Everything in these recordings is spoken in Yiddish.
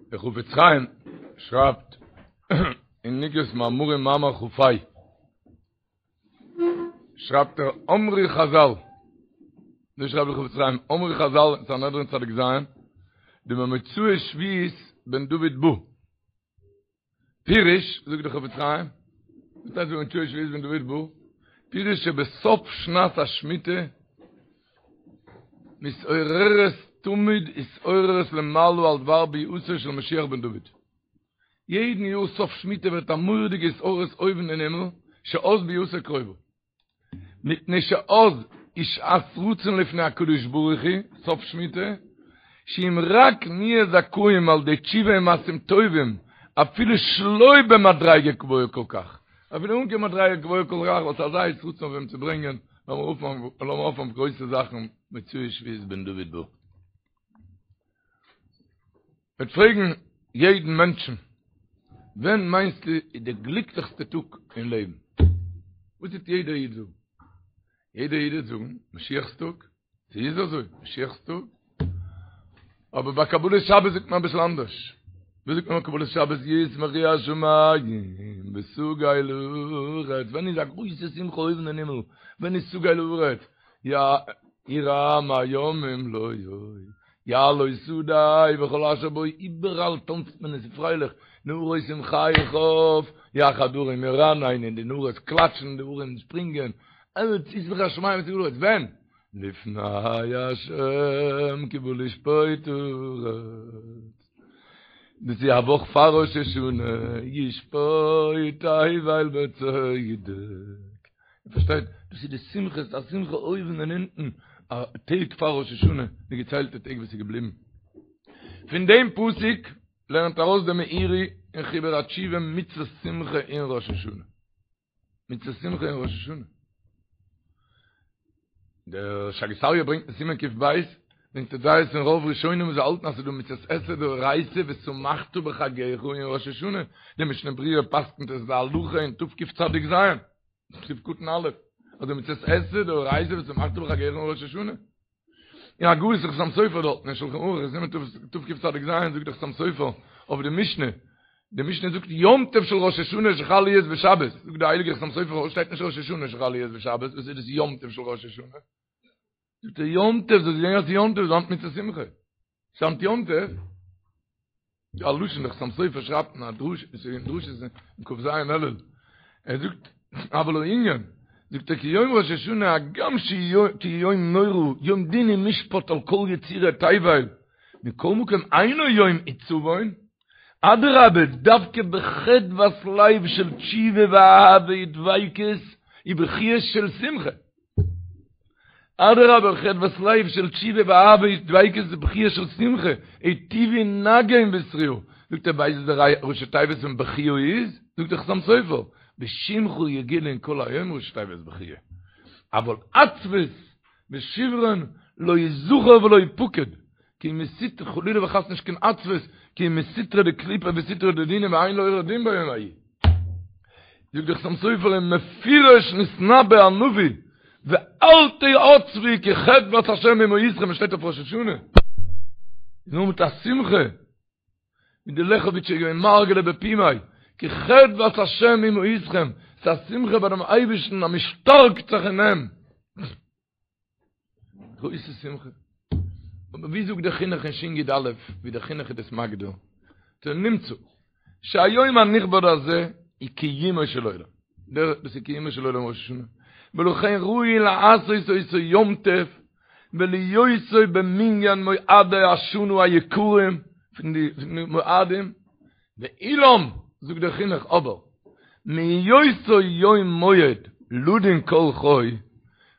דער חפץ חיים שרייבט אין אגרת מאמרים מאמר כ"ה, שרייבט ער אמרו חזל, אזוי שרייבט דער חפץ חיים, אמרו חזל אין סנהדרין צדיק ז', דבמוצאי שביעית בן דוד בא. פירוש, זאגט דער חפץ חיים, וואס הייסט במוצאי שביעית בן דוד בא? פירוש שבסוף שנת השמיטה מתעוררת תמיד התעוררות למעלה על דבר ביאתו של משיח בן דוד. יעדן יאר סוף שמיטה ווערט א מורא'דיגע התעוררות אויבן אין הימל, שאז ביאתו קרובה. מפני שאז היא שעת רצון לפני הקדוש ברוך הוא, סוף שמיטה, שאם רק נהיה זכאים על ידי תשובה ומעשים טובים, אפילו שלא במדריגה גבוהה כל כך, אפילו אן קיין מדריגה גבוהה כל כך, וואס אזא עת רצון אויף אים צו ברענגען, לאמיר האפן אויף גרויסע זאכן, מוצאי שביעית בן דוד בא. מ'וועט פרעגן יעדן מענטשן, ווען מיינסטו איז די גליקליכסטע טאג אין לעבן? וואס וועט יעדער איד זאגן? יעדער איד וועט זאגן, משיח'ס טאג. ס'איז אזוי, משיח'ס טאג. אבער ביי קבלת שבת זאגט מען אביסל אנדערש. ווי זאגט מען ביי קבלת שבת? ישמחו השמים ותגל הארץ. ווען איז א גרויסע שמחה אויבן אין הימל? ווען איז תגל הארץ? ירעם הים ומלואו, יעלוז שדי וכל אשר בו, איבעראל טאנצט מען עס איז פרייליך, נהרות עם חי יחד הרים ירננו, די נהרות קלאטשן, די הרים שפרינגען, אלץ ישמחו השמים ותגל הארץ, ווען? לפני השם כי בא לשפוט הארץ, דאס איז א וואך פאר ראש השנה, ישפוט תבל בצדק. איר פארשטייט? דאס איז די שמחה, ס'איז א שמחה אויבן און אונטן, א טעג פאר ראש השנה, די געציילטע טעג וואס איז געבליבן. פון דעם פסוק לערנט ארויס דער מאירי אין חיבור התשובה מצות שמחה אין ראש השנה. מצות שמחה אין ראש השנה. דער שאגת אריה ברענגט אין סימן קב, ברענגט ער דעות פון רוב ראשונים וואס האלטן אז ס'איז דא מצות עשה דאורייתא ושמחת בחגך אין ראש השנה. די משנה ברורה פסק'נט עס להלכה אין תקצ"ז. סעיף קטן א', אז די מצות עשה דאורייתא ושמחת בחגך אין ראש השנה. אין הגהות חתם סופר דארט אין שלחן ערוך אין סימן תקצ"ז זאגט דער חתם סופר אויף די משנה, די משנה זאגט יום טוב של ראש השנה שחל להיות בשבת, זאגט דער הייליגער חתם סופר פארוואס שטייט נישט ראש השנה שחל להיות בשבת, וואס איז דאס יום טוב של ראש השנה? זאגט ער יום טוב, זאלסט זען אז ס'איז יום טוב, איז היינט מצות שמחה. ס'היינט יום טוב. א לשון דער חתם סופר שרייבט אין א דרוש, אין דרשות אין כ"ז אלול, ער זאגט, אבל הענין, זאגט ער כי יום ראש השנה הגם כי יום נורא, יום דין ומשפט על כל יצירי תבל, מכל מקום אינו יום עצבון, אדרבה, דווקא בחדוות לב של תשובה ואהבה ודביקות ובכיות של שמחה. אדרבה חדוות לב של תשובה ואהבה ודביקות ובכיה של שמחה, היטיבו נגן בתרועה, זאגט ער ווייסט וואס די ראשי תיבות פון בכיה איז? זאגט דער חתם סופר, בשמך יגילון כל היום ראשי תיבות בכיה, אבל עצבות ושברון לא יזכר ולא יפקד, כי מסית חלילה וחס נישט קיין עצבות, כי מסטרא דקליפה וסטרא דדינא ואין לעורר דין ביום ההוא. זאגט דער חתם סופר ומפורש נתנבא הנביא ואל תעצבו כי חדוות השם היא מעוזכם עס שטייט אויף ראש השנה איז נאר מיט א שמחה ווי די לעכעוויטשער איז געווען מרגלא בפומיה כי חדוות השם היא מעוזכם ס'איז א שמחה ביי דעם אייבערשטן אז מ'שטארקט זיך אין אים גרויסע שמחה. אבער ווי זאגט דער חינוך אין שי"א, ווי דער חינוך איז דאס מגדיר, נמצא, שהיום הנכבד הזה היא קיומו של עולם. דער דאס איז קיומו של עולם ראש השנה. ולכן ראוי לעשות אותו יום טוב ולהיותו במנין מועדי השנה היקרים פון די מועדים, ואולם, זאגט דער חינוך, אבער, מהיותו יום מועד לדון כל חי,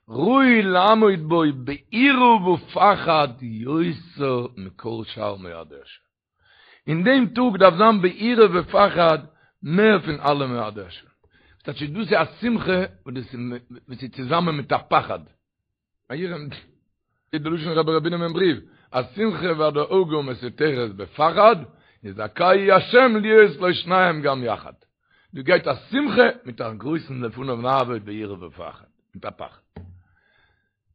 ראוי לעמוד בו ביראה ופחד יותר מכל שאר מועדי השנה. אין דעם טאג דארף זיין ביראה ופחד מער פון אלע מועדי השנה. ס'טייטש דאס איז א שמחה וואס איז צוזאמען מיט א פחד. א יראה איז די לשון רבי ר' בונם אין בריוו, השמחה והדאגה מסותרת בפחד, יזכהו השם להיות לו שניהם גם יחד. דא גייט א שמחה מיט א גרויסן לפניו נעבוד ביראה ופחד, מיט א פחד.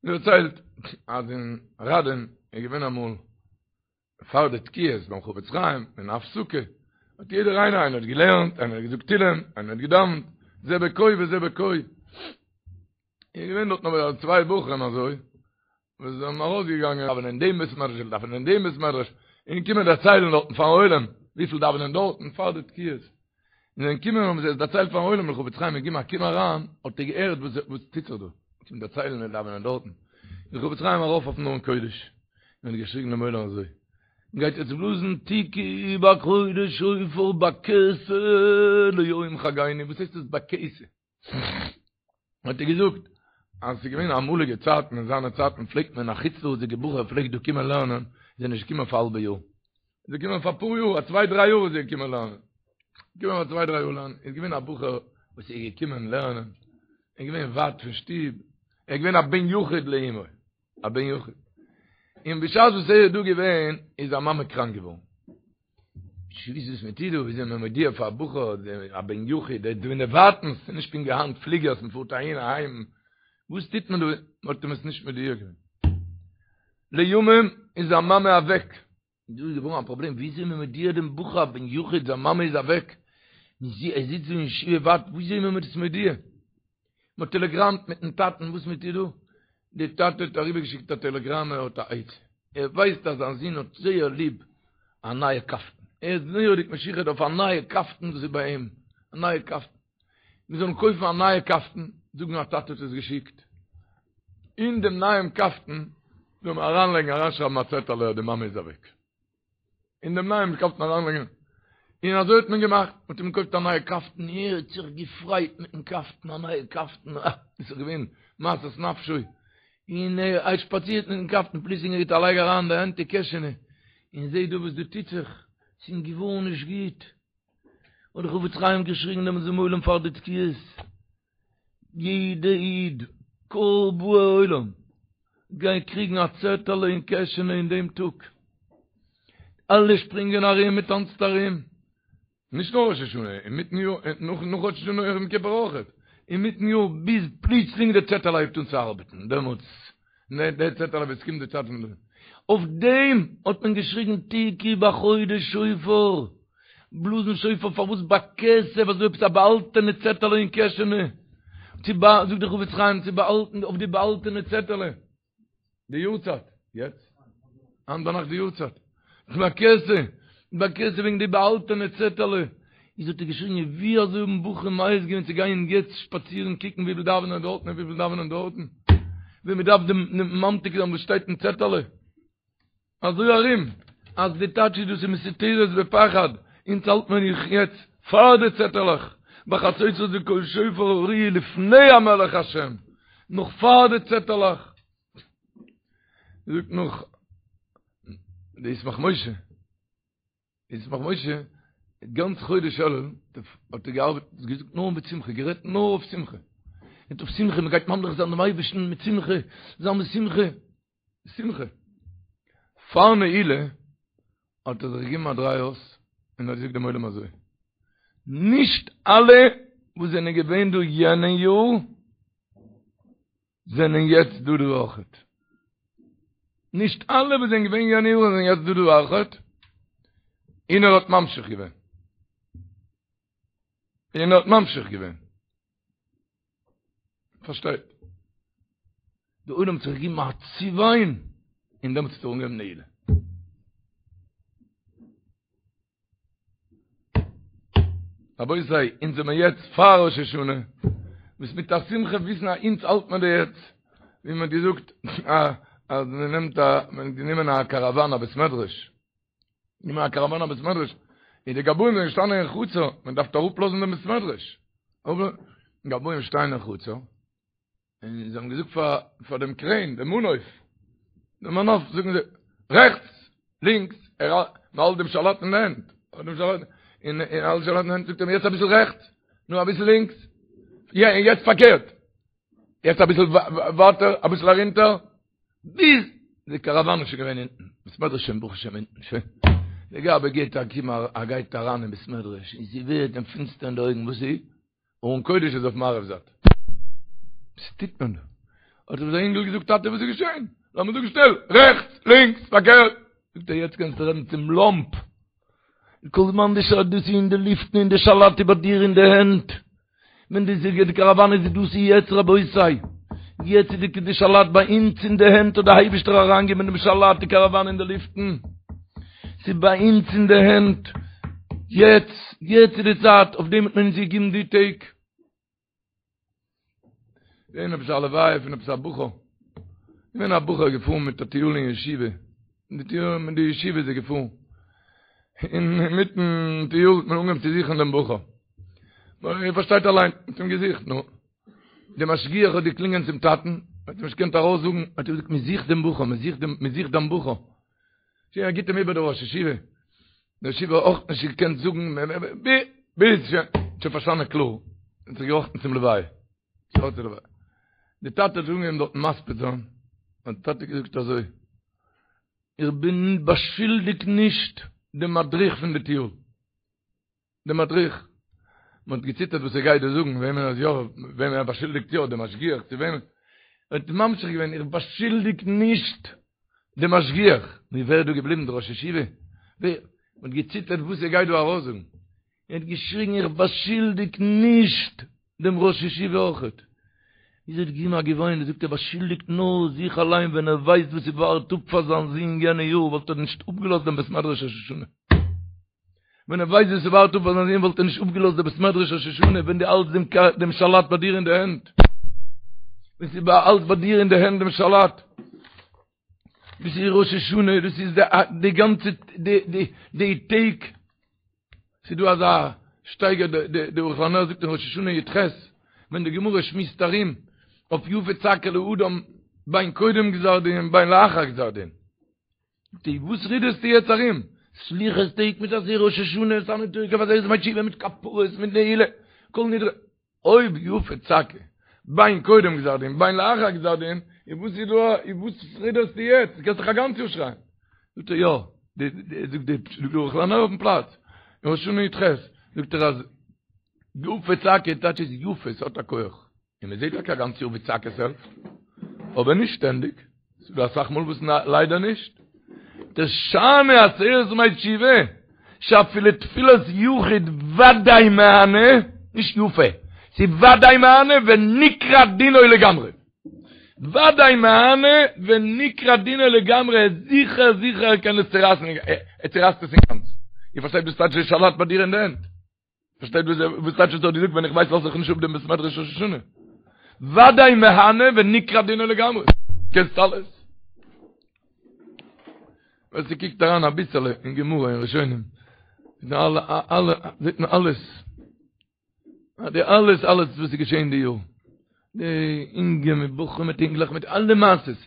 מ'דערציילט אז אין ראדין איז געווען אמאל. פאר די תקיעות ביים חפץ חיים אין הפסקה האט יעדער איינער איינער האט געלערנט איינער האט געזאגט תהילים איינער האט געדאווענט זה בכה וזה בכה איז געווען דארט נאר צוויי בחורים אזוי וואס זענען ארויסגעגאנגען דאווענען אין דעם בית מדרש און דאווענען אין דעם בית מדרש און קומען דערציילן דארטן פארן עולם וויפיל דאווענען דארטן פאר די תקיעות און זענען געקומען האבן זיי עס דערציילט פארן עולם דער חפץ חיים איז געגעבן א קום אריין האט ער געהערט וואס וואס טוט זיך דא קומט דערציילן מיר דאווענען דארטן איז דער חפץ חיים ארויף אויפן ארון קודש און האט געשריגן דעם עולם אזוי מ'גייט יעצט בלאזן תקעו בחודש שופר בכסה ליום חגינו וואס הייסט דאס בכסה? האט ער געזאגט אז ס'איז געווען אמאליגע צייטן אין זיינע צייטן פלעגט מען א חוץ לארץ'דיגע בחור פלעגט דא קומען לערנען איז ער נישט געקומען פאר א האלבע יאר איז ער געקומען פאר אפאר יאר א צוויי דריי יאר איז ער געקומען לערנען געקומען פאר צוויי דריי יאר לערנען איז געווען א בחור וואס איז געקומען לערנען ער איז געווען ווייט פון שטוב ער איז געווען א בן יחיד לאמו א בן יחיד. און בשעת וואס ער איז דא געווען, איז זיין מאמע קראנק געווארן. נישט געוואוסט וואס מען טוט דא, וויאזוי מען מודיע פאר א בחור, א בן יחיד, ער איז דא אין די ווייטנס, ס'איז נישט פונקט ווי היינט פליגערס, מען פארט אהין אהיים, וואס טוט מען דא? מען האט אים עס נישט מודיע געווען. לימים איז זיין מאמע אוועק. דא איז געווארן א פראבלעם, וויאזוי איז מען מודיע דעם בחור א בן יחיד זיין מאמע איז אוועק, ער זיצט דא אין ישיבה ווייט, וויאזוי איז מען דאס מודיע? מען האט טעלעגראמט מיטן טאטן, וואס מען טוט דא? די טאטע האט אריבערגעשיקט א טעלעגראם ער האט א עצה, ער ווייסט אז זיין זון האט זייער ליב א נייע קאפטן, ער איז מורא'דיג משוחד אויף א נייע קאפטן וואס איז ביי אים, א נייע קאפטן. מיר זאלן קויפן א נייע קאפטן, זאגן א טאטע האט עס געשיקט, אין דעם נייעם קאפטן זאל מען אריינלייגן אריינשרייבן א צעטעלע אז די מאמע איז אוועק, אין דעם נייעם קאפטן אריינלייגן, און אזוי האט מען געמאכט, מען האט אים געקויפט א נייע קאפטן, ער האט זיך געפרייט מיטן קאפטן, א נייע קאפטן, אה, דאס איז געווען משאת נפשו, און ער האט שפאצירט מיטן קאפטן, פלוצלינג ער גיט א לייג אריין די הענט אין קעשענע, און זעט דא וואס דא טוט זיך, ס'איז אים געווארן נישט גוט. האט דער חפץ חיים געשריגן דעמאלטס צום עולם פאר די תקיעות, יעדע איד, כל באי עולם, גייען קריגן א צעטעלע אין קעשענע אין דעם טאג, אלע שפרינגען ארום, מען טאנצט ארום, נישט נאר ראש השנה, אינמיטן יאר, נאך ראש השנה יום כיפור אויכעט, אינמיטן יאר ביז פלוצלינג די צעטעלע הייבט אן צו ארבעטן, דעמאלטס די צעטעלע ווען ס'קומט די צייט פון די. אויף דעם האט מען געשריגן תקעו בחודש שופר, בלאזן שופר פארוואס בכסה וואס דא עפעס א באהאלטענע צעטעלע אין קעשענע, צו בא זאגט דער חפץ חיים צו באהאלטן אויף די באהאלטענע צעטעלע די יארצייט, יעצט היינט ביינאכט די יארצייט. בכסה, בכסה וועגן די באהאלטענע צעטעלע, איז האט ער געשריגן ווי אזוי האבן בחורים מעז געווען צו גיין יעצט שפאצירן קוקן וויפיל דאווענען דארטן און וויפיל דאווענען דארטן, ווען מען דארף דעם ממתיק זיין וואס שטייט אין צעטעלע. אזוי ארום אז די טייטש איז דאס איז מסותרת בפחד, אונז האלט מען זיך יעצט פאר די צעטעלעך, בחצוצרות וקול שופר הריעו לפני המלך השם, נאך פאר די צעטעלעך. זאגט נאך די ישמח משה, די ישמח משה, גאנץ חודש אלול האט ער געארבעט, געזאגט נאר מיט שמחה, גערעדט נאר אויף שמחה. מיט אויף שמחה, מען גייט ממליך זיין דעם אייבערשטן מיט שמחה, זיין מיט שמחה, שמחה. פאר נעילה האט ער זיך געגעבן א דריי אויס און האט געזאגט דעם עולם אזוי, נישט אלע וואס זענען געווען דא יענע יאר, זענען יעצט דא דא אויכעט. נישט אלע וואס זענען געווען יענע יאר זענען יעצט דא דא אויכעט. און ער האט ממשיך געווען. און ער האט ממשיך געווען. פארשטייט. די עולם האט זיך געגעבן א צעוויין און דעמאלטס האט ער אנגעהויבן נעילה. רבותי, אונז זעמער יעצט פאר ראש השנה, וואס מיט א שמחה וויסן אז אונז האלט מען דא יעצט, ווי מען האט געזאגט אז מען נעמט א, מען האט גענומען א קאראוואן א בית מדרש, גענומען א קאראוואן א בית מדרש, און די גבאים זענען געשטאנען אין חצר, מען דארף אראפלאזן דעם בית מדרש, גבאים שטייען אין חצר, און זיי האבן געזאגט פאר פאר דעם קרעין, דעם מנוף, דעם מנוף, זאגן זיי, רעכטס, לינקס, ער האלט דעם שלט אין די הענט, האלט דעם שלט, און ער האלט שלט אין די הענט, זאגט ער יעצט אביסל רעכטס, נו אביסל לינקס, יא, און יעצט פארקערט, יעצט אביסל ווייטער, אביסל ארונטער, ביז די קאראוואן איז שוין געווען אונטן, בית מדרש שוין ברוך השם אונטן, שוין, דער גבאי גייט א קום, ער גייט אריין אין בית מדרש, און ס'ווערט אים פינסטער אין די אויגן, וואס איז? ארון קודש איז אויף מערב זייט. וואס טוט מען דא? האט אים זיין אינגל געזאגט, טאטע וואס איז געשען? לאמיר זאגן שנעל, רעכטס, לינקס, פארקערט. זאגט ער יעצט קענסטו רעדן צום לאמפ, כל זמן די שאלה דאס איז אין די לופטן און די שלט איז ביי דיר אין די הענט, ווען די זיגער די קאראוואן איז דאס איז יעצט רבותי, יעצט איז די שלט ביי אונז אין די הענט האט די אייבישטער אריינגעגעבן דעם שלט די קאראוואן אין די לופטן, ס'איז ביי אונז אין די הענט, יעצט יעצט איז די צייט, אויף דעם האט מען אונז געגעבן די טעג. געווען עפעס א לוויה פון עפעס א בחור, געווען א בחור געפארן מיט א טיול אין ישיבה, מיט די טיול מיט די ישיבה איז ער געפארן, אינמיטן טיול האט מען אנגעהויבן צו זוכן דעם בחור, איר פארשטייט אליין, מען האט אים געזוכט, נו, דער משגיח האט געקלינגען צום טאטן, האט אים נישט געקענט ארויסזאגן, האט ער געזאגט מען זוכט דעם בחור, מען זוכט דעם, מען זוכט דיין בחור, שוין ער גיבט אים איבער דער ראש ישיבה, דער ראש ישיבה האט אויך נישט געקענט זאגן, ביז שוין, שוין פארשטאנען קלאר, און זיך געראכטן צום לוויה. די טאטע האט אנגעהויבן דארטן מספיד זיין, האט די טאטע געזאגט אזוי, איך בין באשולדיג נישט דעם מדריך פון די טיול, דער מדריך, מען האט געציטערט וואס ער גייט דא זאגן, וועמען אז יא, וועמען ער באשולדיגט יא, דעם משגיח צו וועמען, ער האט ממשיך געווען, איך באשולדיג נישט דעם משגיח, נו ווער איז דא געבליבן, דער ראש ישיבה? ווער? מען האט געציטערט וואס ער גייט דא ארויסזאגן, ער האט געשריגן איך באשולדיג נישט דעם ראש ישיבה אויכעט. איז ער האט געגעבן א געוויין און זאגט ער באשולדיגט נאר זיך אליין ווען ער ווייסט וואס ס'ווארט אפ פאר זיין זון יענע יאר וואלט ער נישט אפגעלאזט דעם בית מדרש ראש השנה. ווען ער ווייסט וואס ס'ווארט אפ פאר זיין זון וואלט ער נישט אפגעלאזט דעם בית מדרש ראש השנה ווען דו האלטסט דעם דעם שלט ביי דיר אין די הענט. ווען ס'איז אלץ ביי דיר אין די הענט דעם שלט. דאס איז ראש השנה, דאס איז די גאנצע די די די טעג. ס'איז דא אזא שטייגער די די ערוך לנר זאגט אין ראש השנה י"ח, ווען די גמרא שמועסט ארום אויף יפה צעקה לאדם בין קודם גזר דין בין לאחר גזר דין. די וואס רודערסטו יעצט ארום? סליחות טעג מיט אזוי ראש השנה, ונתנה תוקף עשרת ימי תשובה מיט כפרות מיט נעילה, כל נדרי. אויב יפה צעקה, בין קודם גזר דין בין לאחר גזר דין, איז וואס איז דא, איז וואס רודערסטו יעצט, דו קענסט דאך א גאנץ יאר שרייען. זאגט ער יא, זאגט די ערוך לנר אויפן פלאץ, אין ראש השנה י"ח, זאגט ער אז יפה צעקה טייטש איז יפה, ס'האט א כח. און מען זעט טאקע א גאנץ יאר ווי צעקות העלפט, אבער נישט שטענדיג, ס'איז דא אסאך מאל וואס ליידער נישט. דשאני עשרת ימי תשובה, שאפילו תפילת יחיד ודאי מהני, נישט יפה, ס'איז ודאי מהני ונקרע דינו לגמרי. ודאי מהני ונקרע דינו לגמרי, זיכער זיכער ער קען עס צורייסן, ער צורייסט עס אינגאנצן. איר פארשטייט וואס טייטש די שלט ביי דיר אין די הענט? פארשטייט וואס וואס טייטש עס האט געזאגט ווען איך ווייס לאז איך נישט אפ דעם בית מדרש ראש השנה ודאי מהני ונקרע דינו לגמרי קענסט אלעס ווער ס'קוקט אריין אביסעלע אין גמרא אין ראשונים זעט מען אלע אלע זעט מען אלעס די אלעס אלעס וואס איז געשען די יאר די אינגע מיט בחורים מיט אינגלעך מיט אלע מעשות,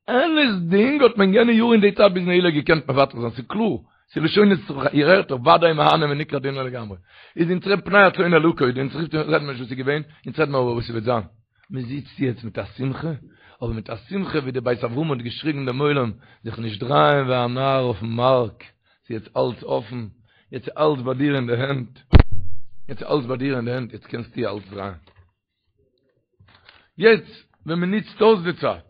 אלעס דינג האט מען יענע יאר אין די צייט ביז נעילה געקענט מבטל זיין, ס'איז קלאר, ס'איז לשונות איר הערט דאך ודאי מהני ונקרע דינו לגמרי, איז אונז רעדט פני הצאן אל עקוד, אונז רופט רעדט מען נישט וואס איז געווען, אונז רעדט מען אבער וואס ס'וועט זיין, מען זיצט יעצט מיט א שמחה, אבער מיט א שמחה ווי די בית אברהם האט געשריגן דעם עולם, זיך נישט דרייען ווי א נאר אויפן מארק, ס'איז יעצט אלץ אפן, יעצט איז אלץ ביי דיר אין די הענט, יעצט איז אלץ ביי דיר אין די הענט, יעצט קענסטו אלץ דרייען. יעצט ווען מען נוצט אויס די צייט.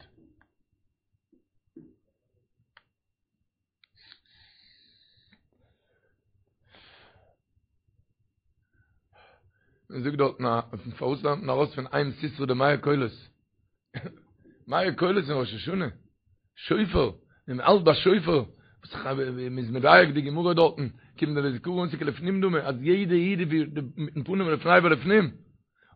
מען זאגט דארטן א פארוואס לערנט מען ארויס פון אם סיסרא די מאה קולות? מאה קולות אין ראש השנה? שופר, ווען מען האלט ביי שופר, מען איז מדייק די גמרא דארטן, כיון דלזכרון אתי כלפנים דמי, אז יעדע איד איז ווי מיטן פנים לפני ולפנים.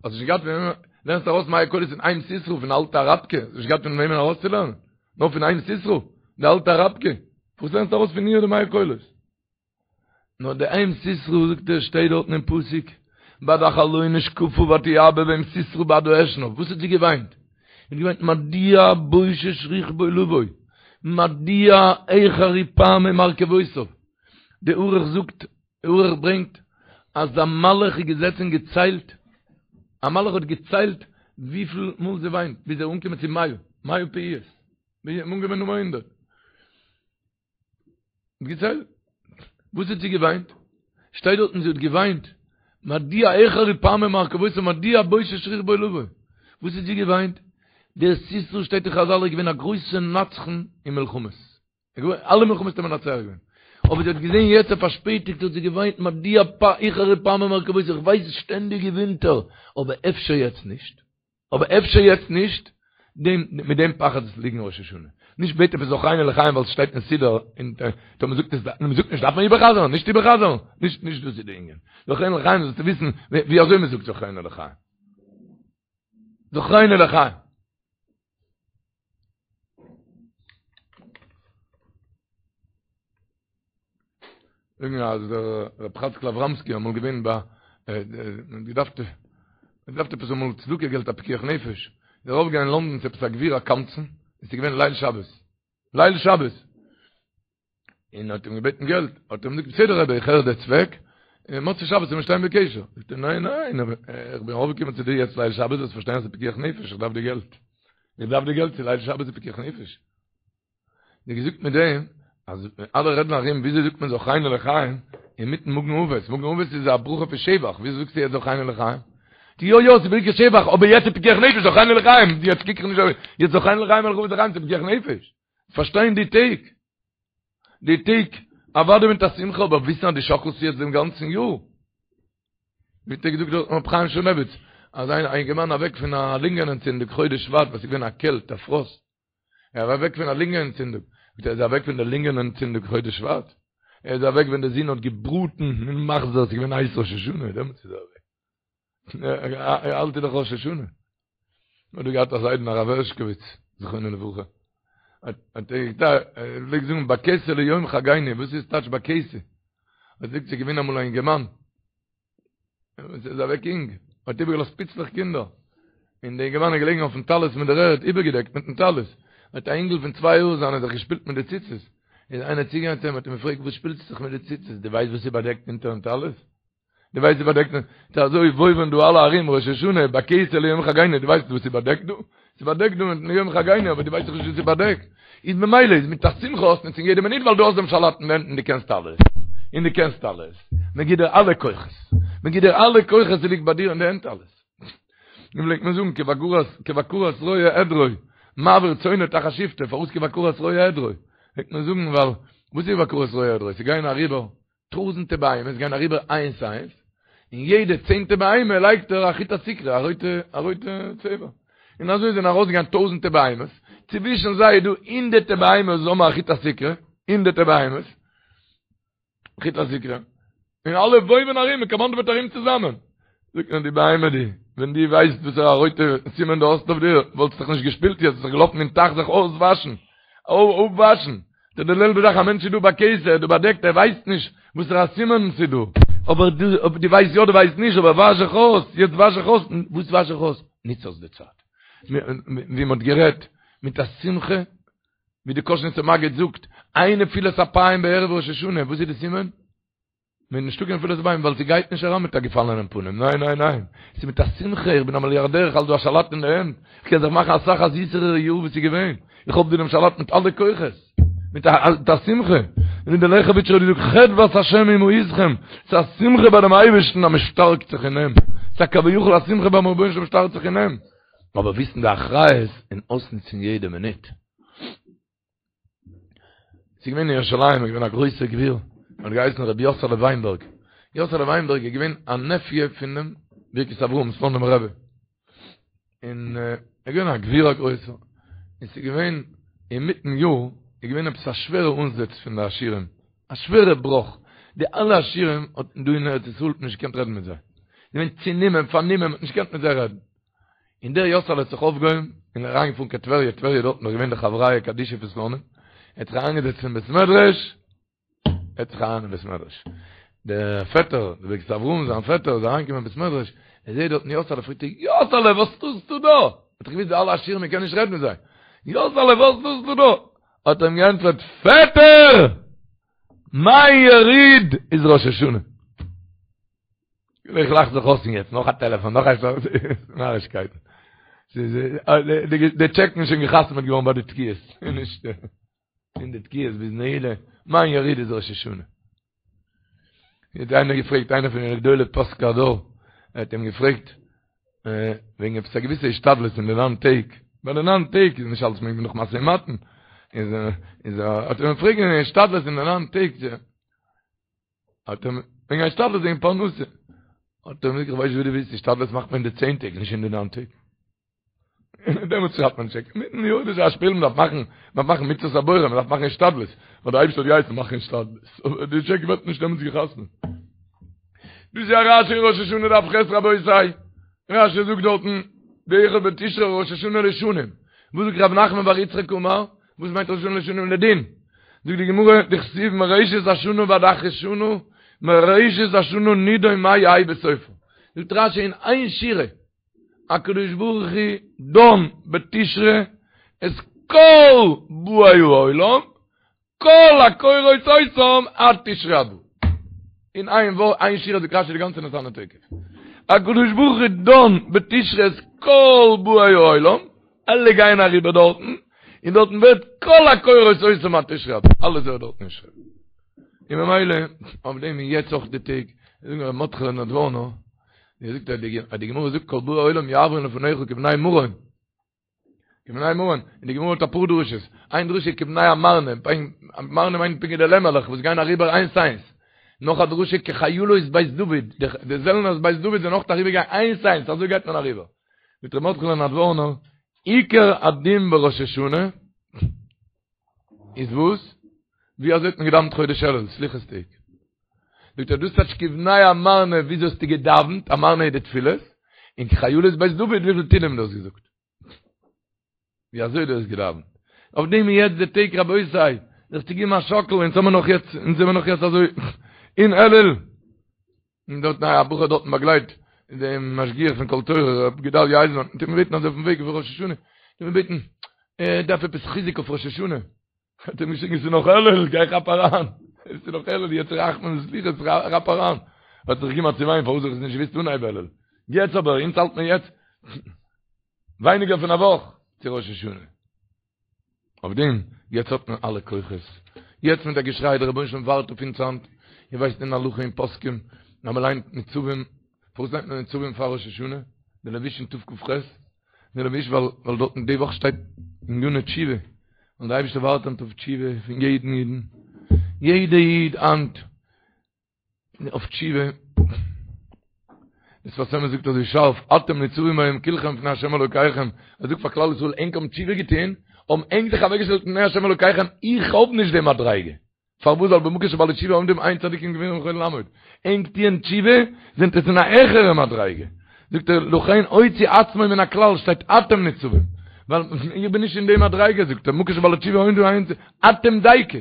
האסט נישט געהאט פון וועמען, לערנסט ארויס מאה קולות פון אם סיסרא פון אלטע אראבקע, האסט נישט געהאט פון וועמען ארויסצולערנען, נאר פון אם סיסרא, די אלטע אראבקע, וואס לערנסטו ארויס פון איר די מאה קולות? נאר די אם סיסרא זאגט ער שטייט דארטן אין פסוק, בעד החלון שקפה ותיבא ואם סיסרא בעד האשנב, וואס האט זי געוויינט? זי האט געוויינט מדוע בושש רכבו לבוא, מדוע אחרו פעמי מרכבותיו, די ערוך זאגט ערוך ברענגט אז א מלאך איז געזעצן און געציילט, א מלאך האט געציילט וויפיל מאל זי וויינט, ביז ער איז אנגעקומען צו מאה, מאה פעיות, ביז ער איז אנגעקומען נומער הונדרעט. האט געציילט. וואס האט זי געוויינט? שטייט דארטן זי האט געוויינט, מדוע אחרו פעמי מרכבותיו מדוע בושש רכבו לבוא. וואס האט זי געוויינט? דער סיסרא שטייט אין חזל איז געווען א גרויסע נצחן אין מלחמות. אלע מלחמות האט ער מנצח געווען. אבער זי האט געזען יעצט ער פארשפעטיגט האט זי געוויינט מדוע איחרו פעמי מרכבותי איך ווייס שטענדיג געווינט ער אבער אפשר יעצט נישט. אבער אפשר יעצט נישט, דעם, מיט דעם פחד איז ליגן ראש השנה. נישט בעט עפעס זכרנו לחיים ווייל ס'שטייט אין סידור, און טאמער מ'זאגט עס, און מ'זאגט נישט דארף מען איבערחזר'ן, נישט איבערחזר'ן, נישט, נישט דאס איז די ענין. זכרנו לחיים זאלסטו וויסן ווי אזוי מ'זאגט זכרנו לחיים. זכרנו לחיים. זאגן אז דער רב חצקל אבראמסקי אמאל געווען ביי געדארפט געדארפט עפעס אמאל צדקה געלט א פיקוח נפש איז ער ארויפגעגאנגען אין לונדון צו עפעס א גביר א קמצן עס איז געווען ליל שבת ליל שבת און האט אים געבעטן געלט האט ער אים געזאגט בסדר רבי איך הער די צוועק און מוצאי שבת וועלן מיר שטיין בקשר זאגט ער ניין ניין איך בין ארויפגעקומען צו דיר יעצט ליל שבת זאלסט פארשטיין אז ס'איז פיקוח נפש איך דארף די געלט איך דארף די געלט צו ליל שבת איז פיקוח נפש ווי געזאגט מיט דעם אז אלע רעדן ארום וויאזוי זאגט מען זכרנו לחיים אינמיטן מגן אבות מגן אבות איז א ברכה פון שבח וויאזוי זאגסטו יעצט זכרנו לחיים יא יא ס'איז ברכת שבח אבער יעצט איז פיקוח נפש זכרנו לחיים יעצט קוק איך נישט אויף יעצט זכרנו לחיים מלך אבות לחיים ס'איז פיקוח נפש פארשטיין די טעג די טעג אוודאי מיט א שמחה אבער וויסן אז דו שאקלסט יעצט דעם גאנצן יאר ווי האט ער געזאגט דארט ר' חיים שמואלביץ אז איין אינגערמאן אוועק פון א לונגען אנטצינדונג חודש שבט וואס איז געווען א קעלט א פראסט ער איז אוועק פון א לונגען אנטצינדונג. זאגט ער איז אוועק פון די לונגען אנטצינדונג חודש שבט. ער איז אוועק ווען די זון האט געבראטן אין מחזור, ס'איז געווען הייס ראש השנה, דעמאלטס איז ער אוועק. האלט איז דאך ראש השנה. מ'האט דא געהאט א זיידן הרב הערשקאוויץ, זכרונו לברכה. האט ער געזאגט, ער פלעגט זאגן בכסה ליום חגינו, וואס איז טייטש בכסה? ער זאגט ס'איז געווען אמאל א אינגערמאן, ער איז אוועק אינג, האט איבערגעלאזט פיצלעך קינדער, און די אינגערמאן איז געלעגן אויפן טלית מיט דער ערד, איבערגעדעקט מיטן טלית, האט א אינגל פון צוויי יאר זיינע זיך געשפילט מיט די ציצית, איז איינער צוגעגאנגען צו אים האט אים געפרעגט וואס שפילסטו זיך מיט די ציצית, דו ווייסט וואס איז באדעקט אונטערן טלית? דו ווייסט וואס איז באדעקט? ס'איז אזוי וואויווען דא אלע ארום ראש השנה, בכסה ליום חגינו, דו ווייסט וואס איז באדעקט דא? ס'איז באדעקט דא מיטן יום חגינו, אבער דו ווייסט דאך נישט וואס איז באדעקט. איז ממילא איז מיט א שמחה אויסנוצן יעדע מינוט ווייל דו האסט דעם שלט אין די הענט און דו קענסט אלעס. און דו קענסט אלעס. מען גיט דיר אלע כוחות. מען גיט דיר אלע כוחות ס'ליגט ביי דיר אין די הענט אלעס. ווי פלעגט מען זאגן כבקרת כבקרת רועה עדרו מעביר צאנו תחת שבטו פארוואס כבקרת רועה עדרו? פלעגט מען זאגן ווייל וואס איז כבקרת רועה עדרו? ס'גייען אריבער טויזענטע בהמות גייען אריבער איינס איינס, און יעדע צענטע בהמה לייגט ער א חוט הסיקרא, א רויטע א רויטע צבע. און אזוי זענען ארויסגעגאנגען טויזענטע בהמות, צווישן זיי איז דא הונדערטע בהמות וואס האבן א חוט הסיקרא, הונדערטע בהמות, חוט הסיקרא, און אלע וואויווען ארום, מען קאמאנדעוועט ארום צוזאמען. זאגט מען די בהמה די, ווען דו ווייסט וואסערע א רויטע סימן דו האסט אויף דיר, וואלסט זיך נישט געשפילט יעצט, וואלסט זיך געלאפן אין טייך זיך אויסוואשן, אפוואשן. ס'איז די זעלבע זאך, א מענטש איז דא בכסה, איז דא באדעקט, ער ווייסט נישט וואסערע א סימן ס'איז דא. אבער דו, אויב דו ווייסט יא, דו ווייסט נישט, אבער וואש זיך אויס, יעצט וואש זיך אויס, וואס וואש זיך אויס? נוץ אויס די צייט. ווי מ'האט גערעדט, מיט א שמחה, ווי די קאזשניצער מגיד זאגט, אין נפילת אפיים בערב ראש השנה, וואס איז די סימן? מען איז נישטא קיין נפילת אפיים ווייל ס'גייט נישט אריין מיט א געפאלענעם פנים, ניין ניין ניין, ס'איז מיט א שמחה, איך בין א מיליארדער, איך האלט דא א שלט אין די הענט, איך קען זיך מאכן אסאך א זיסערע יאר ווי ס'איז געווען, איך האב דא דעם שלט מיט אלע כוחות, מיט א שמחה, און ווי דער לעכעוויטשער האט געזאגט חדות השם היא מעוזכם, ס'איז א שמחה ביי דעם אייבערשטן אז מען שטארקט זיך אין אים, ס'איז א כביכול א שמחה ביים רבונו של עולם שטארקט זיך אין אים, אבער וויסן די אחריות און אויסנוצן יעדע מינוט. ס'איז געווען אין ירושלים, איז געווען א גרויסער גביר, האט געהייסן רבי יאסעלע וויינבערג. יאסעלע וויינבערג איז געווען א נעפיע פונעם ברכת אברהם, סלאנימער רבי. און ער איז געווען א גביר א גרויסער. און ס'איז געווען אינמיטן יאר, איז געווען עפעס א שווערע אנזעץ פון די עשירים, א שווערע בראך. די אלע עשירים האט דא אין ארץ ישראל נישט געקענט רעדן מיט זיי. געווען צענומען, פארנומען, מ'האט נישט געקענט מיט זיי רעדן. און דער יאסעלע האט זיך אויפגעהויבן און אריינגעפארן קיין טבריה, טבריה דארטן איז געווען די חבריא קדישא פון סלאנים, ער האט זיך אריינגעזעצט אין בית מדרש, ער האט זיך אריין אין בית מדרש, דער פעטער, דער ברכת אברהם זיין פעטער איז אריינגעקומען אין בית מדרש, ער זעט דארטן יאסעלע, פרעגט ער, יאסעלע וואס טוסטו דא? האט ער געוואוסט די אלע עשירים מען קען נישט רעדן מיט זיי, יאסעלע וואס טוסטו דא? האט ער אים געענטפערט, פעטער! מיין יריד איז ראש השנה. איך לאך זיך אויס יעצט, נאך א טעלעפאן, נאך א נארישקייט. די טשעקן איז שוין געחתמעט געווארן ביי די תקיעות, נישט אין די תקיעות ביז נעילה, מיין יריד איז ראש השנה. האט איינער געפרעגט, איינער פון די גדולי פוסקי הדור, ער האט אים געפרעגט, וועגן עפעס א געוויסע השתדלות אין די ניין טעג, ביי די ניין טעג איז נישט אלעס מעג מען נאך משא ומתן. איז איז האט ער אים פרעגן אין השתדלות אין די ניין טעג האט ער וועגן השתדלות וועגן פרנסה האט ער אים געזאגט איך ווייס ווי דו ווילסט השתדלות מאכט מען אין די צען טעג נישט אין די ניין טעג דעמאלטס שרייבט מען טשעק. מיטן יאר איז א שפיל, מ'דארף מאכן, מ'דארף מאכן מצוות הבורא, מ'דארף מאכן השתדלות. ווייל דער אייבערשטער האט געהייסן מאכן השתדלות. אבער די טשעק ווערט נישט דעמאלטס גע'חתמ'ט. דאס איז א רשי אין ראש השנה דף ח' רבותי. רשי זאגט דארטן, באחד בתשרי ראש השנה לשנים. וואס זאגט רב נחמן בר יצחק אמר? וואס מיינט ראש השנה לשנים לדין? זאגט די גמרא, דכתיב מראשית השנה ועד אחרית שנה, מראשית השנה נידון מה יהא בסופה. זאגט רשי אין איין שורה, הקדוש ברוך הוא דן בתשרי את כל באי העולם, כל הקורות אותם עד תשרי הבא. אין איין ווארט, איין שורה זאגט רשי די גאנצע ונתנה תוקף. הקדוש ברוך הוא דן בתשרי את כל באי העולם, אלע גייען אריבער דארטן, און דארטן ווערט כל הקורות אותם עד תשרי הבא, אלעס ווערט דארטן נשרף. און ממילא, אויף דעם איז יעצט אויך די טעג, זאגן ר' מרדכי'לע נדבורנא, ווי זאגט ער די גמרא זאגט כל באי עולם יעברון לפניך כבני מרון כבני מרון און די גמרא האט אפאר דרשות איין דרשה כבני אמרנה אמרנה מיינט פונקט די לעמעלעך וואס גייען אריבער איינס איינס נאך א דרשה כחיילות בית דוד די זעלנערס בית דוד זענען אויך אריבער געגאנגען איינס איינס אזוי גייט מען אריבער זאגט ר' מרדכי'לע נדבורנא עיקר הדין בראש השנה איז וואס? ווי אזוי האט מען געדאווענט חודש אלול, סליחות טעג? זאגט ער דאס טייטש כבני אמרנה וויאזוי האסטו געדאווענט, אמרנה איז די תפילות, און כחיילות בית דוד וויפיל תהילים דו האסט געזאגט. ווי אזוי דו האסט געדאווענט. אויף דעם איז יעצט די טעג רבותי, זיך צו געבן א שאקל, אונז האמיר נאך יעצט, אונז זעמיר נאך יעצט אזוי אין אלול. און דארט א בחור דארטן באגלייט דעם משגיח פון קול תורה רב גדליה אייזנמאן האט אים געבעטן אזוי אויפן וועג אויף ראש השנה האט אים געבעטן ער דארף עפעס חיזוק אויף ראש השנה האט אים געשריגן ס'איז נאך אלול גיי כאפ אריין ס'איז נאך אלול יעצט רחמים וסליחות כאפ אריין האט זיך געגעבן א צעוויין פארוואס האב איך עס נישט געוואוסט אנהייב אלול יעצט אבער אונז האלט מען יעצט ווייניגער פון א וואך צו ראש השנה אויף דעם, יעצט האט מען אלע כוחות, יעצט מיט א געשריי, דער רבונו של עולם ווארט אויף אונז היינט, איר ווייסט אין הלכה אין פוסקים, אז מען ליינט ניצבים, פארוואס ליינט מען ניצבים פאר ראש השנה? די לבוש אין תכ"ח, די לבוש ווייל ווייל דארטן די וואך שטייט עניני תשובה, און דער אייבערשטער ווארט היינט אויף תשובה פון יעדן אידן, יעדע איד היינט. אויף תשובה, דער שפת אמת זאגט אזוי שארף, אתם ניצבים היום כולכם לפני השם אלוקיכם, ער זאגט פאר כלל ישראל ענק האבן תשובה געטון, האבן ענק זיך אוועקגעשטעלט לפני השם אלוקיכם, איך האב נישט די מדריגה, פארוואס ווייל במקום שבעלי תשובה עומדים אין צדיקים גמורים יכולים לעמוד, ענק טוען תשובה, זענט עטס אין א העכערע מדריגה, זאגט ער, לכן הוציא עצמו מן הכלל, שטייט אתם ניצבים, ווייל איך בין נישט אין די מדריגה, זאגט ער, במקום שבעלי תשובה עומדים אין אתם דייקא.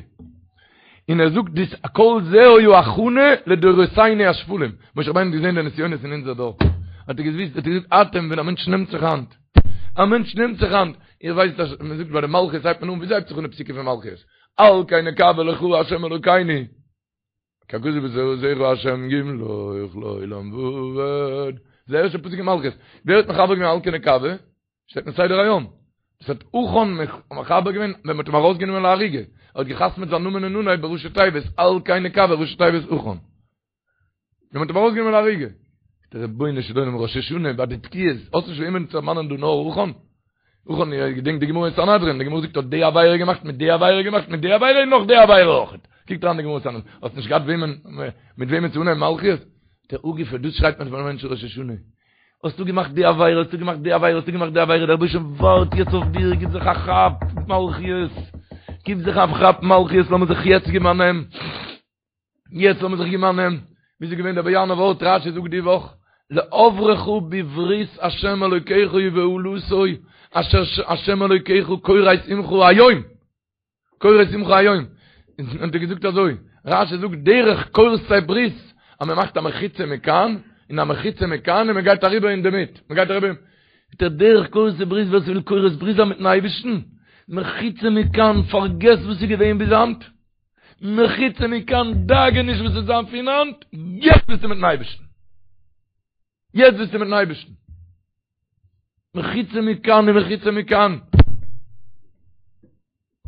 און ער זאגט דאס כל זה היה הכנה לדורותינו השפלים, משה רבינו האט געזען די נסיונות אין אונזער דור, האט ער געוויסט, האט ער געזאגט אתם ווען א מענטש נעמט זיך היינט, א מענטש נעמט זיך היינט, איר ווייסט אז מען זאגט ביי די מלכיות הייבט מען אן, וויאזוי הייבט זיך אן די פסוקים פון מלכיות? על כן נקוה לך ה' אלוקינו, כי הכתוב בתורתך ה' ימלוך לעולם ועד, זה ערשטע פסוק אין מלכיות, ווער האט מחבר געווען על כן נקוה? שטייט אין סדר היום. דאס האט עכן מחבר געווען ווען מ'האט אים ארויסגענומען להריגה. ער האט געחתמעט זיין נאמען אין אנהייב בראשי תיבות על כן נקוה ראשי תיבות עכן. ווען מ'האט אים ארויסגענומען להריגה. דער רבונו של עולם ראש השנה ביי די תקיעות, האסט נישט וועמען צו דערמאנען דא נאר עכן? עכן, איר געדענקט די גמרא אין סנהדרין, די גמרא זאגט האט די עבירה געמאכט מיט די עבירה געמאכט מיט די עבירה און נאך די עבירה אויך. קוקט אריין די גמרא אין סנהדרין, האסט נישט געהאט וועמען מיט וועמען צו אנהייבן מלכיות? דער אפגעפער, דאס שרייט מען פארן מענטש ראש השנה. האסטו געמאכט די עבירה, האסטו געמאכט די עבירה, האסטו געמאכט די עבירה, דער רבוש"ע ווארט יעצט אויף דיר, גיב זיך א כאפ, מלכיות, גיב זיך א כאפ, מלכיות, לאמיר זיך יעצט געבן א נעם, יעצט לאמיר זיך געבן א נעם, ווי ס'איז געווען דער באיאנער ווארט, רש"י זאגט די וואך, לעברך בברית ה' אלוקיך ובאלתו אשר ה' אלוקיך כורת עמך היום. כורת עמך היום, און האט ער געזאגט אזוי, רש"י זאגט דרך כורתי ברית, אז מען מאכט א מחיצה מכאן, און א מחיצה מכאן, און מען גייט אריבער אינדערמיט, מען גייט אריבער, זאגט ער דרך כורתי ברית, ווער ס'וויל כורת ברית זיין מיטן אייבערשטן, מחיצה מכאן, פארגעס וואס איז געווען ביז היינט, מחיצה מכאן, דאגה נישט וואס וועט זיין פון היינט, יעצט ביסטו מיטן אייבערשטן. יעצט ביסטו מיטן אייבערשטן. מחיצה מכאן און מחיצה מכאן.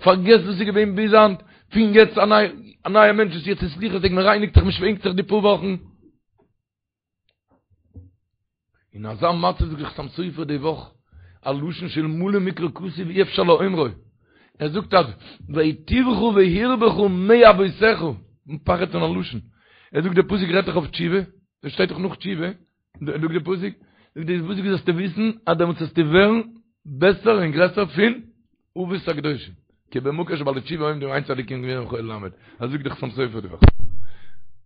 פארגעס וואס איז געווען ביז היינט, פון יעצט א נייע, א נייע מענטש וואס יעצט איז סליחות טעג, מען רייניגט זיך, מען שווענקט זיך די פאר וואכן. אין אזא מצב זאגט דער חתם סופר די וואך, א לשון שאלמלא מקרא כתוב אי אפשר לאומרו. ער זאגט אז והיטיבך והרבך מאבותיך, פחד פון א לשון, ער זאגט די פסוק רעדט דאך אויף תשובה, דאס שטייט דאך נאך תשובה, זאגט די פסוק, זאגט די פסוק זאלסטו וויסן אז דעמאלטס וועסטו ווערן בעסער און גרעסער פון אבות הקדושים, כי במקום שבעלי תשובה עומדים אין צדיקים גמורים יכולים לעמוד, אזוי זאגט די חתם סופר די וואך,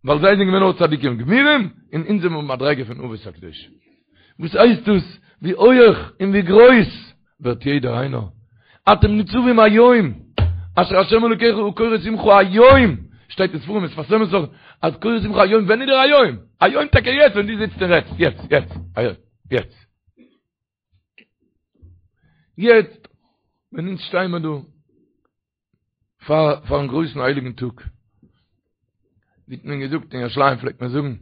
ווייל זיי זענען געווען נאר צדיקים גמורים, און אונז זענען במדריגה פון אבות הקדושים. וואס הייסט דאס? ווי הויעך און ווי גרויס ווערט יעדער איינער? אתם ניצבים היום, אשר השם אלוקיך הוא כורת עמך היום, שטייט אין ספרים שפת אמת זאגט אז כורת עמך היום, ווען איז דער היום? היום טאקע יעצט ווען דו זיצט און רעדסט, יעצט, יעצט, היום, יעצט. יעצט, ווען אונז שטייען מיר דא, פאר פארן גרויסן הייליגן טאג, ווי האט מען געזאגט אין ירושלים פלעגט מען זאגן,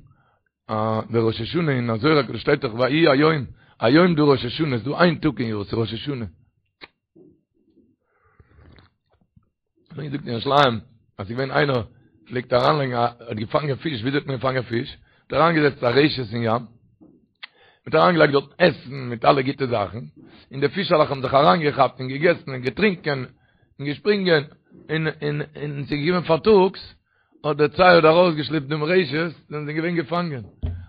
דער ראש השנה אין זוהר הקדוש שטייט דאך ויהי היום, היום דא ראש השנה, איז דא איין טאג אין יאר, ס'איז ראש השנה. מען זאגט אין ירושלים אז ס'איז געווען איינער פלעגט אריינלייגן א האט געפאנגען פיש, וויאזוי האט מען געפאנגען פיש? האט אריינגעזעצט א רשת אין ים, מ'האט אריינגעלייגט דארט עסן מיט אלע גוטע זאכן, און די פישעלעך האבן זיך אריינגעכאפט און געגעסן און געטרינקען און געשפרינגען, און און און ס'איז געקומען פארטאגס, האט דער צייד ארויסגעשלעפט דעם רשת, זענען זיי געווען געפאנגען.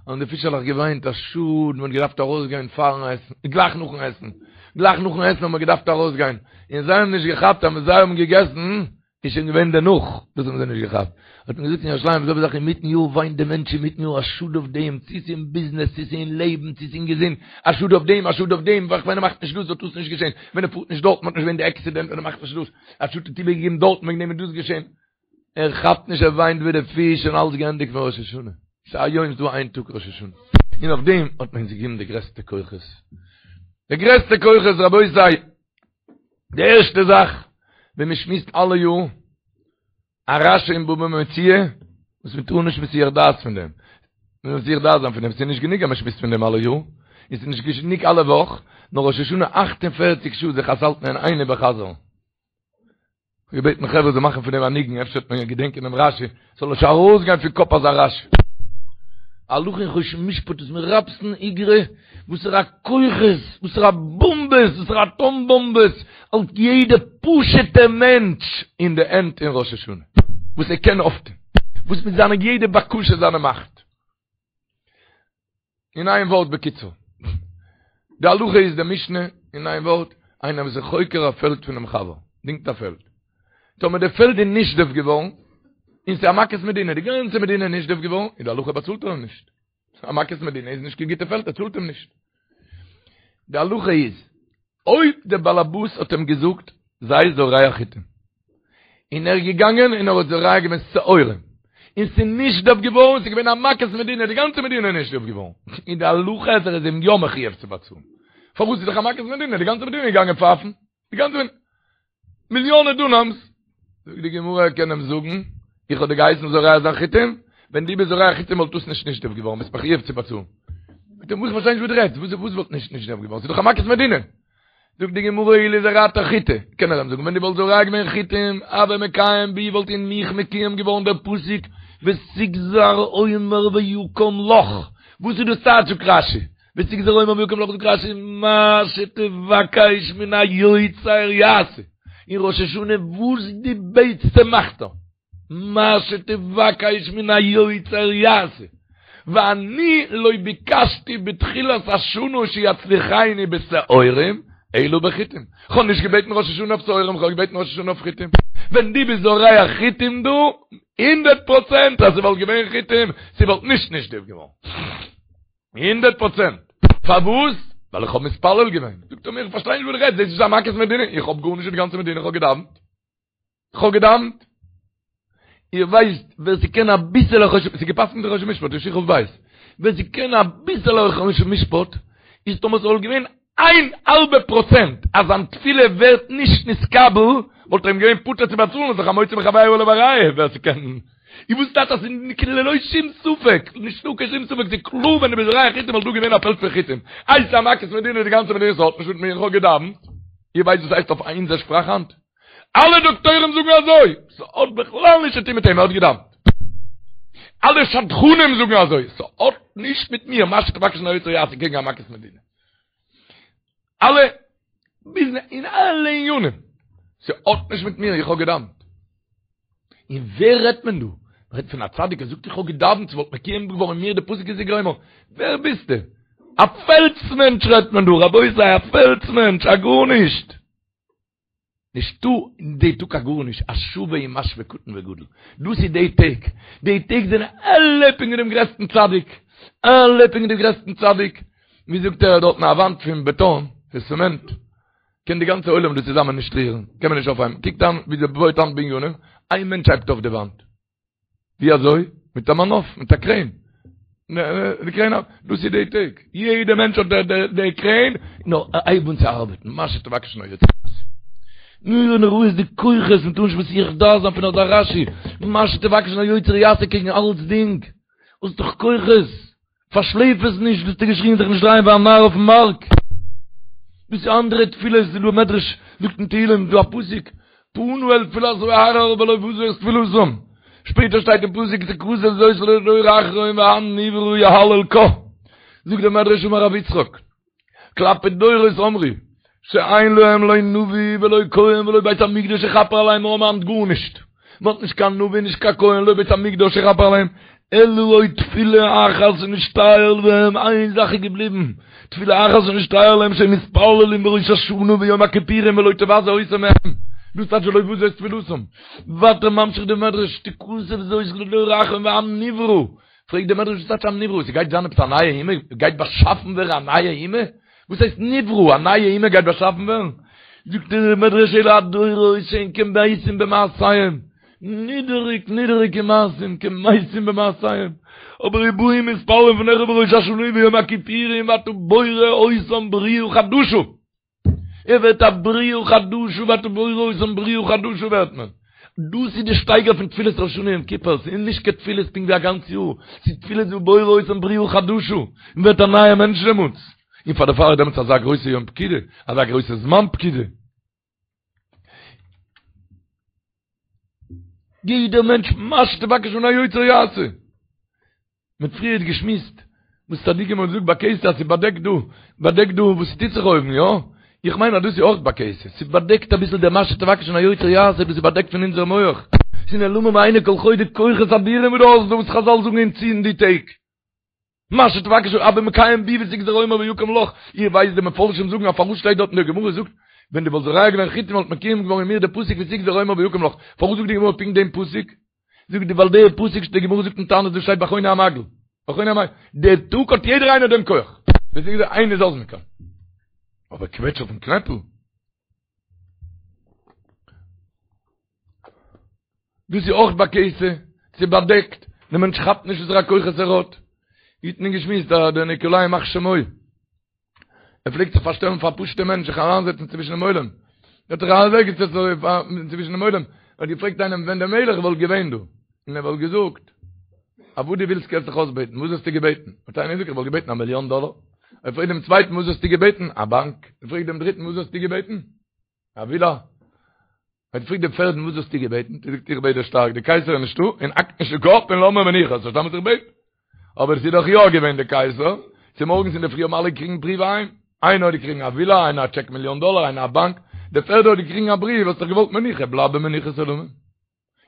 האבן די פישעלעך געוויינט, א שאד, מ'האט געדארפט ארויסגיין פארן עסן, גלייך נאכן עסן, גלייך נאכן עסן האט מען געדארפט ארויסגיין, און זיי האבן נישט געכאפט אז ווען זיי האבן געגעסן, איז שוין געווען דערנאך, דאס האבן זיי נישט געכאפט. האט מען געזאגט אין ירושלים, זעלבע זאך אינמיטן יאר וויינט דער מענטש אינמיטן יאר, א שאד אויף דעם, צו ס'איז אין ביזנעס, צו ס'איז אין לעבן, צו ס'איז אין געזונט, א שאד אויף דעם, א שאד אויף דעם, ווען ער מאכט נישט דאס וואלט דאס נישט געשען, ווען ער פארט נישט דארטן וואלט נישט געווען די עקסידענט, ווען ער מאכט נישט דאס, א שאד האט איבערגעגעבן דארטן וועגן דעם איז דאס געשען. ער כאפט נישט ער וויינט ווי די פיש און אלס געענדיגט פון ראש השנה. ס'איז היום ס'איז דא איין טאג ראש השנה. און אויף דעם האט מען אונז געגעבן די גרעסטע כוחות. די גרעסטע כוחות רבותי. די ערשטע זאך ווען מען שמועסט אלע יאר א רשי אין בבא מציעא וואס מען טאר נישט מסיח דעת פון דעם. מען מוז מסיח דעת זיין פון דעם, ס'איז נישט גענוג אז מען שמועסט פון דעם אלע יאר, און ס'איז נישט גענוג אלע וואך, נאר ראש השנה אכט און פערציג שעה זיך עס האלטן אין איין איבערחזר'ן. כ'האב געבעטן חברה זאלן מאכן פון דעם א ניגון, אפשר וועט מען געדענקען דעם רשי, ס'זאל נישט ארויסגיין פון קאפ אזא רשי. הלכה אין חושן משפט איז מרפסן איגרא, וואסערע כוחות, וואסערע באמבעס, וואסערע אטאם באמבעס, האלט יעדע פשוטע מענטש אין די הענט אין ראש השנה, וואס ער קען אויפטון, וואס מיט זיינע יעדע בקשה זיינע מאכט. אין איין ווארט בקיצור. די הלכה איז די משנה אין איין ווארט, איינער וואס איז חוקר א פעלד פונעם חבר, דינגט א פעלד. טאמער די פעלד איז נשדף געווארן, און ס'איז א מכת מדינה, די גאנצע מדינה איז נשדף געווארן, איז די הלכה באצאלט ער אים נישט. א מכת מדינה איז נישט קיין גוטע פעלד, ער צאלט אים נישט. די הלכה איז, אויב דער באלעבאס האט אים געזאגט, זיי זורע חיטים, און ער איז געגאנגען און ער האט זורע געווען שעורים, און ס'איז נשדף געווארן, ס'איז געווען א מכת מדינה, די גאנצע מדינה איז נשדף געווארן, און די הלכה איז ער איז אים יא מחויב צו באצאלן. פארוואס איז דאך א מכת מדינה, די גאנצע מדינה איז געגאנגען פייפן, די גאנצע מדינה, מיליאנע דונאמס, זאגט די גמרא ער קען אים זאגן, איך האב דיר געהייסן זורע זיין חיטים, ווען דו ביסט זורע חיטים וואלט דאס נישט נשדף געווארן, ביסט מחויב צו באצאלן. זאגט ער, איך פארשטיי נישט וואס דו רעדסט, וואס וואס וואלט נישט נשדף געווארן, ס'איז דאך א מכת מדינה. זאגט די גמרא אילו זרעת חיטי, קען ער אים זאגן, ווען דו וואלסט זורע געווען חיטים, הוה מקיים בי וואלט אין מיך מקוים געווארן דער פסוק ותגזר אומר ויקם לך, וואס איז דאס טייטש זאגט רשי, ותגזר אומר ויקם לך זאגט רשי מה שתבקש מן היוצר יעשה, אין ראש השנה וואס דו בעטסט מאכט ער. מה שתבקש מן היוצר יעשה, ואני לא ביקשתי בתחילת השנה שיצליחני בשעורים, אלא בחיטים. כ'האב נישט געבעטן ראש השנה אויף שעורים, כ'האב געבעטן ראש השנה אויף חיטים. ווען דו ביסט זורע חיטים דא, הונדערט פראצענט אז ס'וואלט געווען חיטים, ס'וואלט נישט נשדף געווארן. הונדערט פראצענט. פארוואס? ווייל איך האב מתפלל געווען. זאגט ער מיר, איך פארשטיי נישט וואס דו רעדסט, דאס איז א מכת מדינה, איך האב גארנישט מיט די גאנצע מדינה, איך האב געדאווענט. כ'האב געדאווענט. איר ווייסט ווער ס'קען אביסעלע חושן, ס'איז געפסקנט אין חושן משפט, אין שכ"ב, ווער ס'קען אביסעלע חושן משפט, איז טאמער ס'וואלט געווען איין האלבע פראצענט אז זיין תפילה ווערט נישט נתקבל, וואלט ער אים געווען פטור צו באצאלן, איז דאך המוציא מחבירו עליו הראיה, ווער ס'קען. איר וואס טייטש אז ס'איז ללא שום ספק, נישטא קיין שום ספק, ס'איז קלאר ווען דו ביסט זורע חיטים וואלט דא געווען א פעלד פון חיטים. איי ס'איז א מכת מדינה די גאנצע מדינה ס'האט נישט מיט מיר, איך האב געדאווענט. איר ווייסט וואס הייסט אויף אונזער שפראך היינט? אלע דאקטוירים זאגן אזוי, ס'האט בכלל נישט צו טון מיט אים, ער האט געדאוונט. אלע שדכנים זאגן אזוי, ס'האט נישט מיט מיר, מה שתבקש מן היוצר יעשה קעגן א מכת מדינה. אלע ביזנעס, אין אלע עניינים. ס'האט נישט מיט מיר, איך האב געדאוונט. און ווער רעדט מען דא? מ'רעדט פון א צדיק, ער זאגט איך האב געדאוונט, ס'וואלט מקוים געווארן אין מיר די פסוק כי תגרום, ווער ביסטו? א פעלדס מענטש רעדט מען דא, רבותי, א פעלדס מענטש, א גארנישט. נישטא אין די טאג א גארנישט, השוה ומשוה קטן וגדול. דאס איז די טעג. די טעג זענען אלע פונקט ווי דעם גרעסטן צדיק. אלע פונקט ווי דעם גרעסטן צדיק. ווי זאגט ער דארטן א וואנט פון בעטאן, פון צעמענט, קען די גאנצע עולם דא צוזאמען נישט רירן, קען מען נישט אויפהייבן. קוקט אן ווי זיי בויט היינט בנינים, איין מענטש הייבט אויף די וואנט. ווי אזוי? מיט א מנוף, מיט א קרעין. די קרעין, דאס איז די טעג. יעדע מענטש האט די קרעין, נאר הייב אן צו ארבעטן, מה שתבקש מן היוצר יעשה. נורא נוראות די כוחות, מ'טאר נישט מסיח דעת זיין פון אזא רשי. מה שתבקש מן היוצר יעשה קעגן אלצדינג. האסט דאך כוחות. פארשלעפ עס נישט, וואס האסטו געשריגן זיך נישט דרייען ווי א נאר אויפן מארק. דאס איז אנדערע תפילות, ס'איז דא מדרש זאגט אין תהילים, דא א פסוק, פנה אל תפילת הארר ולא בזה את תפילתם. שפעטער שטייט אין פסוק תכתב זאת לדור אחרון ועם נברא יהלל קה. זאגט דער מדרש אמר רבי יצחק, כלפי דורות אמרו, שאין להם לא נביא ולא כהן ולא בית המקדש יכפר עליהם, מיר האבן היינט גארנישט, מען האט נישט קיין נביא נישט קיין כהן לא בית המקדש יכפר עליהם, אלא עוד תפילה אחת שנשתייר להם, איין זאך איז געבליבן, תפילה אחת שנשתייר להם שהם מתפללים בראש השנה ויום הכיפורים ולא תבזה אותם מהם, דאס טייטש ולא בזה את תפילתם, ווייטער ממשיך די מדרש, תכתב זאת לדור אחרון ועם נברא, פרעגט דער מדרש וואס טייטש עם נברא? ס'גייט זיין עפעס א נייע אומה? גייט באשאפן ווערן א נייע אומה? וואס הייסט נברא? א נייע אומה גייט באשאפן ווערן? זאגט דער מדרש אלו הדורות שהן כמתים במעשיהם, נידעריג נידעריגע מעשים, כמתים במעשיהם, אבער ובאים ומתפללים לפניך בראש השנה וביום הכיפורים ואתה בורא אותם בריאה חדשה. ער ווערט א בריאה חדשה ואתה בורא אותם בריאה חדשה ווערט מען. דאס איז די שטייגער פון תפילת ראש השנה יום כיפור, ס'איז נישט קיין תפילות פונקט ווי א גאנץ יאר, ס'איז תפילות ובורא אותם בריאה חדשה, מען ווערט א נייער מענטש דעמאלטס, און פאר דערפאר איז דעמאלטס אזא גרויסע יום פקידה, אזא גרויסע זמן פקידה. יעדער מענטש מה שתבקש מן היוצר יעשה. מ'האט פריערט געשמועסט וואס צדיקים האבן געזאגט בכסה אז ס'באדעקט דא, באדעקט דא וואס ס'טוט זיך אויבן, יא? איך מיין אז דאס איז אויך בכסה, ס'באדעקט אביסל דער מה שתבקש מן היוצר יעשה דאס איז באדעקט פון אונזער מח, ס'איז נעלמים מעיני כל חי די כוחות אדירים וואס דו האסט דא וואס חזל זאגן אונז צו אין די טעג. מה שתבקש הוי מקיים בי ותגזר אומר ויקם לך, איר ווייסט די מפרשים זאגן אז פארוואס שטייט דארט אין די גמרא זאגט ווען דו וואלסט זורע געווען חיטים וואלט מקוים געווארן אין מיר די פסוק ותגזר אומר ויקם לך, פארוואס זאגט די גמרא פונקט דעם פסוק? זאגט די ווייל די פסוק די גמרא זאגט אין תענית דאס שטייט ביי חוני המעגל ביי חוני המעגל די טאג האט יעדער איינער דעם כח דאס איז איינער זאל זיך קען אבער קוועטש אויפן קנעפל דאס איז אויך בכסה ס'איז באדעקט דער מענטש כאפט נישט וואסערע כוחות ער האט ווי האט מען געשמועסט דער ניקולאי ימח שמו ער פלעגט זיך פארשטעלן פאר א פשוט'ע מענטש, זיך אריינזעצן צווישן דעם עולם. ער האט זיך אוועקגעזעצט אזוי צווישן דעם עולם, ער האט געפרעגט איינעם ווען דער מלך וואלט געווען דא, און ער וואלט געזאגט, אז וואס דו ווילסט קענסט זיך אויסבעטן, וואס וואלסטו געבעטן? האט איינער געזאגט, איך וואלט געבעטן א מיליאן דאלער. ער פרעגט דעם צווייטן, וואס וואלסטו געבעטן? א באנק. ער פרעגט דעם דריטן, וואס וואלסטו געבעטן? א ווילא. האט געפרעגט דעם פערדן וואס וואלסטו געבעטן? האט ער געזאגט איך בעט דיר שטארק, די קייסער איז נישטא, און האק נישט די קאפ און לאז מיר מנוחה, האסט פארשטאנען וואס איך בעט? אבער עס איז דאך יא געווען די קייסער, צומארגנס אינדערפרי האבן אלע געקריגן בריוו אהיים, איינער האט געקריגן א ווילא, איינער א טשעק מיליאן דאלער, איינער א באנק, דער פערדער האט געקריגן א בריוו, האסט דאך געוואלט מנוחה, בלייב במנוחת עולמים.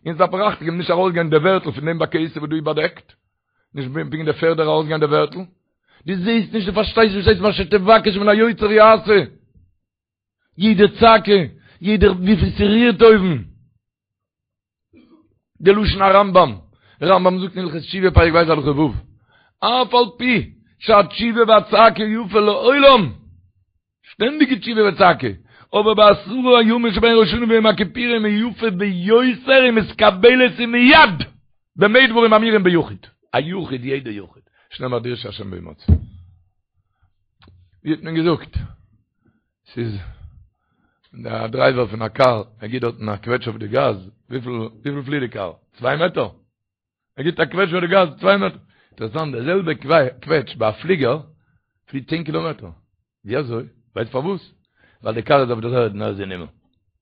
אונז דארף מיר אכטונג געבן נישט ארויסגיין די ווערטל פון דעם בכסה וואס דא איז באדעקט, נישט פונקט דער פערדער ארויסגיין די ווערטל, דו זעסט נישט, דו פארשטייסט נישט, וואס הייסט מה שתבקש מן היוצר יעשה. יעדע צעקה, יעדער וויפיל ס'רירט אויבן. די לשון הרמב"ם, רמב"ם זאגט אין הלכות תשובה פרק ב' הלכה ו', אף על פי שהתשובה והצעקה יפה לעולם, שטענדיגע תשובה וצעקה, אבער בעשרה הימים שבין ראש השנה ויום הכיפורים היא יפה ביותר ומתקבלת ומיד, במה דברים אמורים ביחיד, א יחיד יעדע יחיד, שנאמר דרשו השם בהמצאו. ווי האט מען געזאגט? ס'איז דער דרייווער פון א קאר, ער גיט דארטן א קוועטש אויף די גאז, וויפיל וויפיל פליט די קאר? צוויי מעטער? ער גיט א קוועטש אויף די גאז, צוויי מעטער. אינטערעסאנט, די זעלבע קוועטש ביי א פליגער פליט צען קילאמעטער. ווי אזוי? ווייסט פארוואס? ווייל די קאר איז אויף דער ערד און ער איז אין הימל.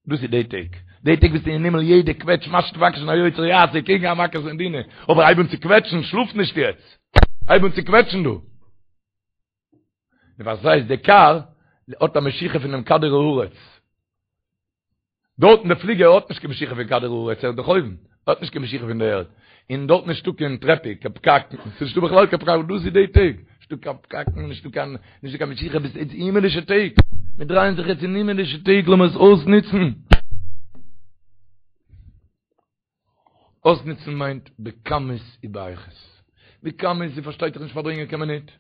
דאס איז די טעג. די טעג ביסטו אין הימל יעדע קוועטש מה שתבקש מן היוצר יעשה קעגן א מכת מדינה. אבער הייב אן צו קוועטשן, שלאף נישט יעצט. הייב אן צו קוועטשן דא. און וואס הייסט די קאר האט א משיכה פונעם כדור הארץ. דארטן די פליגער האט נישט קיין משיכה פון כדור הארץ, ער איז דאך אויבן, האט נישט קיין משיכה פון די ערד, און דארט נישטא קיין טרעפיק, קיין פקקים, ס'איז נישטא בכלל קיין פקק, דאס איז די טעג, נישטא קיין פקקים, נישטא קיין, נישטא קיין משיכה, ביסט יעצט הימעלישע טעג, מיר דרייען זיך יעצט אין הימעלישע טעג, לאמיר עס אויסנוצן. אויסנוצן מיינט בכמות ובאיכות. בכמות איז פארשטייט זיך נישט פארברענגען קיין מינוט.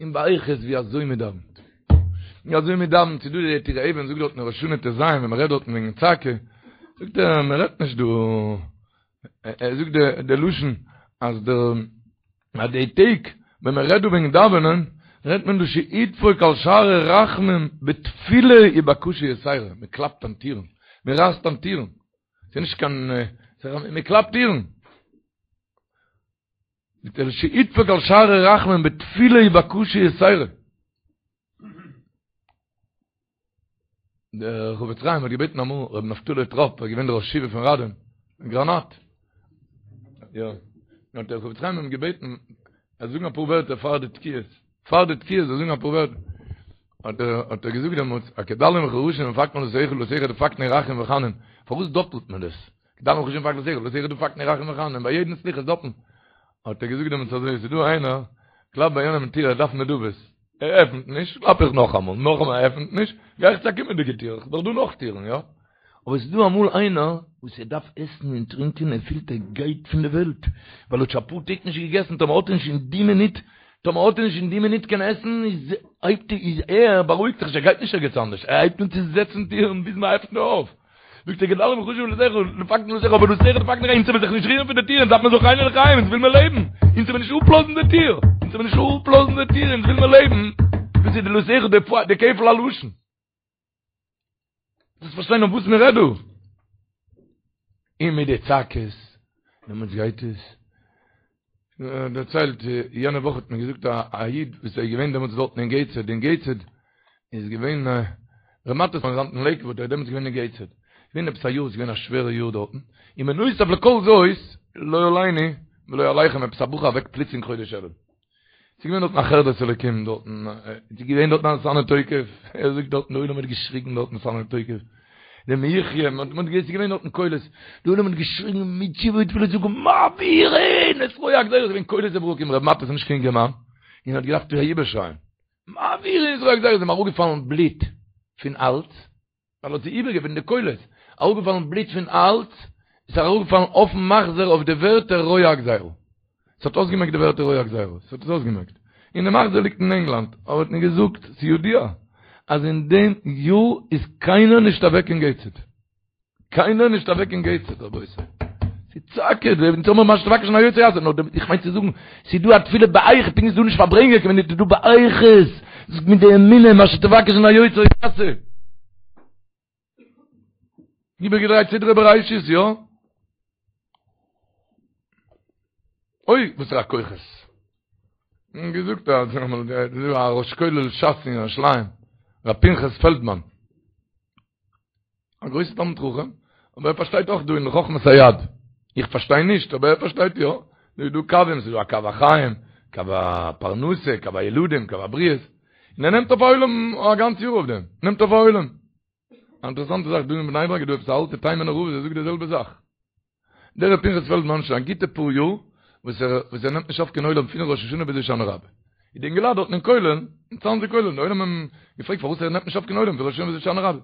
און באיכות ווי אזוי מען דאווענט. ווי אזוי מען דאווענט, ס'איז דא די טורי אבן זאגט דארט אין ראש השנה ט"ז ווען מען רעדט דארטן וועגן צעקה, זאגט ער מען רעדט נישט דא, ער זאגט די לשון אז דער אז די טעג ווען מען רעדט דא וועגן דאווענען, רעדט מען דא שידפוק על שערי רחמים בתפילה ובקשה יתירה, מען קלאפט אן טירן, מען רייסט אן טירן. ס'איז נישט קיין, מען קלאפט טירן. מיט דער שידפוק על שערי רחמים בתפילה ובקשה יתירה. דער חפץ חיים האט געבעטן אמאל רבי נפתלי טראפ, ער איז געווען דער ראש ישיבה פון ראדין, גראנאט. יא. האט דער חפץ חיים אים געבעטן, ער זאל זאגן אפאר ווערטער פאר די תקיעות. פאר די תקיעות זאל זאגן אפאר ווערטער. האט ער האט ער געזאגט דעמאלטס, א כדלים וכרשים דפקנו דלתיך דלתיך דפקנו רחום וחנון. פארוואס דאפלט מען דאס? כדלים וכרשים דפקנו דלתיך דלתיך דפקנו רחום וחנון. ביי יעדן סליחות דאפלט. האט ער געזאגט דעמאלטס אזוי, ס'איז דא איינער, קלאפט ביי יענעם אין טיר, ער דארף נדבות. ער עפנט נישט, קלאפ איך נאכאמאל, נאכאמאל ער עפנט נישט, גיי איך צו א קומענדיגע טיר, ס'איז דאך דא נאך טירן, יא? אבער ס'איז דא אמאל איינער וואס ער דארף עסן און טרינקען, ער פילט ער גייט פון די וועלט, ווייל ער האט שוין אפאר טעג נישט געגעסן, טאמער האט ער נישט אין די מינוט, טאמער האט ער נישט אין די מינוט קיין עסן, איז הייבט ער, איז ער בארואיגט זיך נישט, ער גייט נישט ערגעץ אנדערש, ער הייבט אן צו זעצן טירן ביז מען עפנט אויף. זאגט ער כדלים וכרשים דלתיך, דפקנו דלתיך, אבער דלתיך דפקנו אונז וועלן זיך נישט רירן פון די טיר, אונז דארף מען זכרנו לחיים, אונז וויל מיר לעבן, אונז וועלן נישט אפלאזן די טיר, אונז וועלן נישט אפלאזן די טיר, אונז וויל מיר לעבן, דאס איז דלתיך די כפל הלשון. דאס פארשטיין אויף וואס מען רעדט דא. און מיט די צעקות, דעמאלטס גייט עס. דערציילט, יענע וואך האט מיר געזאגט א איד וואס איז געווען דעמאלטס דארטן אין געיטסהעד, אין געיטסהעד איז געווען ר' מאטעס פון לעיקוואד, ער איז דעמאלטס געווען אין געיטסהעד, געווען עפעס א יאר, עס איז געווען א שווערע יאר דארטן, און בנוסף לכל זאת, לא עלינו ולא עליכם, עפעס א בחור אוועק פלוצלינג חודש אלול. ס'איז געווען דארטן א חרדת אלוקים דארטן, ס'איז געווען דארטן א ונתנה תוקף, ער זאגט דארטן די עולם האט געשריגן דארטן ונתנה תוקף, די מי יחיה, מען האט געזען ס'איז געווען דארטן קולות, די עולם האט געשריגן מיט תשובה ותפילה זאגן מעבירין את רוע הגזירה, ס'איז געווען קולות וברקים, ר' מאטעס איז נישט קיין אינגערמאן, און האט געדארפט איבערשרייען, מעבירין את רוע הגזירה, איז אים אראפגעפאלן בלוט פון האלז, ווייל האט זי איבערגעבעטן די קולות, אראפגעפאלן בלוט פון האלז, איז אראפגעפאלן אויפן מחזור אויף די ווערטער רוע הגזירה. ס'האט אויסגעמעקט די ווערטער רוע הגזירה, ס'האט עס אויסגעמעקט. און די מחזור ליגט אין ענגלאנד, אבער האט מיר געזאגט, ס'ידוע, אז אין דעם יאר איז קיינער נישט אוועק אין געיטסהעד. קיינער נישט אוועק אין געיטסהעד, רבותי. ס'צעקה, אונז האבן מה שתבקש מן היוצר יעשה, נאר איך מיין צו זאגן, ס'איז דא א תפילה באיכות, פונקט ווי ס'איז דא נישט פארברענגען, כ'מיין ס'איז דא באיכות, מיט די אמונה, מה שתבקש מן היוצר יעשה. איבערגעדרייט סדרי בראשית, יא? אוי, וואס פאר א כוחות. און געזאגט אז א ראש כולל שס אין ירושלים, ר' פנחס פעלדמאן. א גרויסע תלמיד חכם, אבער ער פארשטייט אויך דא אין חכמת היד. איך פארשטיי נישט, אבער ער פארשטייט יא. דא איז דא קווים, ס'איז דא א קו החיים, קו הפרנסה, קו הילדים, קו הבריאות. און ער נעמט אויף א עולם א גאנץ יאר אויף דעם. נעמט אויף א עולם. א אינטערעסאנטע זאך, דא אין בני ברק איז דא עפעס א אלטע תימנ'ער רב וואס ער זאגט די זעלבע זאך. דער ר' פנחס פעלדמאן שוין א גוטע פאר יאר וואס ער וואס ער נעמט נישט אויף קיין עולם פון ראש השנה ביז הושענא רבה. איז די אינגעלייט דארטן אין כולל, אין צאנזער כולל, די עולם האבן געפרעגט פארוואס ער נעמט נישט אויף קיין עולם פון ראש השנה ביז הושענא רבה.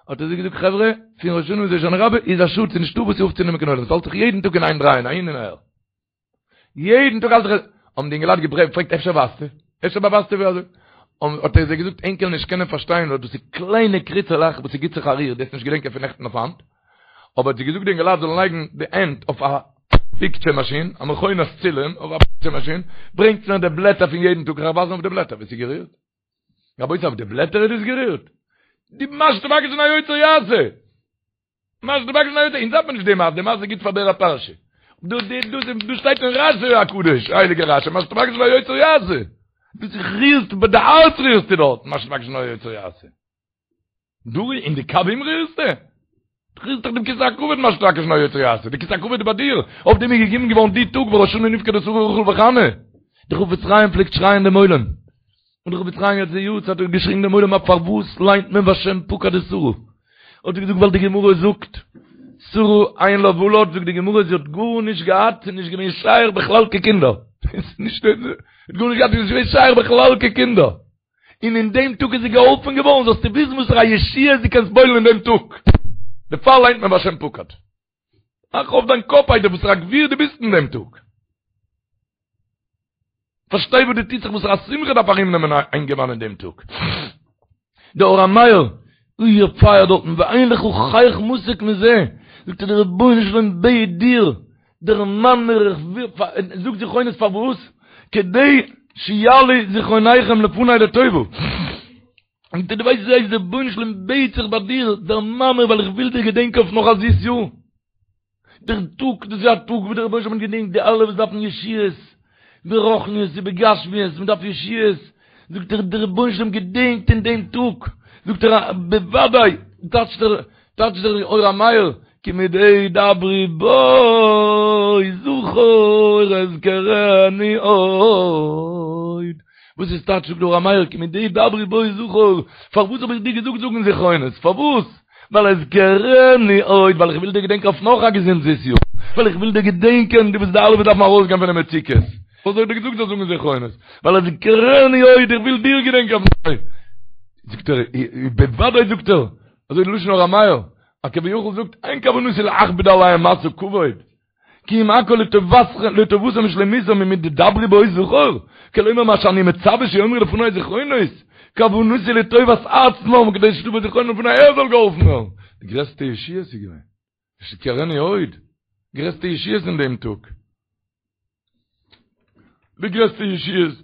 האט ער זיי געזאגט חברה, פון ראש השנה ביז הושענא רבה איז א שאד, ס'איז נישטא וואס אויפצונעמען קיין עולם, ס'האלט זיך יעדן טאג אין איין דרייען אהין און אהער. יעדן טאג האלט זיך, האבן די אינגעלייט געפרעגט אפשר ווייסטו? אפשר באווייזטו ווי אזוי? האט ער זיי געזאגט ענק קענען נישט קענען פארשטיין ווייל דאס איז קליינע קריצעלעך וואס ס'גיט זיך א ריר, דו וועסט נישט געדענקען פון נעכטן אויף היינט. אבער האט זיי געזאגט די אינגעלייט זאלן לייגן די הענט אויף א פיקטשער מאשין, א מכונת צילום אויף א פיקטשער מאשין, ברענגטס מיר די בלעטער פון יעדן טאג, איך וועל ווייזן אויף די בלעטער ווי ס'איז גערירט. רבותי אויף די בלעטער איז דאס גערירט? די מה שתבקש מן היוצר יעשה! מה שתבקש מן היוצר, אונז דארף מען נישט די מעשה, די מעשה איז גוט פאר דער פרשה. דא דא דא דא שטייט אין רשי הקדוש, הייליגער רשי, מה שתבקש מן היוצר יעשה! דו זיך רירסט, ביי די הארץ רירסטו דארט, מה שתבקש מן היוצר יעשה. דו אין די קווים רירסטו? דו רירסט דאך דעם כסא הכבוד מה שתבקש מן היוצר יעשה, די כסא הכבוד איז ביי דיר, אויף דעם איז געגעבן געווארן די טאג וראש השנה נפקדה שרה רחל וחנה, די חפץ חיים פלעגט שרייען דעם עולם, און די חפץ חיים יעצט די יארצייט האט געשריגן דעם עולם א פארוואס ליינט מען והשם פקד את שרה? האט ער געזאגט ווייל די גמרא זאגט שרה אין לה ולד זאגט די גמרא זי האט גארנישט געהאט ס'איז נישט געווען שייך בכלל קיין קינדער נישט האט גארנישט געהאט איז נישט געווען שייך בכלל קיין קינדער און אין דעם טאג איז זי געהאלפן געווארן זאלסטו וויסן וואסערע א ישועה דו קענסט פועל'ן אין דעם טאג דערפאר ליינט מען והשם פקד מאך אויף דיין קאפ איידער וואסערע א גביר דו ביסט אין דעם טאג פארשטיי וואס דא טוט זיך וואסערע א שמחה דארף ארום נעמען א אינגערמאן אין דעם טאג. דער אור המאיר, אוי ער פייערט דארטן, ואין לך חייך מתוק מזה, זאגט ער דער רבונו של עולם בעט דיר, דערמאן מיר איך וויל, זאג זכרונות פארוואס? כדי שיעלו זכרוניכם לפני לטובה. זאגט ער דו ווייסט וואס הייסט דער רבונו של עולם בעט זיך ביי דיר, דערמאן מיר ווייל איך וויל דיר געדענקען אויף נאך א זיס יאר. דער טאג, דאס איז א טאג וואס דער רבונו של עולם געדענקט די אלע וואס דארפן ישועות, ברוחניות ובגשמיות, מען דארף ישועות, זאגט ער, דער רבונו של עולם געדענקט אין דעם טאג, זאגט ער, בוודאי, טייטשט דער, טייטשט דער אור המאיר, כי מדי דברי בו זכור אזכרנו עוד. וואס איז טייטש זאגט דער אור המאיר, כי מדי דברי בו זכור, פארוואס האב איך דיר געזאגט זאגן זכרונות, פארוואס? ווייל אזכרנו עוד, ווייל איך וויל דיר געדענקען אויף נאך א געזונט זיס יאר, ווייל איך וויל דיר געדענקען, דו ביסט די אלע וואס דארפן ארויסגיין פון די מצוקות, וואס האב איך דיר געזאגט זאלסט זאגן זכרונות, ווייל אזכרנו עוד, איך וויל דיר געדענקען אויף נאך. זאגט ער, בוודאי זאגט ער, אזוי די לשון אור המאיר, אז כביכול זאגט, אין כוונתי להכביד עליהם משא כבד, כי אם הכל לטובתם ושלמותם ומדדברי בו זכור, כלומר מה שאני מצווה שיאמרו לפני זכרונות, כוונתי לטובת עצמם כדי שתבוא זכרונם לפני ער זאל געהאלפן ווערן. די גרעסטע ישועות איז געווען. אזכרנו עוד. גרעסטע ישועות אין דעם טאג. די גרעסטע ישועות,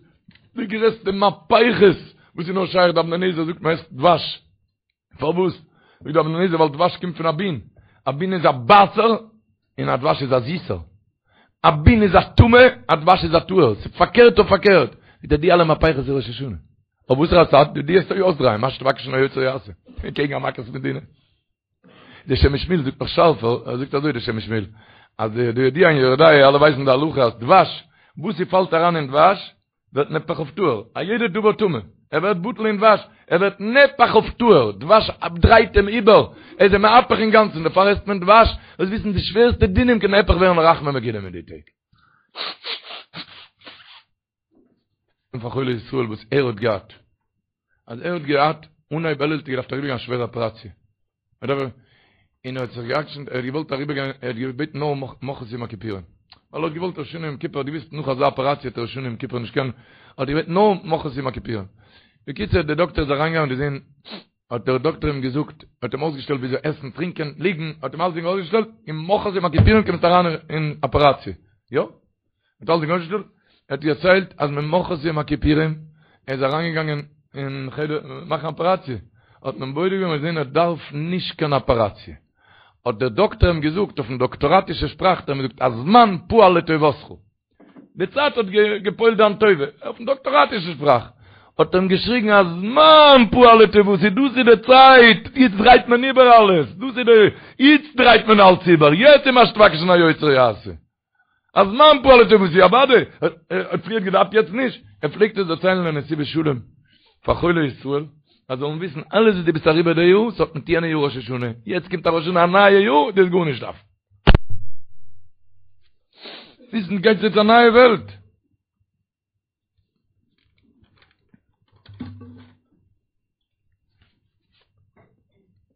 די גרעסטע מהפכות וואס איז נאר שייך, די אבני נזר זאגט מען עסט דבש. פארוואס? זאגט די אבני נזר ווייל דבש קומט פון א בין, א בין איז א בייסער און א דבש איז א זיסער, א בין איז א טמא, א דבש איז א טהור, ס'איז פארקערט אויף פארקערט, זאגט ער די אלע מהפכות איז ראש השנה, אויף וואסערע צד? דו וועסט אויסדרייען, מה שתבקש מן היוצר יעשה, קעגן א מכת מדינה. די שם משמואל זאגט נאך שארפער, ער זאגט אזוי די שם משמואל, אז די ידוע אין יורה דעה, אלע ווייסן די הלכה אז דבש, וואס ס'פאלט אריין אין דבש, ווערט נהפך אויף טהור, א יעדע דבר טמא, ער ווערט בטל אין דבש, ער ווערט נהפך אויף טהור, דבש דרייט אים איבער, ער איז אים מהפך אינגאנצן, דערפאר עסט מען דבש, זאלסט וויסן די שווערסטע דינים קען נהפך ווערן לרחמים מגולים אין די טעג. און פאר חולי ישראל וואס ער האט געהאט, אז ער האט געהאט אנהייב אלול האט ער געדארפט אריבערגיין א שווערע אפעראציע, און ער האט זיך גע'עקשנ'ט, ער האט געוואלט אריבערגיין, ער האט געבעטן נאר ממחרת יום הכיפורים, ווייל ער האט געוואלט ראש השנה יום כיפור, ער האט געוואוסט נאך אזא אפעראציע וועט ער ראש השנה יום כיפור נישט קענען, האט ער געבעטן נאר ממחרת יום הכיפורים. בקיצור, דער דאקטער איז אריינגעגאנגען און געזען, האט דער דאקטער אים געזאגט, האט אים אויסגעשטעלט וויאזוי עסן, טרינקען, ליגן, האט אים אלסדינג אויסגעשטעלט, און ממחרת יום הכיפורים קומסטו אריין אין אפעראציע. יא. האט אלסדינג אויסגעשטעלט, ער האט דערציילט אז ממחרת יום הכיפורים ער איז אריינגעגאנגען אין חדר מאכן אפעראציע, האט מען בודק געווען און געזען ער דארף נישט קיין אפעראציע, האט דער דאקטער אים געזאגט אויפן דאקטאראטישע שפראך האט ער אים געזאגט הזמן פעל לטובתך, די צייט האט געפועלט דיין טובה, אויפן דאקטאראטישע שפראך האט ער אים געשריגן הזמן פעל לטובתי, דאס איז די צייט, איצט דרייט מען איבער אלעס, דאס איז די, איצט דרייט מען אלץ איבער, יעצט איז מה שתבקש מן היוצר יעשה. הזמן פעל לטובתי אוודאי, ער האט פריער געדארפט יעצט נישט, ער פלעגט עס דערציילן אין נתיבות שלום פאר חולי ישראל, אז זאלן וויסן אלעס וואס דו ביסט אריבער די יאר, ס'האט מיט יענע יאר ראש השנה, יעצט קומט א ראש השנה א נייע יאר, דו וועסט גארנישט דארפן. וויסן גייט יעצט א נייע וועלט.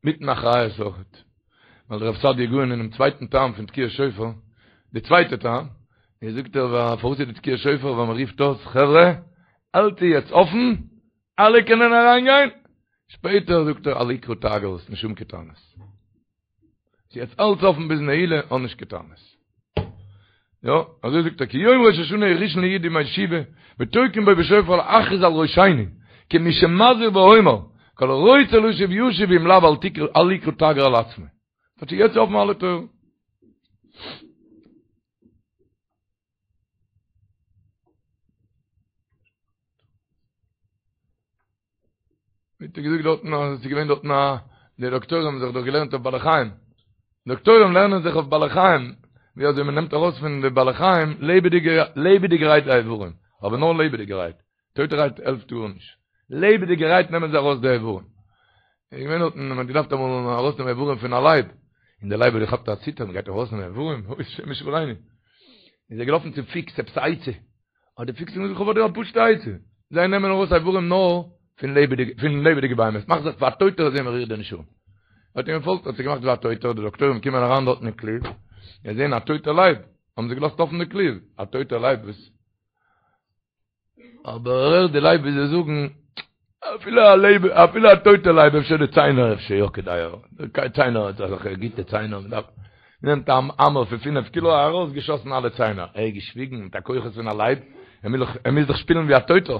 מיטן אחריות אויכעט. ווייל דער רב סעדיה גאון אינעם צווייטן טעם פון תקיעת שופר, די צווייטע טעם, איז זאגט ער פארוואס איז די תקיעת שופר ווייל מען רופט אויס חברה, האלט יעצט אפן, אלע קענען אריינגיין, שפעטער זאגט ער אל יקרא תגר, נישט האבן קיין טענות. ס'איז יעצט אלץ אפן ביז נעילה, האב נישט קיין טענות. יא, אזוי זאגט ער, כי יום ראש השנה הוא ראשון לי' ימי תשובה, ותוקעין בו בשופר להכריז על ראשינו, כמי שמזהיר ואומר, כל הרוצה לשוב ישוב ואם לאו אל תקרא אל יקרא תגר על עצמו. כאטש יעצט אפן אלע טויערן. ווי האט ער געזאגט דארטן אז עס איז געווען דארטן א די דאקטוירים האבן זיך דאך געלערנט אויף בעלי חיים דאקטוירים לערנען זיך אויף בעלי חיים ווי אזוי מען נעמט ארויס פון די בעלי חיים לעבעדיגע לעבעדיגערהייט די איברים אבער נאר לעבעדיגערהייט טויטערהייט העלפט גארנישט לעבעדיגערהייט נעמען זיי ארויס די איברים. איז געווען דארטן מען האט געדארפט אמאל ארויסנעמען איברים פון א לייב, און דער לייב האט געכאפט א ציטער, מען גייט ארויסנעמען איברים, אוי השם ישמרינו. איז ער געלאפן צום פיקס עפעס א עצה, האט דער פיקס אים געזאגט איך האב פאר דיר א פשוטע עצה, זיי נעמען ארויס איברים נאר פון לעבעדיגע פון לעבעדיגע בהמות, מאך זיך פאר א טויטער זען מען רירט דיר נישט אן. האט אים געפאלגט האט זיך געמאכט ווי א טויטער, די דאקטוירים קומען אריין דארטן אין כלוב, זיי זעען א טויטער לייב, האבן זיי געלאזט אפן די כלוב, א טויטער לייב וואס אבער ער הערט די לייב ווי זיי זאגן, אפילו א לייב, אפילו א טויטע לייב אפשר די ציינער אפשר יא כדאי, די ציינער האט אזעלכע גוטע ציינער, מען דארף, נעמט א האמער פון פינף קילא ארויס געשאסן אלע ציינער, ער האט געשוויגן מיט א כוחות פון א לייב, ער מוז דאך, ער מוז דאך שפילן ווי א טויטער.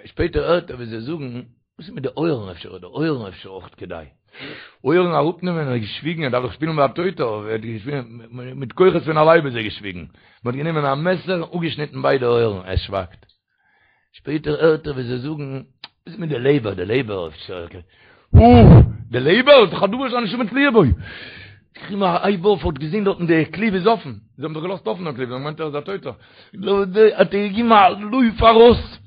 שפעטער הערט ער ווי זיי זאגן, וואס איז מיט די אויערן אפשר איז די אויערן אפשר אויך כדאי. אויערן אראפנעמען, ער האט געשוויגן, ער דארף דאך שפילן ווי א טויטער, ער האט געשוויגן, מיט כוחות פון א לייב איז ער געשוויגן. מען האט גענומען א מעסער און אפגעשניטן ביידע אויערן, ער שווייגט. שפעטער הערט ער ווי זיי זאגן, וואס איז מיט די לעבער, די לעבער אפשר, אוי! די לעבער איז דאך א דבר שהנשמה תלויה בו! געגעבן א הייב אויף, האט געזען דארטן די כלוב איז אפן, זיי האבן דאך געלאזט אפן דעם כלוב, זיי האבן געמיינט ער איז א טויטער, האט ער געגעבן א לויף ארויס,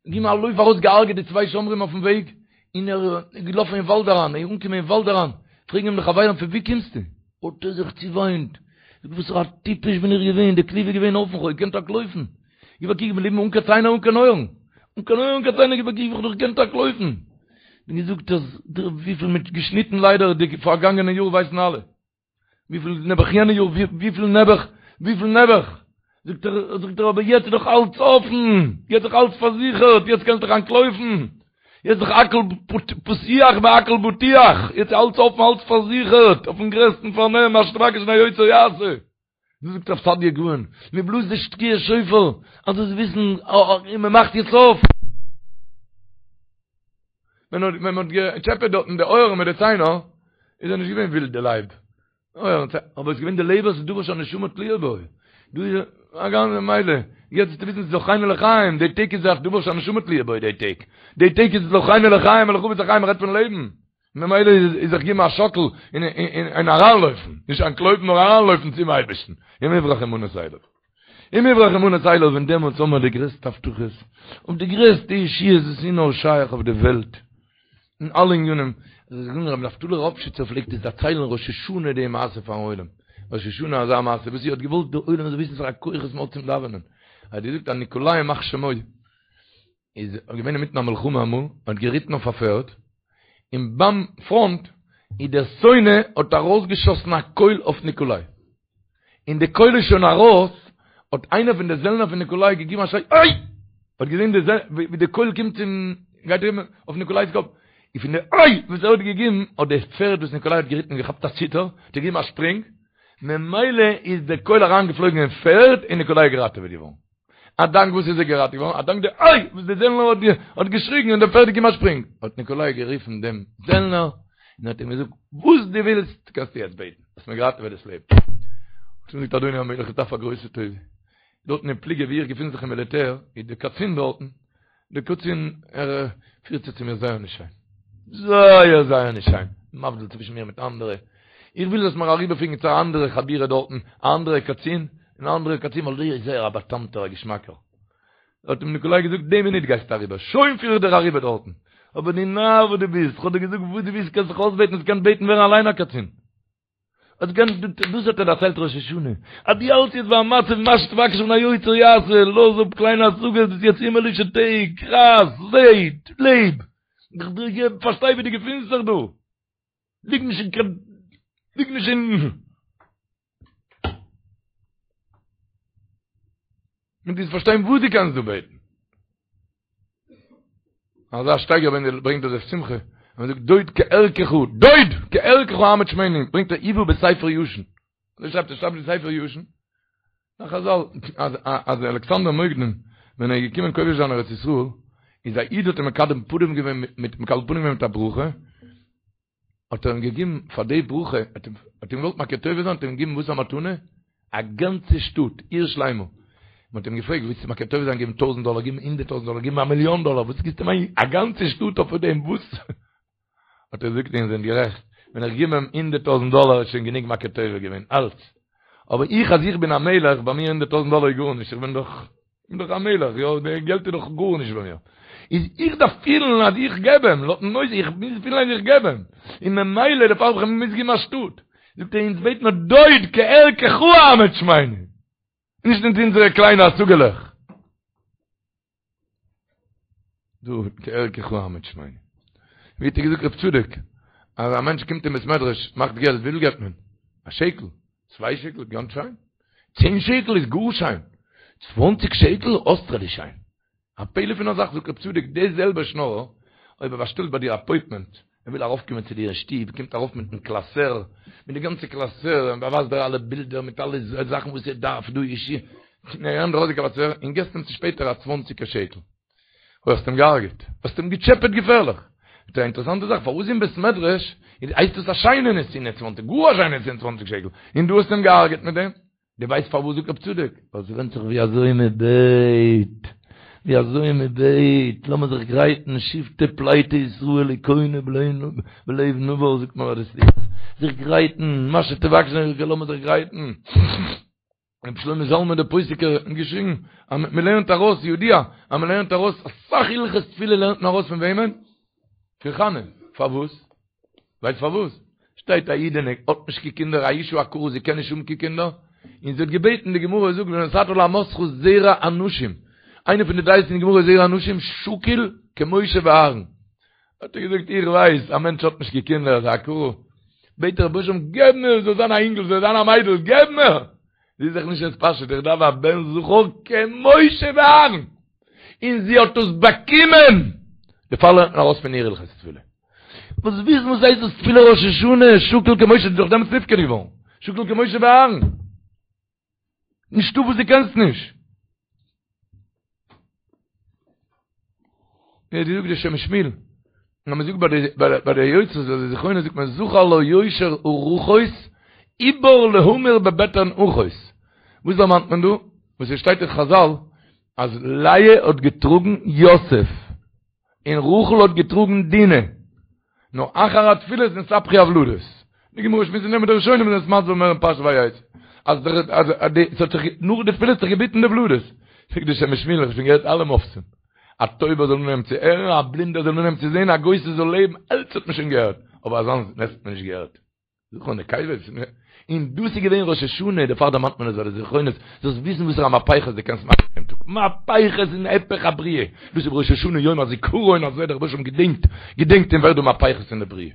געגעבן א לויף ארויס, געהארגעט די צוויי שומרים אויפן וועג, און ער איז געלאפן אין וואלד אריין, ער איז אנגעקומען אין וואלד אריין, פרעגן אים די חברים פון וואו קומסטו? האט ער זיך צעוויינט, זאגט וואסערע א טיפש בין איך געווען, די כלוב איז געווען אפן, כ'האב געקענט אנטלויפן, גיב א קוק, איך בין געבליבן אן קיין ציינער אן קיין אויערן, אן קיין אויערן אן קיין ציינער, גיב א קוק ווי כ'האב דאך געקענט אנטלויפן. ווי געזאגט אז וויפיל מ'האט געשניטן ליידער די פארגאנגענע יאר ווייסן אלע. וויפיל נעבעך יענע יאר, וויפיל נעבעך, וויפיל נעבעך. זאגט ער, זאגט ער אבער יעצט איז דאך אלץ אפן, יעצט איז דאך אלץ פארזיכערט, יעצט קענסטו דאך אנטלויפן. יעצט איז דאך הכל פתוח והכל בטוח, יעצט איז אלץ אפן, אלץ פארזיכערט, אויפן גרעסטן פארנעם, מה שתבקש מן היוצר יעשה. דאס זאגט רב סעדיה גאון, מען בלאזט די תקיעת שופר, אז זאלסט וויסן, און מען מאכט יעצט אויף. ווען מען האט געטשעפעט דארטן די אויערן מיט די ציינער, איז ער נישט געווען ווילד די לייב. אויערן, אבער עס איז געווען די לעבער, ס'איז דבר שהנשמה תלויה בו. דא איז א גאנצע מילא, יעצט וועסטו וויסן ס'איז זכרנו לחיים, די טעג איז דאך דבר שהנשמה תלויה בו די טעג. די טעג איז זכרנו לחיים, ולחפץ החיים רעדט פון לעבן. ממילא איז זיך געבן א שאקל און אריינלויפן, נישט אנטלויפן נאר אריינלויפן צום אייבערשטן, אם יברח אמנות אליו. אם יברח אמנות אליו און דעמאלטס האבן מיר די גרעסטע הבטחות, אויף די גרעסטע ישועות וואס איז נאר שייך אויף די וועלט, אין אלע ענינים. רבי נפתלי ראפשיצער פלעגט עס דערציילן ראש השנה די מעשה פארן עולם, ראש השנה אזא מעשה וואס ער האט געוואלט די עולם זאל וויסן וואסארא כוחות מ'האט צום דאווענען, ער האט געזאגט אז ניקאליי ימח שמו, איז געווען אינמיטן א מלחמה אמאל, האט געריטן אויף א פערד, און ביים פראנט איז דער שונא האט ארויסגעשאסן א קויל אויף ניקאליי. און די קויל איז שוין ארויס, האט איינער פון די זעלנער פון ניקאליי געגעבן א שריי אוי! האט געזען די ווי די קויל קומט צום גייט אריבער אויף ניקאליי'ס קאפ, און פון די אוי! וואס ער האט געגעבן, האט די פערד וואס ניקאליי האט געריטן געכאפט א ציטער, האט ער געגעבן א שפרינג, ממילא איז די קויל אריינגעפלויגן אין פערד און ניקאליי איז געראטעוועט געווארן. א דאנק וואס איז ער געראטעוועט געווארן? א דאנק די איי! וואס די זעלנער האט האט געשריגן און דער פערד האט געגעבן א שפרינג. האט ניקאליי גערופן דעם זעלנער און האט אים געזאגט, וואס דו ווילסט קענסטו יעצט בעטן, האסט מיר געראטעוועט דאס לעבן. האט אים געזאגט, אדוני המלך, איך דארף א גרויסע טובה. דארטן אין פלוגה וואו איך געפין זיך אין מיליטער, איז דער קצין דארטן, דער קצין, ער פירט זיך צו מיר זייער נישט שיין. זייער זייער נישט שיין. מבדיל צווישן מיר מיט אנדערע. איך וויל זאלסט מיר אריבערפירן צו א אנדערע חבורה דארטן, א אנדערע קצין, אן אנדערע קצין, ווייל דער איז זייער א בא'טעמ'טער, א געשמאקער. האט אים ניקאליי געזאגט, די מינוט גייסטו אריבער, שוין פיר איך דיר אריבער דארטן. אבער דו נאר וואס דו ביסט, כ'האב דיר געזאגט וואס דו ווילסט קענסט זיך אויסבעטן, האסט געקענט בעטן ווערן אליין א קצין. האסט געקענט, דאס האט ער דערציילט ראש השנה, אז דו האלטסט יעצט ביי א מצב מה שתבקש מן היוצר יעשה, לאז אפ קליינע השגות, דאס איז יעצט הימעלישע טעג, רייס, לעב, לעב, פארשטיי ווי דו געפינסט זיך דא, ליג נישט אין קיין, ליג נישט אין. און דו פארשטיין וואס דו קענסט דא בעטן. אזא שטייגער ווען ער ברענגט דאס שמחה, און זאגט דוד כערכך, דוד כערכך אעמיד שמנו, ברענגט ער הובא בספר ישן. אזוי שרייבט ער שרייבט אין ספר ישן. נאך חזל אז אז אלכסנדר מוקדון ווען ער איז געקומען כובש זיין ארץ ישראל, איז א איד האט אים מקבל פנים געווען מיט מקבל פנים געווען מיט א ברכה, האט ער אים געגעבן פאר די ברכה, האט אים געוואלט מכיר טובה זיין, האט ער אים געגעבן וואס א מתנה? א גאנצע שטאט, עיר שלימה. מען האט אים געפרעגט, ווילסטו מכיר טובה זיין, געבן טויזנט דאלער, געבן הונדערט טויזנט דאלער, געבן א מיליאן דאלער, וואס גיבסטו אים א גאנצע שטאט אויף דעם, וואס? האט ער געזאגט, איר זענט גערעכט, ווען איך גיב אים הונדערט טויזנט דאלער איז שוין גענוג מכיר טובה געווען, אלץ. אבער איך אז איך בין א מלך, ביי מיר הונדערט טויזנט דאלער איז גארנישט, איך בין דאך איך בין דאך א מלך, יא, די געלט איז דאך גארנישט ביי מיר. איז איך דארף פילן אז איך געב אים, לויטן נושא, איך מוז פילן אז איך געב אים, און ממילא דערפאר האב איך אים געמוזט געבן א שטאט. זאגט ער, אונז בעט מיר דוד כערכך אעמיד שמינו, נישט מיט אונזערע קליינע השגה'לעך. דוד כערכך אעמיד שמינו. ווי האט ער געזאגט רב צדוק, אז א מענטש קומט אין בית מדרש, מאכט געלט, וויפיל געבט מען? א שקל, צוויי שקל, גאנץ שיין. צען שקל איז גאר שיין. צוואנציג שקל, אויסטערליש שיין. א פלא פון א זאך, זאגט רב צדוק, די זעלבע שנארער, אויב ער באשטעלט ביי דיר אפוינטמענט, ער וויל ארויפקומען צו דיר אין שטוב, קומט ארויף מיטן קלאסער, מיט די גאנצע קלאסער, און באווייזט דיר אלע בילדער מיט אלע זאכן וואס ער דארף דא אישי, און ער נעמט ארויס די קלאסער, און געסט אים צו שפעטער א צוואנציגער שקל. אוי האסט אים געהארגעט, האסט אים געטשעפעט געפערליך. מיט א אינטערעסאנטע זאך, פארוואס אין בית מדרש הייסט עס א שיינע נתינה צוואנציג, גאר א שיינע נתינה צוואנציג שקל, און דו האסט אים געהארגעט מיט דעם? דו ווייסט פארוואס זאגט רב צדוק? ווייל ס'ווענדט זיך ווי אזוי מען בעט, ווי אזוי מען בעט, לאמיר זיך גרייטן, שבטי פליטי ישראל הכונו בלב נבר זאגט מען ביי די סליחות, זיך גרייטן, מה שתבקש, לאמיר זיך גרייטן. רבי שלמה זלמן דער פוסקער האט געשריגן אז מען לערנט ארויס ידוע אז מען לערנט ארויס אסאך הלכות תפילה לערנט מען ארויס פון וועמען? פון חנה, פארוואס? ווייסט פארוואס? שטייט א אידענע האט נישט קיין קינדער א אשה עקרה זי קען נישט האבן קיין קינדער, און זי האט געבעטן די גמרא זאגט ונתת לאמתך זרע אנשים, איינע פון די דעות אין די גמרא זרע אנשים שקול כמשה ואהרן, האט ער געזאגט איך ווייס א מענטש האט נישט קיין קינדער איז א עקרה, בעט ער רבונו של עולם געב מיר זאל זיין א אינגל זאל זיין א מיידל געב מיר, זי איז זיך נישט מתפשט איך דארף א בן זכר כמשה ואהרן, און זי האט עס באקומען, דערפאר לערנט מען ארויס פון איר הלכות תפילה. וואס וויסן וואס הייסט דאס תפילה ראש השנה, שקול כמשה, איז דאך דעמאלטס נפקד געווארן, שקול כמשה ואהרן. נישטא וואס דו קענסט נישט. ווי האט געזאגט דער שם משמואל, אז מען זאגט ביי די ביי די יוצרות ביי די זכרונות זאגט מען זכר לה יושר ארחות עובר להמיר בבטן אחות. וואס דערמאנט מען דא? וואס עס שטייט אין חזל אז לאה האט געטראגן יוסף. און רחל האט געטראגן דינה, נאר אחר התפילות נתהפכו הוולדות. די גמרא שמועסט אין דעם די ראשונים זענען עס מסביר מער אין פרשת ויצא, אז דער אז די ס'האט זיך נאך די תפילות האט זיך געביטן די וולדות. זאגט די שם משמואל, איך האב שוין געהערט אלע מופתים, א טויבער זאל אנהייבן צו הערן, א בלינדער זאל אנהייבן צו זען, א גוסס זאל לעבן, אלץ האט מען שוין געהערט, אבער אזאנס נס האט מען נישט געהערט. זכר נקבות, און דאס איז געווען ראש השנה, דערפאר דערמאנט מען עס ביי די זכרונות, זאלסט וויסן וואסערע מהפכות דו קענסט מאכן דעם טאג, מהפכות אין היפך הבריאה, דאס איז ראש השנה יום הזיכרון אזוי דער רבוש"ע געדענקט, געדענקט און ווערט דא מהפכות אין די בריאה.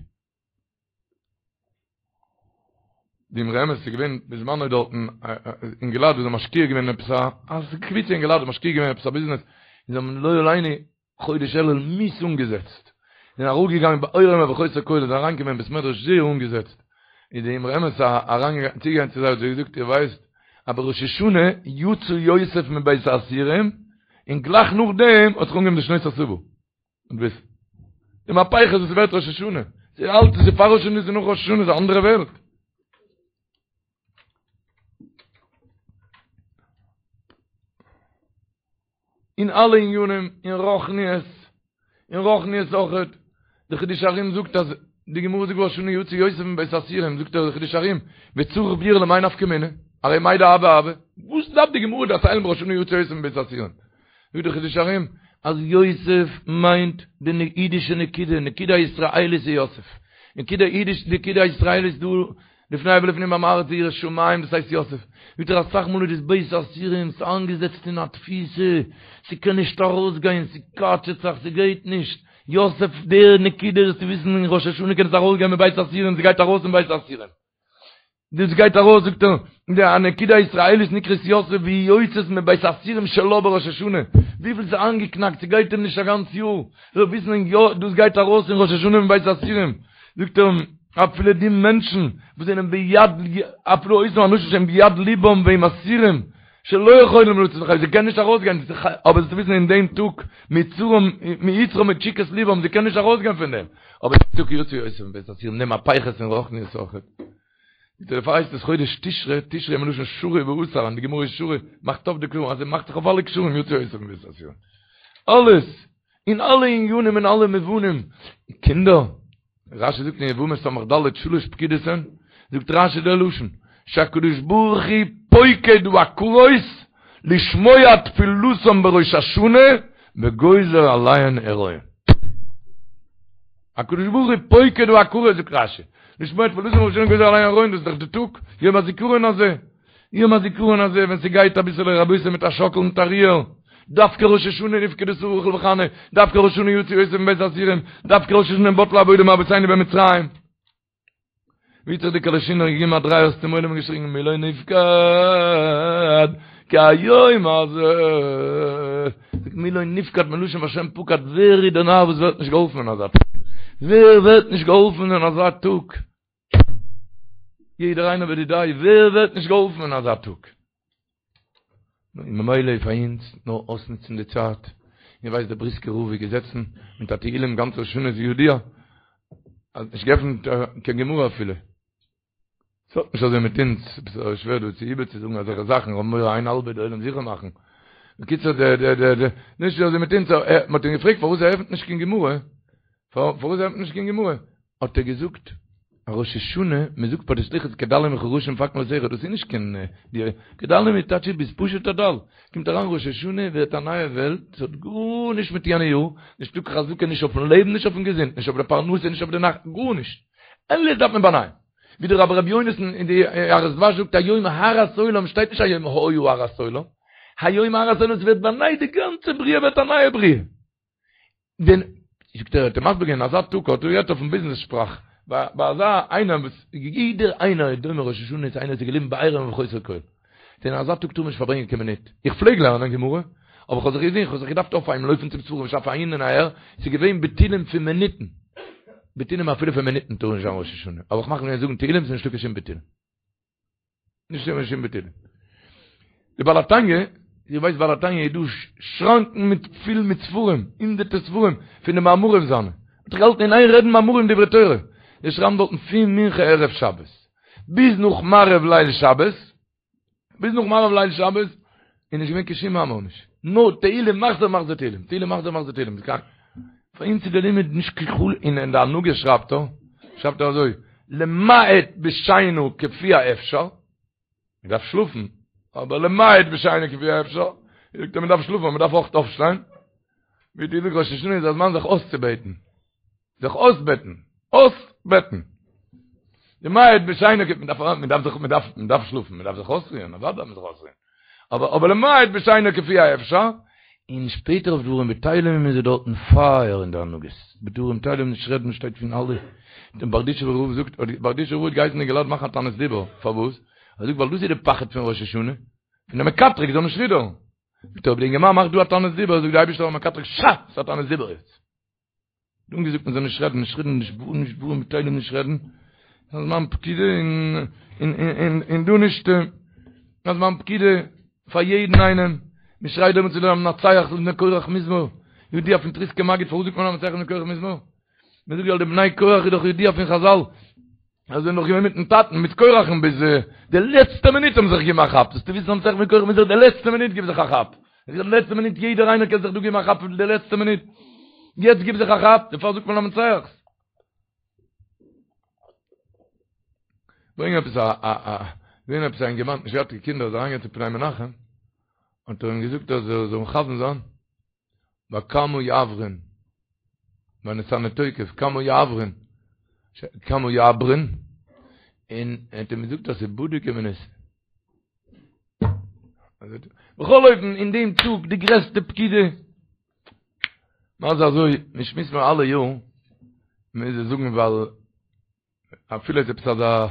די אמרי אמת איז געווען בזמנו דארטן אינגעלייט וואס זענען משקיע געווען אין עפעס א קבוצה אינגעלייט משקיע געווען אין עפעס א ביזנעס, און זיי האבן לא עלינו חודש אלול מיאוס אנגעזעצט, זענען אראפגעגאנגען בעירום ובחוסר כל, זענען אריינגעקומען אין בית מדרש זייער אנגעזעצט, איז די אמרי אמת אריינגעגאנגען צוגעגאנגען צו זיי האט זיי געזאגט איר ווייסט אז בראש השנה יצא יוסף מבית האסורים, און גלייך נאכדעם האט זיך אנגעהויבן די שנות השבע, און וויסן די מהפכות וואס ווערט ראש השנה, ס'איז אלץ ס'איז פאר ראש השנה ס'איז נאך ראש השנה ס'איז א אנדערע וועלט. אין אלע עניינים, אין רוחניות, אין רוחניות אויכעט, די חידושי הרי"ם זאגט אז די גמרא זאגט בראש השנה יצא יוסף מבית האסורים, זאגט דער חידושי הרי"ם, וצריך ביאור למאי נפקא מינה, הרי מאי דהוה הוה, וואס דארף די גמרא דערציילן בראש השנה יצא יוסף מבית האסורים? זאגט דער חידושי הרי"ם אז יוסף מיינט די אידישע נקודה, נקודה הישראלית איז יוסף, נקודה אידיש, נקודה הישראלית דא לפני ולפנים עם הארץ ירא שמים דאס הייסט יוסף, זאגט ער אסאך מאל איז דאס בית האסורים ס'איז איינגעזעצט אין א תפיסה, ס'קען נישט ארויסגיין, ס'קאטשעט זיך, ס'גייט נישט, יוסף דער נקודה זאלסטו וויסן אין ראש השנה קען עס ארויסגיין מבית האסורים, ס'גייט ארויס פון בית האסורים. דאס גייט ארויס זאגט ער, די הנקודה הישראלית נקראת יוסף והיא יוצאת מבית האסורים שלה בראש השנה, וויפיל ס'איז איינגעקנאקט ס'גייט אים נישט א גאנץ יאר, זאל וויסן יא דאס גייט ארויס אין ראש השנה מבית האסורים, זאגט ער אפילו די מענטשן וואס זענען ביד אפילו אותם אנשים שהם ביד ליבם והם אסירים שלא יכולים לצאת לחיים זיי קענען נישט ארויסגיין אבער זאלסטו וויסן אין דעם טאג מיצרם מיצרם מתשוקת ליבם זיי קענען נישט ארויסגיין פון דעם אבער דעם טאג יצא יוסף מבית האסורים די מהפכות אין רוחניות אויכעט. דערפאר הייסט עס חודש תשרי, תשרי מלשון שרי ואסר, און די גמרא איז שרי, מאכט אויף די קשרים, אז עס מאכט זיך אויף אלע קשרים יצא יוסף מבית האסורים. אלעס, אין אלע עניינים אין אלע מובנים. קינדער, רשי זאגט אין יבמות ס"ד שלש פקידות הן, זאגט רשי דער לשון, שהקדוש ברוך הוא פוקד עקרות לשמוע תפילתם בראש השנה. וגוזר עליהן הריון. הקדוש ברוך הוא פוקד עקרות זאגט רשי, לשמוע תפלתן בראש השנה גוזר עליהן הריון דאס איז דאך די טאג, יום הזיכרון הזה, יום הזיכרון הזה ווען ס'גייט אביסעלע רבותי מיט א שאקל מיט א ריר, דווקא ראש השנה נפקדה שרה רחל וחנה, דווקא ראש השנה יצא יוסף מבית האסורים, דווקא ראש השנה בטלה עבודה מאבותינו במצרים. ווי האט זיך די קאלאשינער געגעבן א דריי אויס צום עולם און געשריגן מי לא נפקד כהיום הזה, זאגט מי לא נפקד מלשון והשם פקד, ווער איז דער נאר וואס ווערט נישט געהאלפן אין אזא טאג? ווער ווערט נישט געהאלפן אין אזא טאג? יעדער איינער בדידיה, ווער ווערט נישט געהאלפן אין אזא טאג? און ממילא איז פאר אונז נאר אויסנוצן די צייט, איר ווייסט דער בריסקער רב איז געזעצן מיט א תהילים גאנץ ראש השנה איז ידוע, האט נישט געעפנט קיין גמרא אפילו. ס'האט נישט אזוי מיט אונז, ס'איז שווער דא צו איבערצוזאגן אזעלכע זאכן, כ'האב מורא איין האלבע די עולם זיכער מאכן. בקיצור די די די די נישט אזוי מיט אונז, מ'האט אים געפרעגט פארוואס ער עפנט נישט קיין גמרא, פארוואס ער עפנט נישט קיין גמרא, האט ער געזאגט, א ראש השנה, מען זאגט ביי די סליחות כדלים וכרשים פאקן לתיך, דאס איז נישט קיין דירה, כדלים איז טייטש ביסט פשוט א דל, קומט אריין ראש השנה ווערט א נייע וועלט, ס'האט גארנישט מיט יענע יאר, נישטא קיין חזקה נישט אויפן לעבן נישט אויפן געזונט, נישט אויף די פרנסה נישט אויף די נחת, גארנישט, אלעס דארף מען באנייען, ווי דער רבי ר' יונתן אין די יערות דבש זאגט היום הרת עולם שטייט נישט היום היה הרת עולם, היום הרת עולם ס'ווערט באנייט די גאנצע בריאה ווערט א נייע בריאה. דען זאגט ער האט ער מסביר געווען אזא טאג האט ער גערעדט אויפן ביזנעס שפראך ביי אזא איינער וואס יעדער איינער איז דומה ראש השנה צו איינער וואס איז געליבן בעירום וחוסר כל אין אזא טאג טאר מען נישט פארברענגען קיין מינוט איך פלעג לערנען גמרא אבער איך האב זיך געזען איך האב זיך געדארפט אויפהייבן לויפן צום ספרים שאף אהין און אהער ס'איז געווען ביטולים פון מינוטן ביטולים אפילו פון מינוטן טאר נישט זיין ראש השנה אבער איך מאך מיר זאגן תהילים ס'איז נישטא קיין שום ביטולים נישט קיין שום ביטול. די בעל התניא, איר ווייסט בעל התניא איז דא שראנקן מיט פיל מיט ספרים, הונדערטער ספרים פון די מאמרים זיינע. האט זיך געהאלטן אין איין רעדן מאמרים דברי תורה. זיי שרייבן דארטן פון מנחה ערב שבת ביז נאך מעריב ליל שבת, ביז נאך מעריב ליל שבת, איז נישט געווען קיין שום מאמר נישט. נאר תהילים מחזור מחזור תהילים, תהילים מחזור מחזור תהילים. פאר אונז איז די לימוד נישט קיין חול און אין די הנהגה שרייבט ער, שרייבט ער אזוי, למעט בשינה כפי האפשר, מען דארף שלאפן, אבער למעט בשינה כפי האפשר, זאגט ער מען דארף שלאפן אבער מען דארף אויך אויפשטיין, ווי די זאגט ראש השנה איז א זמן זיך אויסצובעטן, זיך אויסבעטן, אויסבעטן. למעט בשינה כפי, מען דארף מען דארף זיך מען דארף מען דארף שלאפן, מען דארף זיך אויסרוען, אוודאי דארף מען זיך אויסרוען. אבער אבער למעט בשינה כפי האפשר, און שפעטער אויף דברים בטלים איז ער דארטן פייער אין די הנהגות, בדברים בטלים נישט רעדן שטייט פון אלע, דער בארדיטשובער רב זאגט, בארדיטשובער רב האט געהייסן אינגעלייט מאכן א תענית דיבור, פארוואס? ער זאגט ווייל דאס איז די פחד פון ראש השנה, פון די מקטרג זאל נישט רודערן. זאגט ער אויב די אינגערמאן מאכט דא א תענית דיבור זאגט די אייבערשטער פארן מקטרג שא! ס'איז א תענית דיבור יעצט. האט אנגעזאגט מען זאל נישט רעדן, נישט רעדן, נישט דברים, נישט דברים בטלים נישט רעדן, א זמן פקידה און און און דא נישט, א זמן פקידה פאר יעדן איינעם, מען שרייט דעמאלטס צו למנצח לבני קורח מזמור, ידוע פון טריסקער מגיד פארוואס זאגט מען למנצח לבני קורח מזמור? מען זאגט ווייל די בני קורח איז דאך ידוע פון חזל, אז זיי זענען נאך געווען מיטן טאטן מיט קורח'ן ביז די לעצטע מינוט האבן זיך געגעבן א כאפ, זאלסטו וויסן למנצח לבני קורח מזמור די לעצטע מינוט גיב זיך א כאפ, די לעצטע מינוט יעדער איינער קען זיך דא געבן א כאפ די לעצטע מינוט, יעצט גיב זיך א כאפ, דערפאר זאגט מען למנצח. ברענג עפעס א א א געווען עפעס א אינגערמאן נישט געהאט קיין קינדער איז אריינגעגאנגען צו פני מנחם האט ער אים געזאגט אז ער זאל מכוון זיין ביי כמה יעברון, ביי ונתנה תוקף, כמה יעברון, כמה יעברון, און ער האט אים געזאגט אז ס'איז בדוק ומנוסה. בכל אופן, אין דעם טאג, די גרעסטע פקידה, מה זה אזוי, מען שמועסט מיר אלע יאר, מוז איך זאגן ווייל אפילו איז עפעס אזא,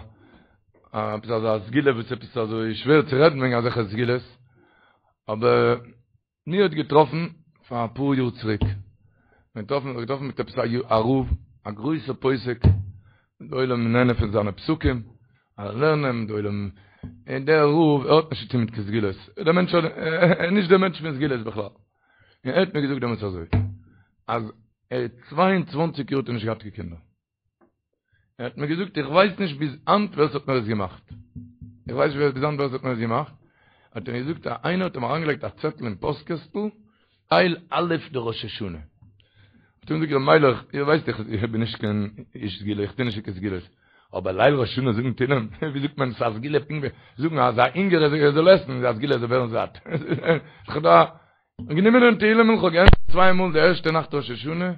עפעס אזא סגולה וואס עפעס אזוי שווער צו רעדן וועגן אזעלכע סגולות, אבער מיר האט געטראפן פאר אפאר יאר צוריק, מיר געטראפן זיך געטראפן מיט עפעס א רב, א גרויסער פוסק, די עולם נהנה פון זיינע פסקים, אלע לערנען, די עולם, און דער רב ער האט נישט צוטון מיט קיין סגולות, דער מענטש האט, ער איז נישט דער מענטש פון סגולות בכלל, און ער האט מיר געזאגט דעמאלטס אזוי, אז ער האט צוויי און צוואנציג יאר האט ער נישט געהאט קיין קינדער, ער האט מיר געזאגט איך ווייס נישט ביז היינט ווער ס'האט מיר עס געמאכט. איך ווייס נישט ביז היינט ווער ס'האט מיר עס געמאכט. האט ער מיר געזאגט אז איינער האט אים אריינגעלייגט א צעטל אין פאסט קעסטל, ליל א' דראש השנה. האט ער מיר געזאגט ר' מיילעך, איר ווייסט איך בין נישט קיין איש סגולה, איך טו נישט קיין סגולות. אבער ליל ראש השנה זאגן תהילים, ווי זאגט מען ס'איז א סגולה פונקט ווי זאגן אז א הונגער זאל עסן איז א סגולה זאל ווערן זאט. און גענומען דעם תהילים'ל, כ'האב געענדיגט צוויי מאל די ערשטע נאכט ראש השנה,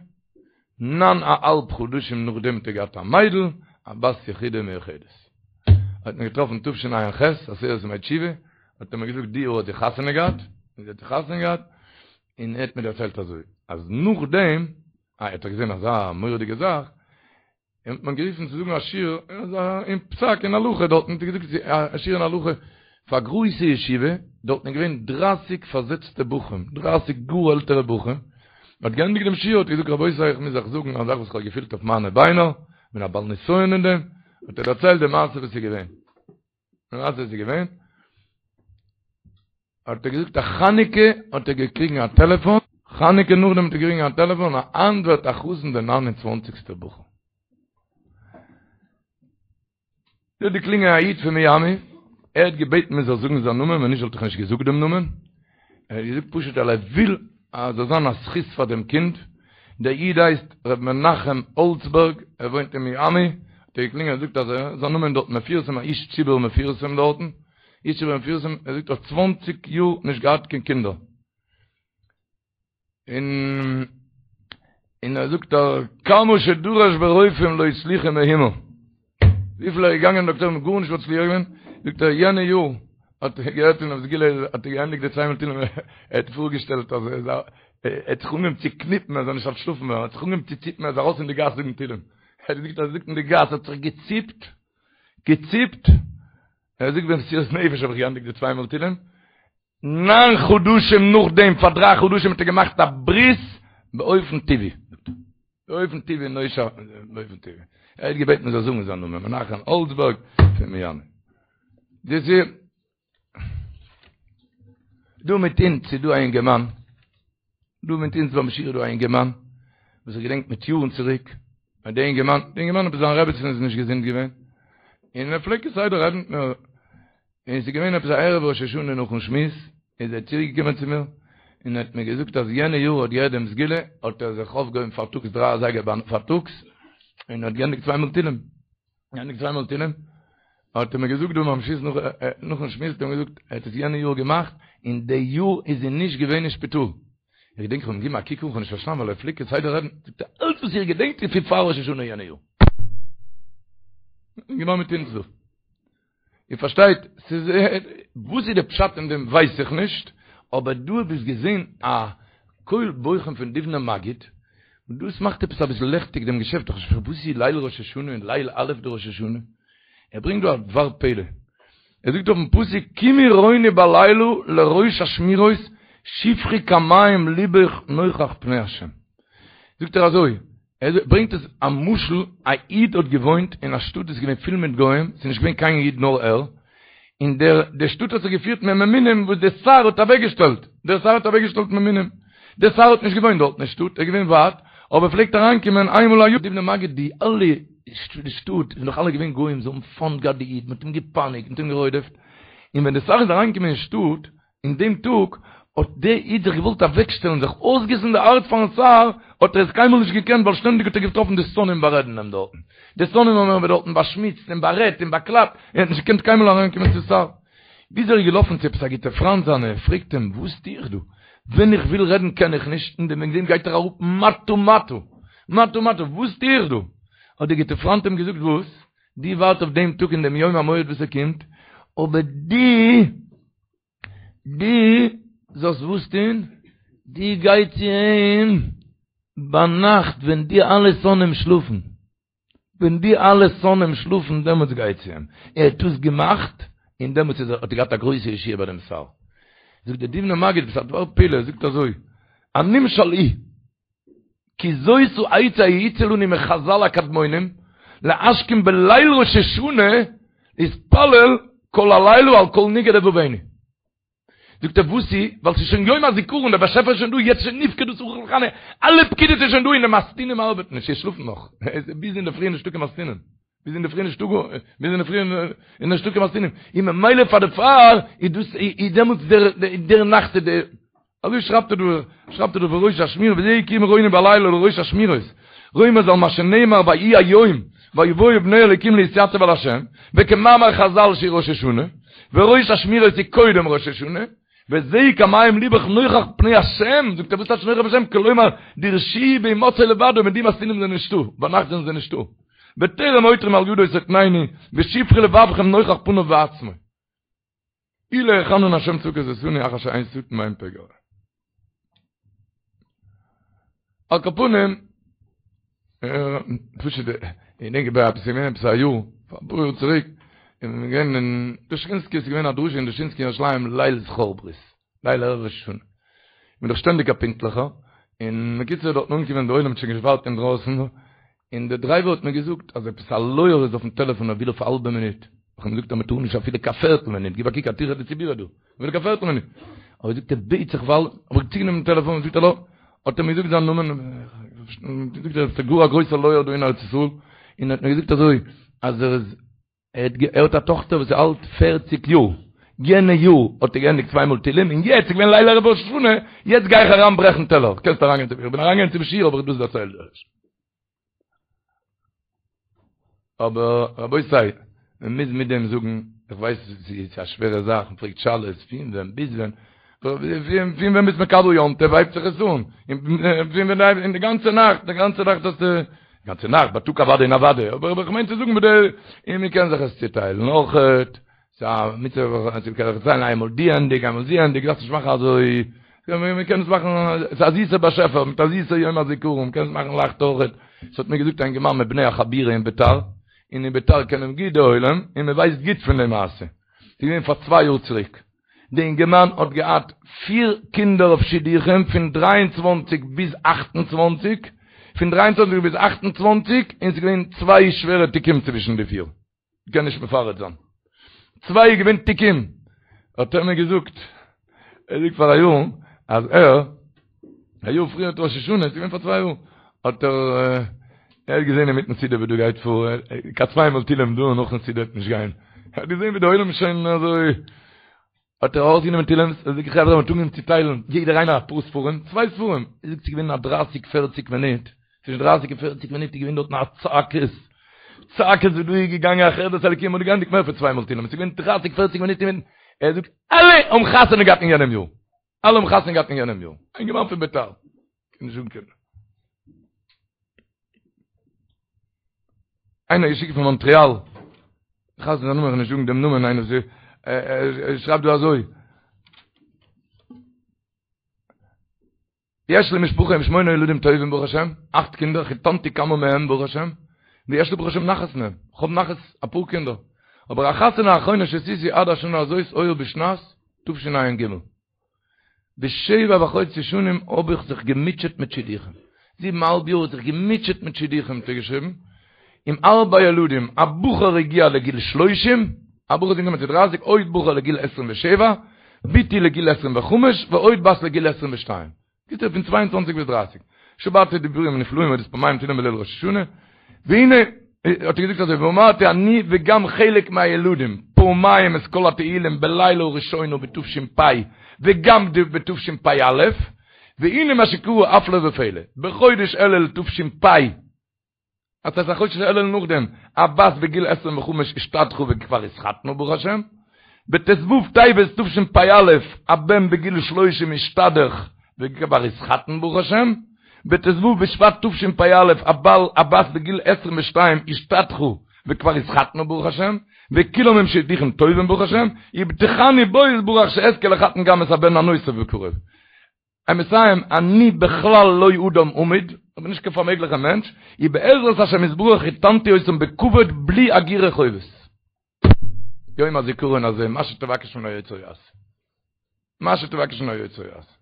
ניין א האלב חדשים נאכדעם האט ער געהאט א מיידל, א בת יחידה מיוחדת. האט מיר געטראפן תשע"ח, עשרת ימי תשובה, האט ער מיר געזאגט די יאר האט זי חתונה געהאט, און זי האט חתונה געהאט, און ער האט מיר דערציילט אזוי, אז נאכדעם, אה, ער האט דאך געזען אזא מורא'דיגע זאך, אים האט מען גערופן צו זאגן א שיעור אין פסק אין הלכה דארטן האט ער געזאגט א שיעור אין הלכה פאר א גרויסע ישיבה, דארטן איז געווען דרייסיג פארזעצטע בחורים, דרייסיג גאר עלטערע בחורים, מען האט געענדיגט דעם שיעור האט ער געזאגט רבותי איך מוז אייך זאגן א זאך וואס איך האב געפילט אויף מיינע ביינער, כ'בין א בעל נסיון אין דעם, האט ער דערציילט די מעשה וואס איז געווען. די מעשה איז געווען, האט ער געזאגט אז חנוכה האט ער געקריגן א טעלעפאן, חנוכה נאכדעם האט ער געקריגן א טעלעפאן אז היינט ווערט א חתן דער ניין און צוואנציגסטער בחור. דא האט געקלינגען א איד פון מיאמי, ער האט געבעטן מען זאל זאגן זיין נאמען, ווען נישט וואלט איך נישט געזאגט דעם נאמען, ער האט געזאגט פשוט ווייל ער וויל אז זאל זיין א זכות פאר דעם קינד, דער איד הייסט ר' מנחם האלצבערג, ער וואוינט אין מיאמי, האט ער געקלינגען און געזאגט אז ער, זיין נאמען דארט מפורסם, א איש ציבור מפורסם דארטן, איש ציבור מפורסם, ער זאגט ער האט צוואנציג יאר נישט געהאט קיין קינדער, און און ער זאגט אז כמה שדרש ברופאים לא הצליחו מאומה, וויפיל ער איז געגאנגען דאקטוירים האט גארנישט מצליח געווען, זאגט ער יענע יאר האט ער געהערט פונעם סגולה האט ער געענדיגט די צוויי מאל תהילים ער האט פארגעשטעלט אז ער איז א ער האט זיך אנגעהויבן צו קניפן ער זאל נישט אנטשלאפן ווערן ער האט זיך אנגעהויבן צו ציפן ער איז ארויס אין די גאס זאגן תהילים ער האט געזאגט אז ער זאגט אין די גאס האט זיך געציפט געציפט ער זאגט במסירות נפש האב איך געענדיגט די צוויי מאל תהילים ניין חדשים נאכדעם, פאר דריי חדשים האט ער געמאכט א ברית באופן טבעי. באופן טבעי נושע, באופן טבעי. ער האט געבעטן מען זאל זאגן זיין נאמען, מנחם האלצבערג פון מיאמי. דאס איז דא מיט אונז איז דא א אינגערמאן, דא מיט אונז ביים שיעור איז דא א אינגערמאן, וואס איך געדענק מיט יארן צוריק, אז דער אינגערמאן, דער אינגערמאן עפעס זיין רעבעצין איז נישט געזונט געווען, און ער פלעגט כסדר רעדן מיט מיר, און עס איז געווען עפעס א ערב ראש השנה נאכן שמועס, איז ער צוריק געקומען צו מיר, און ער האט מיר געזאגט אז יענע יאר האט געהערט דעם סגולה, האט ער זיך אויפגעהויבן פארטאגס דריי אזייגער פארטאגס, און האט געענדיגט צוויי מאל תהילים. געענדיגט צוויי מאל תהילים, האט ער מיר געזאגט דא ביים שמועס נאך נאכן שמועס האט ער מיר געזאגט ער האט עס יענע יאר געמאכט און די יאר איז זי נישט געווען אין שפיטאל, איך געדענק איך האב אים געגעבן א קוק אן כ'האב נישט פארשטאנען ווייל ער פלעגט כסדר רעדן, זאגט ער אלץ וואס איך געדענק איז פון פאר ראש השנה יענע יאר. געווען מיט אונז דא. איר פארשטייט, ס'איז, וואס איז די פשט אין דעם ווייס איך נישט, אבער דא האב איך געזען א קול בוכים פון דובנער מגיד, און דאס מאכט עפעס אביסל לעכטיג דעם געשעפט, איך פארשטיי וואס איז ליל ראש השנה און ליל א' דראש השנה? ער ברענגט דא א דבר פלא, ער זאגט אויפן פסוק קומי רוני בלילה לראש אשמורות שפכי כמים לבך נוכח פני השם, זאגט ער אזוי, ער ברענגט עס א משל, א איד האט געוואוינט אין א שטאט וואס איז געווען פיל מיט גוים, ס'איז נישט געווען קיין איד נאר ער, און דער די שטאט האט זיך געפירט מיט ממונים וואס דער שר האט אוועקגעשטעלט, דער שר האט אוועקגעשטעלט ממונים, דער שר האט נישט געוואוינט דארט אין שטאט, ער איז געווען ווייט, אבער ער פלעגט אריינקומען איינמאל א יאר. דובנער מגיד די אלע די שטאט איז נאך אלע געווען גוים, זיי האבן פיינט געהאט די איד, מען האט אים געפייניגט, מען האט אים גערודפ'ט, און ווען דער שר איז אריינגעקומען אין שטאט, אין דעם טאג האט דער איד זיך געוואלט אוועקשטעלן זיך אויסגיסן די הארץ פארן שר, האט ער עס קיינמאל נישט געקענט ווייל שטענדיג האט ער געטראפן די שונאים בארעדן אים דארטן, די שונאים האבן אים דארטן באשמוצט און בארעדט און באקלאפט, ער האט נישט געקענט קיינמאל אריינקומען צום שר. ביז ער איז געלאפן צו עפעס א גוטע פריינט זיינע און פרעגט אים, וואס טו איך דא? ווען איך וויל רעדן קען איך נישט, און וועגן דעם גייט ער אראפ מטה מטה, מטה מטה, וואס טו איך דא? האט דער גוטער פריינט אים געזאגט, וואס? דו ווארט אויף דעם טאג און דעם יום המועד וואס ער קומט, אבער דו דו זאלסט וואס טון? דו גיי צו אים ביינאכט ווען די אלע שונאים שלאפן, ווען די אלע שונאים שלאפן דעמאלטס גיי צו אים, ער האט דאס געמאכט און דעמאלטס איז ער האט ער געהאט א גרויסע ישועה ביי דעם שר. זאגט דער דובנער מגיד עפעס א דבר פלא, ער זאגט אזוי, הנמשל הוא, כי זאת העצה היעוצה לנו מחזל הקדמונים, להשכים בליל ראש השנה להתפלל כל הלילה על כל נגעי לבבנו. זאגט ער וואס איז? ווייל ס'איז שוין יום הזיכרון, דער באשעפער איז שוין דא, יעצט שוין נפקדה רחל וחנה, אלע פקידות איז שוין דא און די מתתינים ארבעטן נישט, זיי שלאפן נאך, ביז אינדערפרי איז נישטא קיין מתתינים, ביז אינדערפרי נישטא גאר, ביז אינדערפרי איז נישטא קיין מתתינים, און ממילא פאר דערפאר איז דאס איז דעמאלטס דער דער נאכט איז דער אזוי שרייבט ער דא, שרייבט ער דא בראש אשמורות, וזה קומי רוני בלילה לראש אשמורות, רומז על מה שנאמר ויהי היום, ויבואו בני אלוקים להתייצב על השם, וכמאמר חזל שהיא ראש השנה, וראש אשמורות היא קודם ראש השנה. וזה כמים לבך נוכח פני השם, זאגט ער וואס טייטש נוכח פני השם, כלומר דרשוהו בהמצאו לבדו, מיט די משכילים זענען נישטא, ביינאכט זענען זיי נישטא, בטרם עותרים על ידו תתנני, ושפכי לבבכם נוכח פניו בעצמו. אי להיכן השם צבקות עשני אחר שאין שטן ואין פגע. על כל פנים, פשוט, איך דענק ביי עפעס געווען עפעס א יאר, פאר אפאר יאר צוריק, איז מען געווען אין דושינסקי, איז געווען א דרשה אין דושינסקי אין ירושלים ליל זכור ברית, ליל ערב ראש השנה. איך בין דאך שטענדיג א פונקטליכער, און בקיצור דארטן אנגעקומען די עולם האט שוין געווארט אינדרויסן, און דער דרייווער האט מיר געזאגט אז עפעס א לויער איז אויפן טעלעפאן ער וויל אויף א האלבע מינוט, איך האב אים געזאגט אז מען טאר נישט אפילו קיין פערטל מינוט, גיב א קוק א טירחא דציבורא דא, אפילו קיין פערטל מינוט, אבער זאגט ער בעט זיך ווייל, האב איך צוגענומען דעם טעלעפאן, זאגט האלא, האט ער מיר געזאגט זיין נאמען, זאגט ער עס איז גאר א גרויסער לויער דא אין ארץ ישראל, און ער האט מיר געזאגט אזוי אז ער איז ער האט א טאכטער וואס איז אלט פערציג יאר, יענע יאר האט ער געענדיגט צוויי מאל תהילים, און יעצט איז געווען ליל ערב ראש השנה, יעצט גיי איך אריין ברעכן טעלער, קענסט אריינגיין צום, איך בין אריינגעגאנגען צום שיעור האב איך דאס דערציילט. אבער רבותי, מען מוז מיט דעם זאגן, איך ווייס ס'איז א שווערע זאך, מען פרעגט שאלות, פון ווען ביז ווען, פון ווען ביסט מקבל יום טוב הייבט זיך עס אן, און פון ווען און די גאנצע נאכט, די גאנצע נאכט האסטו, גאנצע נאכט, בייטאג אוודאי און אוודאי, אבער איך מיין צו זאגן מיט די, און מען קען זיך עס צוטיילן אויכעט, ס'איז א מצוה זיך צוטיילן איינמאל די ענדיג, איינמאל זי ענדיג, דארפסט נישט מאכן אזוי, מען קען עס מאכן, ס'איז א זיסער באשעפער, מיט א זיסער יום הזיכרון, מען קען עס מאכן לייכט אויכעט, ס'האט מיר געזאגט א אינגערמאן מבני החבירה אין ביתר, און אין ביתר קענען גוט די עולם, און מען ווייסט גוט פון די מעשה, ס'איז געווען פאר צוויי יאר צוריק. די אינגערמאן האט געהאט פיר קינדער אויף שידוכים פון 23 ביז 28, פון 23 ביז 28, און ס'איז געווען צוויי שווערע תיקים צווישן די פיר, כ'קען נישט מפרט זיין, צוויי איז געווען תיקים, האט ער מיר געזאגט, ער זאגט פאר א יאר אז ער, א יאר פריער ראש השנה, ס'איז געווען פאר צוויי יאר, האט ער, ער האט געזען אינמיטן סעודה ווי דא גייט פאר, קיין צוויי מאל תהילים דא נאכן סעודה וועט נישט גיין, ער האט געזען ווי די עולם איז שוין אזוי, האט ער ארויסגענומען תהילים, ער זאגט חברה מ'האט אנגעהויבן צו טיילן, יעדער איינער אפאר ספרים, צוויי ספרים, ער זאגט ס'איז געווען א דרייסיג פערציג מינוט, צווישן דרייסיג און פערציג מינוט איז געווען דארטן א צעקות, צעקות ווי דא איז געגאנגען א חרדת אלקים, מ'האט געענדיגט מער פון צוויי מאל תהילים, ס'איז געווען דרייסיג פערציג מינוט אינמיטן, ער זאגט אלע האבן חתונה געהאט אין יענעם יאר. אלע האבן חתונה געהאט אין יענעם יאר. א אינגערמאן פון ביתר. קען נישט אנקומען. איינער געשיקט פון מאנטריאל. איך האב זיין נאמען, איך נישט זאגן דעם נאמען, איינער זי ער שרייבט דא אזוי. יש לי משפחה עם שמונה ילדים טובים ברוך השם, אכט קינדער, חיתנתי כמה מהם ברוך השם, ויש לי ברוך השם נחת מהם, איך האב נחת אפאר קינדער, אבער החתונה האחרונה שעשיתי עד השנה הזאת היה בשנת תשע"ג. בשבע וחצי שנים האב איך זיך געמוטשעט מיט שידוכים. זיבן א האלב יאר האט זיך געמוטשעט מיט שידוכים האט ער געשריבן, עם ארבע ילדים, א בחור הגיע לגיל שלושים, א בחור איז אנגעקומען צו דרייסיג, עוד בחור לגיל עשרים ושבע, בתי לגיל עשרים וחמש, ועוד בת לגיל עשרים ושתיים. קיצור פון צוויי און צוואנציג ביז דרייסיג. שמעתי דיבורים נפלאים אודות פעמיים תהילים בליל ראש השנה, והנה, האט ער געזאגט אזוי, ואמרתי אני וגם חלק מהילדים, פעמיים את כל התהילים בלילה הראשונה בתש"פ וגם בתשפ"א, והנה מה שקרה הפלא ופלא, בחודש אלול תש"פ, אז ס'איז א חודש אלול נאכדעם, א בת בגיל עשרים וחמש השתדכה וכבר התחתנה ברוך השם, בט"ו טבת תשפ"א א בן בגיל שלושים השתדך וכבר התחתן ברוך השם, בט"ו בשבט תשפ"א א בעל א בת בגיל עשרים ושתיים השתדכה וכבר התחתנה ברוך השם, וכולם עם שידוכים טובים ברוך השם, ובטחני בו יתברך שאזכה לחתן גם את הבן הנוסף בקרוב. ער מסיים, אני בכלל לא אדם אמיד, איך בין נישט קיין פארמעגליכער מענטש, ובעזרת השם יתברך חיתנתי אותם בכבוד בלי אגורה חובות. יום הזיכרון הזה, מה שתבקש מן היוצר יעשה. מה שתבקש מן היוצר יעשה.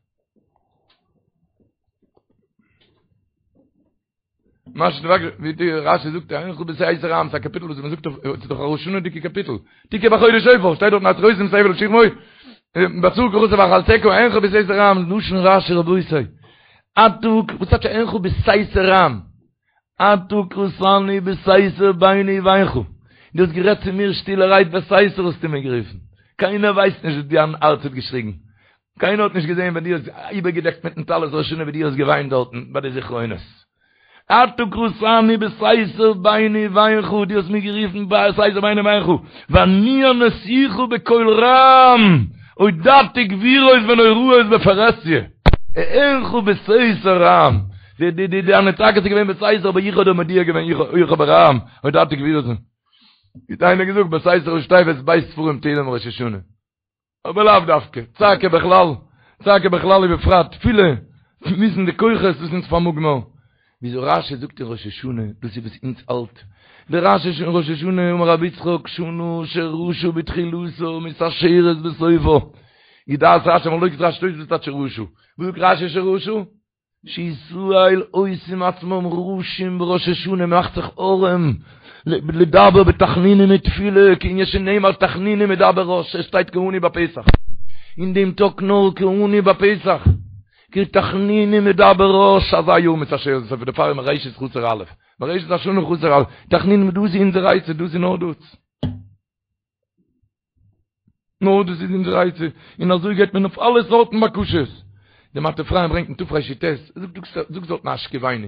מה שתבקש, ווי די רש"י זאגט, אענך בסתר רעם, ס'איז א קאפיטל וואס מ'זאגט אויף, ס'איז דאך א ראש השנה'דיגע קאפיטל. תקעו בחודש שופר, שטייט דארט והתרעותי את הבל לשכמו, בצור קראת ואכלתך, אענך בסתר רעם, לשון רש"י רבותי. אתה, וואס טייטש אענך בסתר רעם? אתה קראתני בסתר ביני ובינך. דו האסט גערעדט צו מיר שטילערהייט בסתר האסטו מיר גערופן. קיינער ווייסט נישט וואס דיין הארץ האט געשריגן. קיינער האט נישט געזען ווען דו האסט איבערגעדעקט מיטן טלית ראש השנה ווי דו האסט געוויינט דארטן ביי די זכרונות. אתה קראתני בסתר ביני ובינך, דו האסט מיר גערופן בסתר ביני ובינך, ואני עניתיך בקול רם. הודעתי גבורות ונוראות בפרהסיא, אענך בסתר רעם, די די די דיינע צעקות איז געווען בסתר אבער איך האב דיר מודיע געווען איך האב ברעם, הודעתי גבורות. ווי האט איינער געזאגט בסתר ראשי תיבות ב' ספרים תהילים ראש השנה. אבער לאו דווקא, צעקה בכלל, צעקה בכלל ובפרט תפילה, וויסן די כוחות וואס אונז פארמאגן מיר. וויאזוי רשי זאגט אין ראש השנה, דאס איז וואס אונז האלט, דער רשי אין ראש השנה אמר רבי יצחק שנה שרשה בתחילתה מתעשרת בסופה, איז דעת רשי מחלוקת רשי תוספות טייטש שרשה, וואס זאגט רשי שרשה? שישראל עושים עצמם רשים בראש השנה מ'מאכט זיך ארעם לדבר בתחנונים ותפילה כענין שנאמר תחנונים ידבר רש עס שטייט כעני בפתח אין דעם טאג נאר כעני בפתח כי תחנונים ידבר רש אזא יאר מתעשרת בסופה דערפאר איז מראשית חסר א' מראשית השנה חסר א' תחנונים דאס איז אונזער עצה דאס איז נאר דאס. נאר דאס איז אונזער עצה, און אזוי גייט מען אויף אלע סארטן בקשות. די מטה אפרים ברענגט אין תרי"ט, זאגט זאגט דארטן השכיבנו,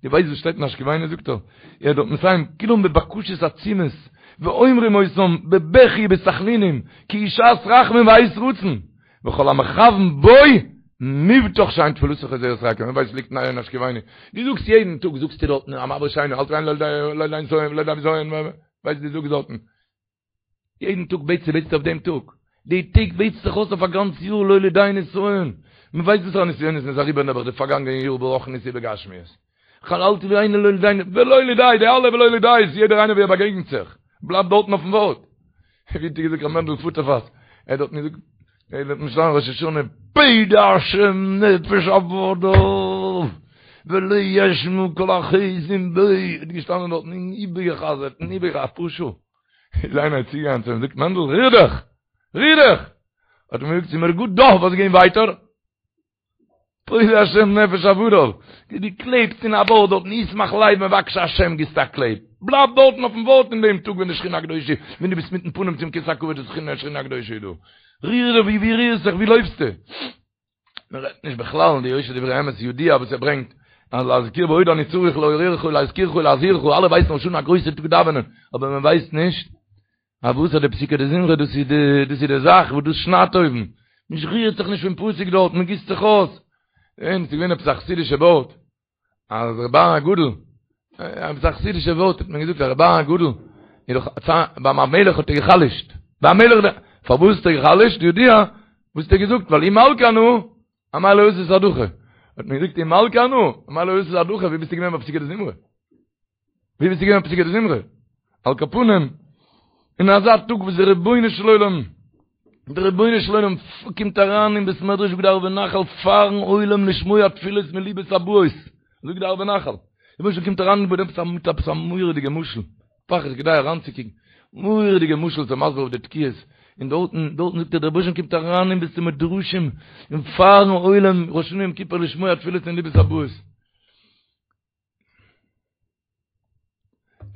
דו ווייסט וואס שטייט אין השכיבנו זאגט ער, ער האט דארט מסיים כולם בבקשות עצומות, ואומרים אותם בבכי ובתחנונים, כי היא שעת רחמים ועת רצון, וכל המכוון בו מובטח שאין תפילתו חוזרת ריקם, ווער ווייסט ליגט אין השכיבנו, דו זאגסט יעדן טאג זאגסטו דארטן המעביר שינה, אל תביאנו לא לידי נסיון ולא לידי בזיון, ווייסט דו זאגסט דארטן. יעדן טאג בעטסטו בעטסטו אויף דעם טאג, די טעג בעטסט זיך אויס אויף א גאנץ יאר לא לידי נסיון, מען ווייסט וואסערע נסיונות מען איז אריבער נעבעך די פארגאנגענע יאר ברוחניות ובגשמיות, כל אל תביאנו לא לידי ולא לידי, די אלע ולא לידי'ס, יעדער איינער ווי ער באגעגנט זיך, בלייבט דארטן אויפן ווארט. ווי האט געזאגט ר' מענדל פוטערפאס, ער האט דארטן געזאגט, ער האט דארטן געשטאנען ראש השנה, פודה השם נפש עבדיו ולא ישמע כל החוסים בו, האט געשטאנען דארטן און איבערגעחזרט און איבערגעחזרט אפאר שעה. איז איינער צוגעגאנגען צו אים זאגט מענדל ריר דיך! ריר דיך! האט ער אים געזאגט ס'איז מיר גוט דא, וואס גיין ווייטער? פודה השם נפש עבדיו, דו קלעבסט אין א ווארט דארטן ישמח לב מבקשי השם גיבסט א קלעב, בלייב דארטן אויפן ווארט אין דעם טאג ווען די שכינה הקדושה, ווען דו ביסט מיטן פנים צום כסא הכבוד די שכינה הקדושה איז דא, ריר דיך ווי ווי רירסט זיך ווי לויפסטו? מען רעדט נישט בכלל אין די יושר דברי אמת ידוע וואס ער ברענגט אז להזכיר ועוד אני צריך לעוררך ולהזכירך ולהזהירך אלע ווייסן ראש השנה א גרויסע טאג דאווענען אבער מען ווייסט נישט אז וואס אז די פסוקי דזמרה דאס איז די דאס איז די זאך וואס דאס שניידט אויבן מען רירט זיך נישט פון פסוק דארט מען גיסט זיך אויס און ס'איז געווען עפעס א חסידישע ווארט אז ר' אהרן הגדול, עפעס א חסידישע ווארט האט מען געזאגט אז ר' אהרן הגדול, איז דאך ביים המלך האט ער גע'חלש'ט, ביים המלך, פארוואס האט ער גע'חלש'ט? ידוע, וואס האט ער געזאגט? ווייל אי מלכא אנא, אמאי לא אתית עד הכא. האט מען געזאגט אי מלכא אנא, אמאי לא אתית עד הכא, ווי ביסטו געווען ביי פסוקי דזמרה? ווי ביסטו געווען ביי פסוקי דזמרה? על כל פנים, אין אזא טאג וואס דער רבונו של עולם, דער רבונו של עולם קומט אריין אין בית מדרש זאגט די ערבי נחל פארן עולם לשמוע תפילות מליבות הבאות, זאגט די ערבי נחל, דער רבונו של עולם קומט אריין מיט עפעס א מיט עפעס א מורא'דיגע משל, פאר איז כדאי אריינצוקוקן, מורא'דיגע משל צו מסביר אויף די תקיעות, און דארטן דארטן זאגט ער דער רבונו של עולם קומט אריין אין בית המדרשים און פארן עולם ראש השנה יום כיפור לשמוע תפילות מליבות הבאות.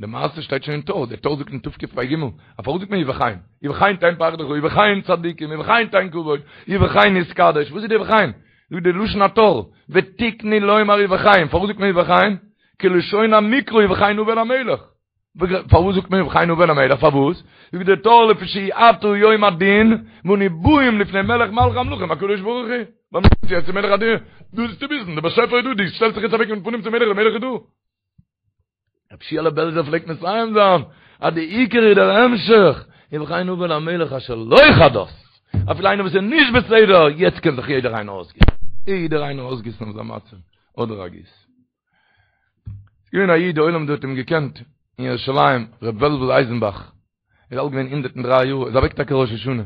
די מעשה שטייט שוין אין טור, דער טור זאגט אין תקפ"ג, אז פארוואס זאגט מען ובכן? ובכן תן פחדך, ובכן צדיקים, ובכן תן כבוד, ובכן יתקדש, וואס איז די ובכן? זאגט די לשון הטור, ותקנו לומר ובכן, פארוואס זאגט מען ובכן? כלשון המקרא ובכן הבן המלך. פארוואס זאגט מען ובכן הבן המלך? פארוואס? זאגט דער טור לפי שעתה יום הדין, ואנו באים לפני מלך מלכי המלכים הקדוש ברוך הוא. ווייל מ'קומט יעצט צו מלך הדין, דא איז צו וויסן, דער באשעפער איז דא, דו שטעלסט זיך יעצט אוועק מיטן פנים צום מלך, דער מלך איז דא. רבי שיעלע בעלזער פלעגט מסיים זיין אז די עיקר איז דער המשך, ובכן הבן למלך אשר לא כדת, אפילו איינער וואס איז נישט בסדר, יעצט קען זיך יעדער איינער אויסגיסן, יעדער איינער אויסגיסן אויף זיין מצב, אדער א גיס. ס'איז געווען א איד, די עולם דא האט אים געקענט, אין ירושלים, ר' וועלוול אייזנבאך, איז אלט געווען 103 יאר, איז אוועק טאקע ראש השנה.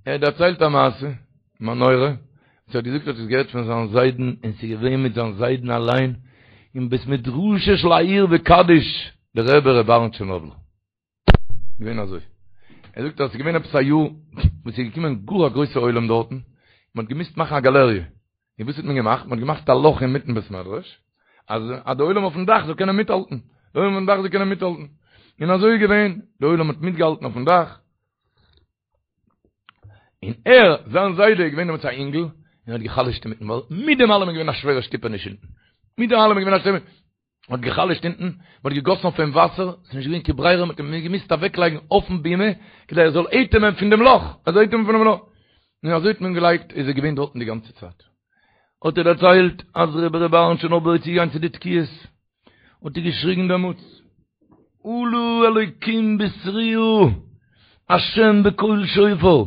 ער האט דערציילט א מעשה, מנורה, וואס ער האט געזאגט האט עס געהערט פון זיין זיידן, און ס'איז געווען מיט זיין זיידן אליין, אין בית מדרשו של העיר וקדיש, דער רבי ר' אהרן טשערנאבלער. געווען אזוי. ער זאגט אז ס'איז געווען עפעס א יאר, וואס איז געקומען גאר א גרויסע עולם דארטן, מען האט געמוזט מאכן א גאלעריע. און וואס האט מען געמאכט? מען האט געמאכט א לאך אינמיטן בית מדרש, אז אז די עולם אויפן דאך זאל קענען מיטהאלטן. די עולם אויפן דאך זאל קענען מיטהאלטן. און אזוי איז געווען, די עולם האט מיטגעהאלטן אויפן דאך. און ער, זיין זיידע, איז געווען דעמאלטס א אינגל, און האט גע'חלש'ט אינמיטן, ווייל מיט דעם אלעם איז געווען א שווערע שטופעניש אונטן. מיט דעם אלעם איז געווען א שווערע. האט גע'חלש'ט אונטן, מען האט געגאסן אויף אים וואסער, ס'איז נישט געווען קיין ברירה, מען האט אים געמוזט אוועקלייגן אויפן בימה, כדי ער זאל אטעמען פון דעם לאך, ער זאל אטעמען פונעם לאך. און אזוי האט מען געלייגט, איז ער געווען דארטן די גאנצע צייט. האט ער דערציילט אז רבי ר' אהרן טשערנאבלער איז צוגעגאנגען צו די תקיעות, האט ער געשריגן דעמאלטס, עלה אלוקים בתרועה, השם בקול שופר,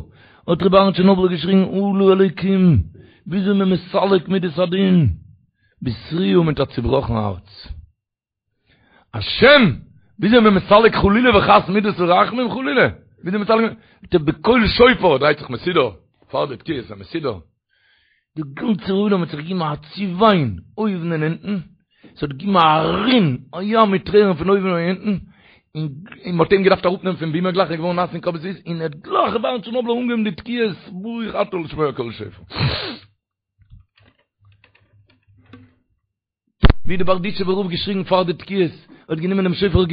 האט רבי אהרן טשערנאבלער געשריגן עלה אלוקים, וויאזוי מען מסלק מידת הדין, בתרועה מיט א צובראכן הארץ. השם, וויאזוי מען מסלק חלילה וחס מידת הרחמים חלילה, וויאזוי מסלק, בקול שופר, דרייט זיך מסודר, פאר די תקיעות א מסודר, די גאנצע עולם האט זיך געגעבן א צעוויין אויבן און אונטן, עס האט געגעבן א רין, א ים מיט טרערן פון אויבן און אונטן, און מען האט אים געדארפט אראפנעמען פון בימה גלייך ער איז געווארן נאס פון קאפ ביז פיס, און ער האט גלייך ר' אהרן טשערנאבלער אנגעהויבן די תקיעות ברוך אתה לשמוע קול שופר. ווי די בארדיטשובער רב געשריגן פאר די תקיעות, האט גענומען דעם שופר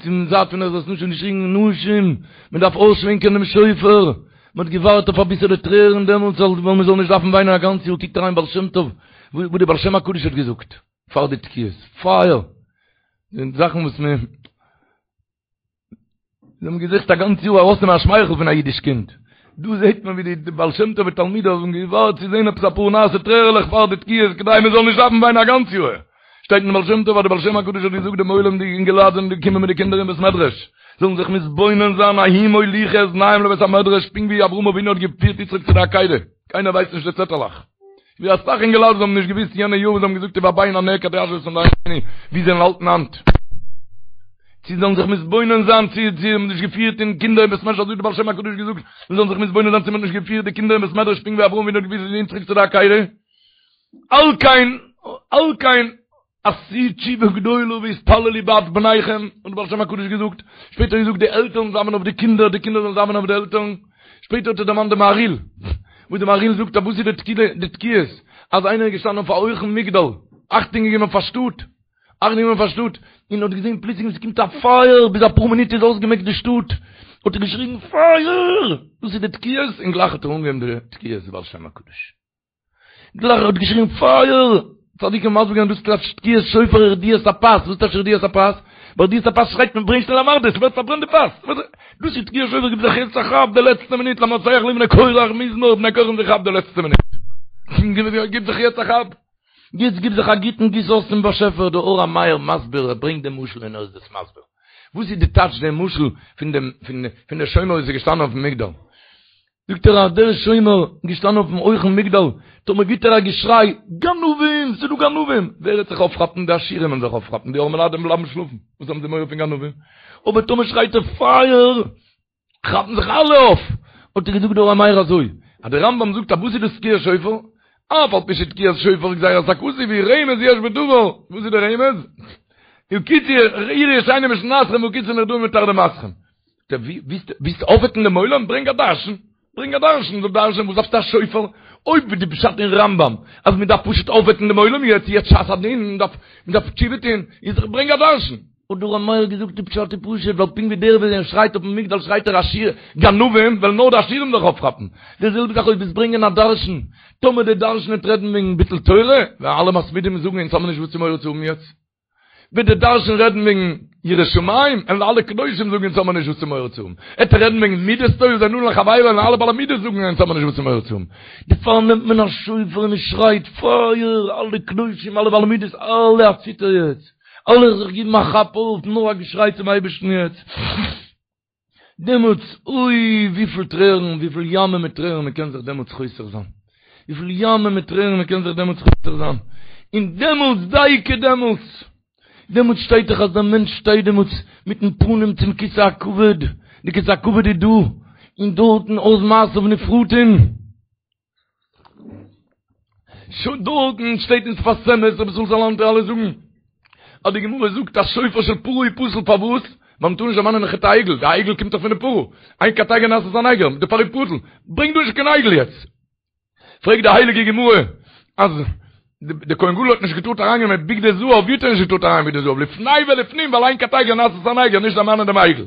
צום זייט פון עזרת נשים און געשריגן נשים, מען דארף אויסשווענקען דעם שופר, מען האט געווארט אויף אביסעלע טרערן דעמאלטס ווייל מען זאל נישט דארפן וויינען א גאנץ יאר, קוקט אריין בעל שם טוב וואס די בעל שם הקדוש האט געזאגט פאר די תקיעות, פייער, זאכן וואס מען. זיי האבן געזוכט א גאנץ יאר ארויסנעמען א שמייכל פון א אידיש קינד. דא זעט מען ווי די בעל שם טוב ותלמידיו האבן געווארט צו זען עפעס אפאר נאסע טרערעלעך פאר די תקיעות כדי מען זאל נישט דארפן וויינען א גאנץ יאר. שטייט אין בעל שם טוב אז די בעל שם הקדוש האט געזאגט דעם עולם די אינגעלייט זענען געקומען מיט די קינדער אין בית מדרש זאלן זיך מתבונן זיין ההוא מוליכי את בניהם לבית המדרש פונקט ווי אברהם אבינו האט געפירט יצחק צו די עקידה. קיינער ווייסט נישט די צעטעלעך. ווי אסאך אינגעלייט וואס האבן נישט געוואוסט יענע יאר וואס זיי האבן געזאגט ובבן הנעקד ישבו את עמדנו ווי זיי האלטן היינט. צו זאלן זיך מתבונן זיין צו זיי האבן נישט געפירט אין קינדער אין בית מדרש אזוי האט די בעל שם הקדוש געזאגט זיי זאלן זיך מתבונן זיין צו מען האט נישט געפירט די קינדער אין בית מדרש פונקט ווי אברהם אבינו האט געפירט יצחק צו די עקידה על כן על כן עשו תשובה גדולה והתפללו בעד בניכם, האט דער בעל שם הקדוש געזאגט, שפעטער האט ער געזאגט די עלטערן זאלן דאווענען אויף די קינדער, די קינדער זאלן דאווענען אויף די עלטערן, שפעטער האט ער דערמאנט די מהריל, וואס די מהריל זאגט אז וואס איז די תקיעות, אז איינער איז געשטאנען אויף א הויכן מגדל, אכטונג געגעבן אויף א שטאט, אכטונג געגעבן אויף א שטאט, און האט געזען פלוצלינג עס קומט א פייער, ביז אפאר מינוט איז אויסגעמעקט די שטאט, האט ער געשריגן פייער! דאס איז די תקיעות, און גלייך האט ער אנגעהויבן די תקיעות די בעל שם הקדוש. גלייך ער האט געשריגן פייער! צדיקים האבן מסביר געווען דאס טייטש תקיעת שופר ורדיית הפת, וואס טייטש רדיית הפת? ביי רדיית הפת שרייט מען ברענג שנעל א מרדה, ס'ווערט פארברענט די פת! דאס איז תקיעת שופר גיב זיך יעצט א כאפ די לעצטע מינוט למנצח לבני קורח מזמור בני קורח האבן זיך געכאפט די לעצטע מינוט! גיב זיך יעצט א כאפ! יעצט גיב זיך א גוטן גיס אויס צום באשעפער, דער אור המאיר מסביר, ער ברענגט דעם משל און ער איז דאס מסביר. וואס איז די טייטש דעם משל פון דעם פון דער שומר וואס איז געשטאנען אויפן מגדל? זאגט ער אז דער שומר געשטאנען אויפן הויכן מגדל, טאמער גיט ער א געשריי, גנבים! ס'איז דא גנבים! ווער וועט זיך אויפכאפן? די עשירים וועלן זיך אויפכאפן, די ארעמעלייט וועלן בלייבן שלאפן, וואס האבן זיי מורא פון גנבים? אבער טאמער שרייט ער פייער! כאפן זיך אלע אויף! האט ער געזאגט דער אור המאיר אזוי, אז דער רמב"ם זאגט אז וואס איז דאס תקיעת שופר? אף על פי שתקיעת שופר גזירת הכתוב היא רמז יש בדבר, וואס איז דער רמז? הקיצו עורו ישנים משנתכם והקיצו נרדמים מתרדמתכם. ווילסט אויפוועקן דעם עולם? ברענג א דרשן, ברענג א דרשן, זאל דרש'נען, וואס דארפסטו א שופר? אויב איז די פשט אין רמב"ם אז מען דארף פשוט אויפוועקן דעם עולם יעצט, יעצט שעת הדין, מען דארף, מען דארף תשובה טון, איז דאך ברענג א דרשן. האט דער אור המאיר געזאגט די פשט איז פשוט, ווייל פונקט ווי דער ווען ער שרייט אויפן מגדל שרייט ער עשיר גנבים, וועלן נאר די עשירים זיך אויפכאפן. די זעלבע זאך אויב וועסט ברענגען א דרשן, טאמער דער דרשן וועט רעדן וועגן ביטול תורה, וועלן אלע מתמידים זאגן אונז האבן נישט וואס צו מורא צו האבן יעצט. וועט דער דרשן רעדן וועגן יראת שמים, וועלן אלע קדושים זאגן אונז האבן נישט וואס צו מורא צו האבן. עט ער רעדן וועגן מידות טובות בין אדם לחבירו, וועלן אלע בעלי מידות זאגן אונז האבן נישט וואס צו מורא צו האבן. דערפאר נעמט מען א שופר און מען שרייט פייער, אלע קדושים, אלע בעלי מידות, אלע א ציטער יעצט, אלע זיך גיבן א כאפ אויף, נאר א געשריי צום אייבערשטן יעצט. דעמאלטס, אוי, וויפיל טרערן, וויפיל ימים מיט טרערן מען קען זיך דעמאלטס חוסך זיין. וויפיל ימים מיט טרערן מען קען זיך דעמאלטס חוסך זיין. און דעמאלטס, דייקא דעמאלטס, דעמאלטס שטייט דאך אז דער מענטש שטייט דעמאלטס מיטן פנים צום כסא הכבוד, די כסא הכבוד איז דא, און דארטן אז מעשיו נפרטים. שוין דארטן שטייט אין שפת אמת רבי ישראל סאלאנטער אלע זאגן אז די גמרא זאגט אז שופר של פרה איז פסול פארוואס? ווייל מ'טאר נישט דערמאנען חטא העגל, די עגל קומט דאך פון די פרה, אין קטיגור נעשה סניגור, דערפאר איז פסול, ברענג דא נישט קיין עגל יעצט. פרעגט די הייליגע גמרא אז די כהן גדול האט נישט געטארט אריינגיין מיט בגדי זהב, ווי האט ער נישט געטארט אריין מיט בגדי זהב? לפני ולפנים ווייל אין קטיגור נעשה סניגור נישט דערמאנען דעם עגל.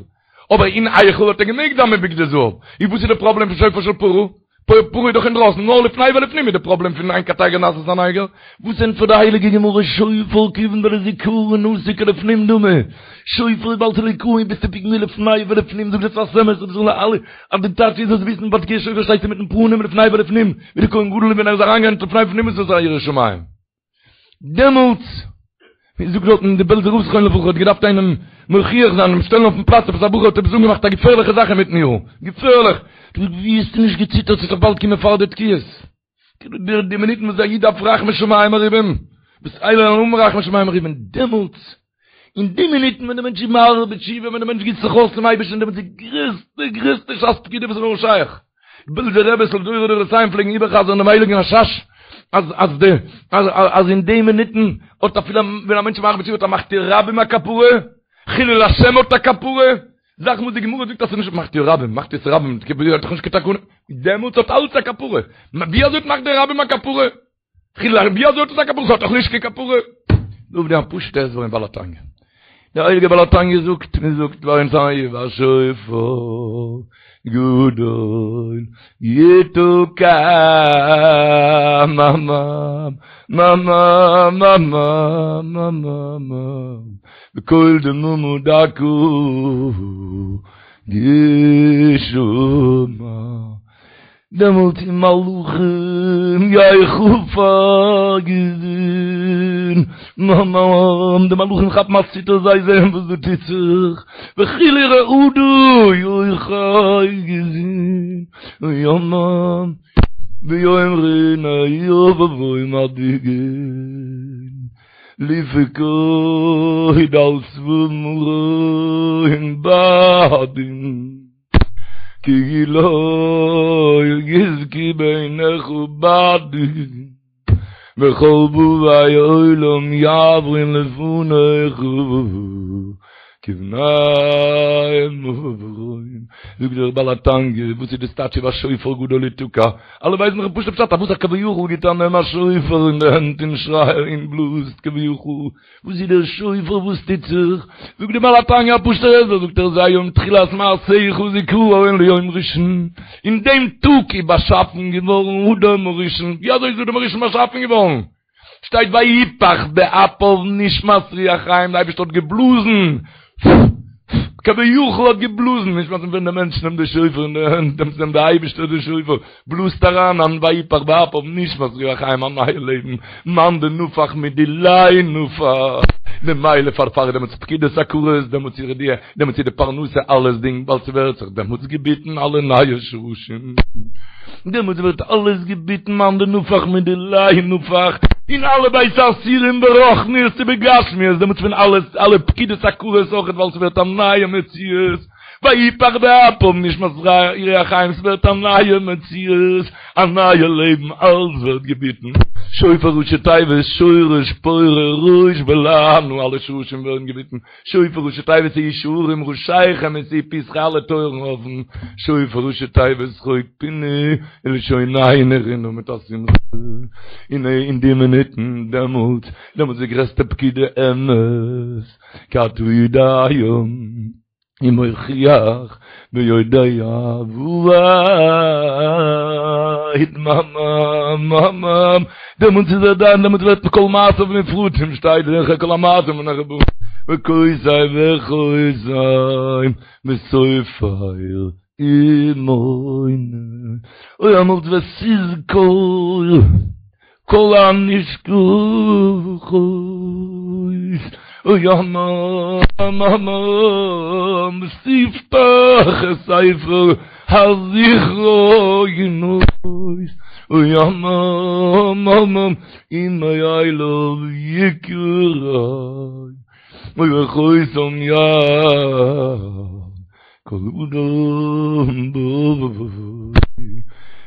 אבער אין היכל האט ער געמעגט זיין מיט בגדי זהב, איז וואס איז די פראבלעם פון שופר של פרה? פרה איז דאך אינדרויסן, נאר לפני ולפנים איז די פראבלעם פון אין קטיגור נעשה סניגור. וואס ענטפערט די הייליגע גמרא שופר כיוון דלזכרון אתא כלפנים דמי, שופר איז ווייל ס'איז לזכרון ביסטו פונקט ווי לפני ולפנים זאגט דער שפת אמת רבי זאל אלע אז די טייטש איז זאלסט וויסן ביי תקיעת שופר שטייסטו מיטן פנים לפני ולפנים ווי די כהן גדול ווען ער איז אריינגעגאנגען לפני ולפנים איז עס א ירא שמים. דעמאלטס, ווי זאגט דארטן די בעלזער רב זכרונו לברכה האט געדארפט איינעם מוכיח זיין אים שטעלן אויפן פלאץ עפעס א בחור האט עפעס אנגעמאכט א געפערליכע זאך אינמיטן יאר, געפערליך, האט ער געזאגט ווי האסטו נישט געציטערט ס'וועט דאך באלד קומען פאר די תקיעות, די די מינוטן וואס א איד דארף רחמי שמים מרובים, וואס אלע האבן רחמי שמים מרובים, דעמאלטס אין די מינוטן ווען דער מענטש איז מהרהר בתשובה, ווען דער מענטש גיסט זיך אויס צום אייבערשטן, דעמאלטס איז די גרעסטע גרעסטע שעת פקידה וואס איז נאר שייך. בעלזער רביס לדורי דורותיהם פלעגן איבערחזר'ן דעם הייליגן רש"ש, אז אז די אז אז אין די מינוטן האט אפילו ווען א מענטש איז מהרהר בתשובה האט א מחטיא רבים א כפרה, חילול השם האט א כפרה, זאכן וואס די גמרא זאגט אז ס'איז נישט מחטיא רבים, מחטיא את הרבים, האט דאך נישט קיין תקנה, דעמאלטס האט אלץ א כפרה. ווי אזוי האט מחטיא רבים א כפרה? חילול השם, ווי אזוי האט עס א כפרה? ס'האט דאך נישט קיין כפרה. דא אויף דעם א פשוט'ע הסבר אין בעל התניא. דער הייליגער בעל התניא זאגט, מען זאגט ביי אונז ובשופר גדול יתקע מממממממממ בקול דממה דקה ישמע. דעמאלט ומלאכים יחפזון, מממ, די מלאכים כאפן א ציטער זיי זעען וואס דא טוט זיך, וחיל ורעדה יאחזון, יממ, ויאמרון אוי מדאיגין, לפקוד על צבא מרום בהדים. כי לא יזכו בעיניך בעדין וכל באי עולם יעברון לפניך כבני מרון זאגט דער בעל התניא וואס איז דאס טייטש ובשופר גדול יתקע אלע ווייסן דאך פשוט פשט אז וואס א כביכול גיט א נעם א שופר אין די הענט און שרייט און בלאזט כביכול וואס איז דער שופר וואס טוט זיך? זאגט דער בעל התניא א פשוט'ער הסבר, זאגט ער זה היום תחילת מעשיך זכרון ליום ראשון, אין דעם טאג איז באשאפן געווארן אדם הראשון, ווי אזוי איז אדם הראשון באשאפן געווארן? שטייט ויפח באפיו נשמת רוח חיים, דער אייבערשטער האט געבלאזן, כביכול האט געבלאזן, נשמת ווען דער מענטש נעמט די שופר אין די הענט, דעמאלטס נעמט דער אייבערשטער די שופר, בלאזט אריין אן ויפח באפיו נשמת רוח חיים א נייע לעבן, מאן דנפח מדיליה נפח, ממילא פארפאר דעמאלטס פקידת עקרות, דעמאלטס איז די, דעמאלטס איז די פרנסה אלעס דינג, ווייל ס'ווערט זיך דעמאלטס געביטן אלע נייע שרשים, דעמאלטס ווערט אלעס געביטן מאן דנפח מדיליה נפח, אין אלע בית האסורים ברוחניות ובגשמיות, דעמאלטס ווען אלעס, אלע פקידת עקרות אויכעט ווייל ס'ווערט א נייע מציאות. ויפח באפיו נשמת רוח חיים, ס'ווערט א נייע מציאות, א נייע לעבן, אלס ווערט געביטן, שופר ראשי תיבות שורש פורה ראש ולענה, אלע שרשים ווערן געביטן, שופר ראשי תיבות שאו שערים ראשיכם ושאו פתחי אלע טויערן אפן, שופר ראשי תיבות שחוק פינו ולשוננו רנה מיט א שמחה, און אין די מינוטן דעמאלטס, דעמאלטס איז די גרעסטע פקידה אמת, כי אתה יודע ומוכיח ויודע ועד מממממ דעמאלטס איז ער דן דעמאלטס ווערט כל מעשיו נפרטים שטייט זכר כל המעשים ונחבאים וכותב וחותם וסופר ומונה אוי דעמאלטס ותזכור כל הנשכחות אוי הממממ ותפתח את ספר הזכרונות אוי הממממ ומאליו יקרא אוי וחותם יד כל אדם בו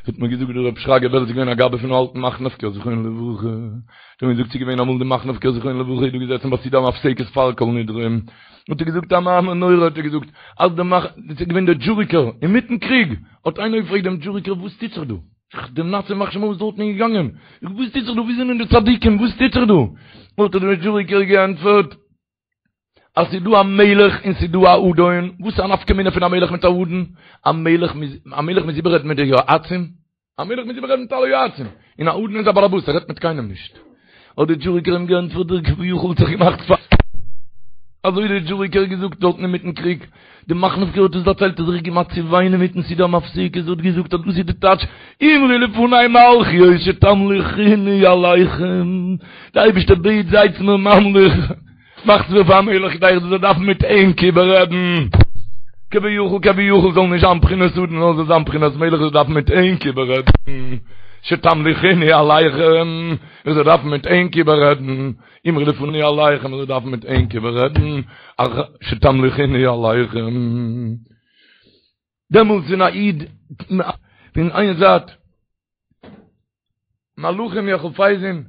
האט מיר געזאגט דער רב שרגא בער איז געווען א גבאי פון אלטן מאכנובקער זכרונו לברכה האט ער מיר געזאגט ס'איז געווען אמאל די מאכנובקער זכרונו לברכה איז דא געזעסן ביי סעודה המפסקת פאר כל נדרי האט ער געזאגט א מאמר נורא האט ער געזאגט אז די מאכ ס'איז געווען דער דזשוריקער אינמיטן קריג האט איינער געפרעגט דעם דזשוריקער וואס טוט זיך דא דעם נאצי ימח שמו איז דארטן געגאנגען וואס טוט זיך דא וואו זענען די צדיקים וואס טוט זיך דא האט דער דזשוריקער געענטפערט אז ס'איז דא א מלך און ס'איז דא א אדון, וואס איז א נפקא מינה פון א מלך מיט א אדון? א מלך מוז, א מלך מוז איבעררעדן מיט די יועצים? א מלך מוז איבעררעדן מיט אלע יועצים, און א אדון איז א באלעבאס, ער רעדט מיט קיינעם נישט. האט די דזשוריקער אים געענטפערט, דער כביכול האט זיך געמאכט פאר. אזוי האט דער דזשוריקער געזאגט דארטן אינמיטן קריג. די מאכנובקער האט עס דערציילט, האט זיך געמאכט צו וויינען מיטן סידור המפסיק, ער האט געזאגט אז דאס איז די טייטש, אמרו לפני מלכיות שתמליכוני עליכם, די אייבערשטער בעט זייטס מיר ממליך. מאכטס מיר פאר א מלך כדי איך זאל דארפן מיט ענק איבעררעדן, כביכול כביכול זאל נישט זיין בחינת אדון נאר זאל זיין בחינת מלך איך זאל דארפן מיט ענק איבעררעדן, שתמליכוני עליכם, איך זאל דארפן מיט ענק איבעררעדן, אמרו לפני עליכם, איך זאל דארפן מיט ענק איבעררעדן, שתמליכוני עליכם. דעמאלטס ווען א איד פון איין זייט מלאכים יחפזון,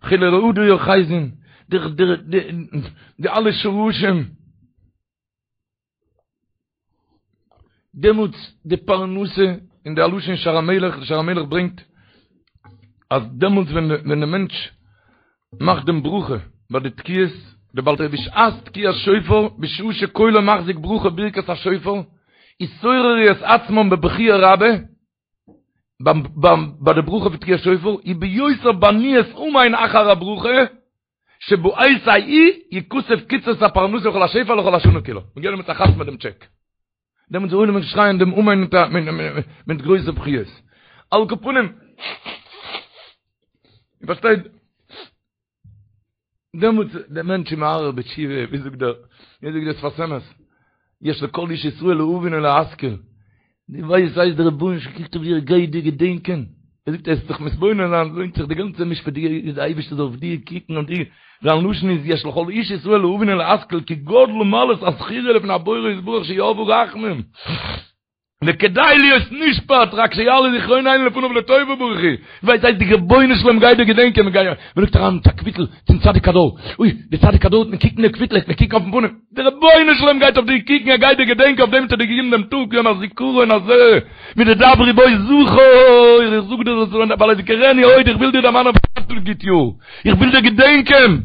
חילי רעדא יאחזון, די די די אלע שרשים, דעמאלטס די פרנסה, און די לשון שער המלך, די שער המלך ברענגט אז דעמאלטס ווען ווען די מענטש מאכט דעם ברכה ביי די תקיעות, די בעל תקיעה בשעת תקיעת שופר, בשעה שקולו מחזיק ברכה ברכת השופר, יתעוררו את עצמם בבכיה רבה, ביים ביים ביי די ברכה פון תקיעת שופר, וביותר בעניית אמן אחר הברכה, שבעת ההיא יכתב קצבת הפרנסה וכל השפע לכל השנה כולה. מ'גייט דעמאלטס א חתמ'ען דעם טשעק. דעמאלטס זאל עולם שרייען דעם אמן מיט א מיט גרויסע בכיות. על כל פנים, איר פארשטייט, דעמאלטס דער מענטש איז מהרהר בתשובה, ווי זאגט דער, ווי זאגט דער שפת אמת, יש לכל איש ישראל להבין ולהשכיל, דו ווייסט אז דער רבונו של עולם קוקט אויף דיר, גייט דיר געדענקען, ער זאגט עס זיך מתבונן זיין, לוינט זיך די גאנצע משפט, די אייבערשטער זאל אויף דיר קוקן און דיר, זיין לשון איז יש לכל איש ישראל להבין ולהשכיל כי גדלה מעלת הזכירה לפני הבורא יתברך שירבו רחמים. וכדאי להיות נשפט רק שיעלה זכרוננו לפניו לטובה ברוך הוא, ווייסט אז די רבונו של עולם גייט דיר געדענקען, מען גייט, מען לייגט אריין מיט א קוויטל צום צדיק הדור, אוי, די צדיק הדור וועט מען קוקן די קוויטל, וועט מען קוקן אויפן פנים, די רבונו של עולם גייט אויף דיר קוקן, ער גייט דיר געדענקען, אויף דעם האט ער דיר געגעבן דעם טאג יום הזיכרון הזה, מדדברי בו זכור, איך זאג דיר דאס ווייל אזכרנו עוד, איך וויל דיר דערמאנען אויף א גוט יאר, איך וויל דיר געדענקען.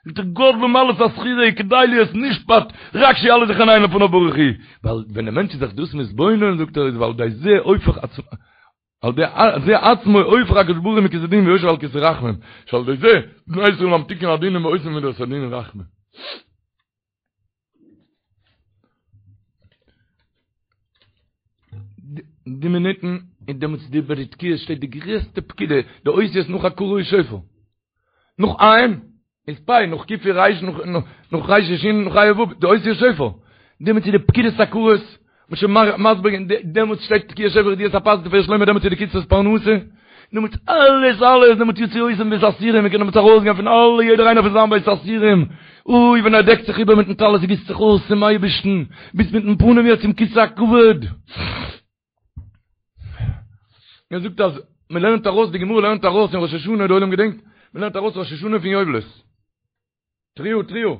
זאגט ער גדלה מעלת הזכירה כדאי להיות נשפט רק שיעלה זכרוננו לפניו ברוך הוא, ווייל ווען די מענטש איז זיך דאס מתבונן זאגט ער איז ועל ידי זה הופך עצמו על ידי זה עצמו הופך הקדוש ברוך הוא מכסא דין ויושב על כסא רחמים שעל ידי זה בני ישראל ממתיקין הדינים ועושים מידת הדין רחמים. די מינוטן אין דעמאלטס די ביי די תקיעות שטייט די גרעסטע פקידה די אותיות נאך הכרה איז שופר נאך עין איז פ' נאך ק' איז ריש נאך נאך ריש איז שין נאך ה' ו' די אותיות שופר דעמאלטס איז די פקידת עקרות מ'האט שוין מסביר געווען דעמאלטס שטייט תקיעת שופר ידיעת הפת תפארת שלמה דעמאלטס איז די קצבת פרנסה דעמאלטס אלעס אלעס דעמאלטס יוציא אותם מבית האסורים מ'קען דעמאלטס ארויסגיין פון אלע יעדער איינער פון זיין בית האסורים אוי ווען ער דעקט זיך איבער מיטן טלית גיסט זיך אויס צום אייבערשטן ביסט מיטן פנים יעצט צום כסא הכבוד ער זאגט אז מען לערנט ארויס די גמרא לערנט ארויס אין ראש השנה די עולם געדענקט מען לערנט ארויס ראש השנה פון יובלות תרועה תרועה.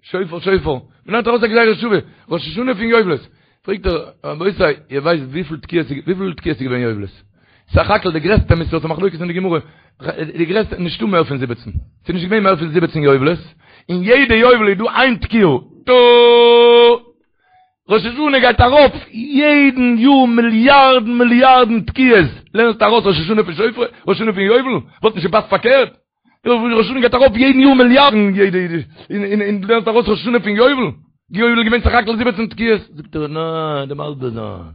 שופר שופר. מען לערנט ארויס א גזירה שוה. ראש השנה פון יובלות. פרעגט ער, רבותי, איר ווייסט וויפיל תקיעות איז וויפיל תקיעות איז געווען יובלות? סך הכל די גרעסטע מספר, ס'איז א מחלוקת אין די גמרא, די גרעסטע, נישטא מער פון זיבעצן. ס'איז נישט געווען מער פון זיבעצן יובלות. אין יעדע יובל איז דא איין תקיעה. טא! ראש השנה גייט ארויף יעדן יאר מיליארדן מיליארדן תקיעות. לערנסט ארויס ראש השנה פון שופר? ראש השנה פון יובל? וואלט נישט געפאסט פארקערט? ראש השנה גייט ארויף יעדן יאר מיליארדן יעדע און און דו לערנסט ארויס ראש השנה פון יובל? יובל איז געווען סך הכל זיבעצן תקיעות. זאגט ער ניין דעם מסביר זיין.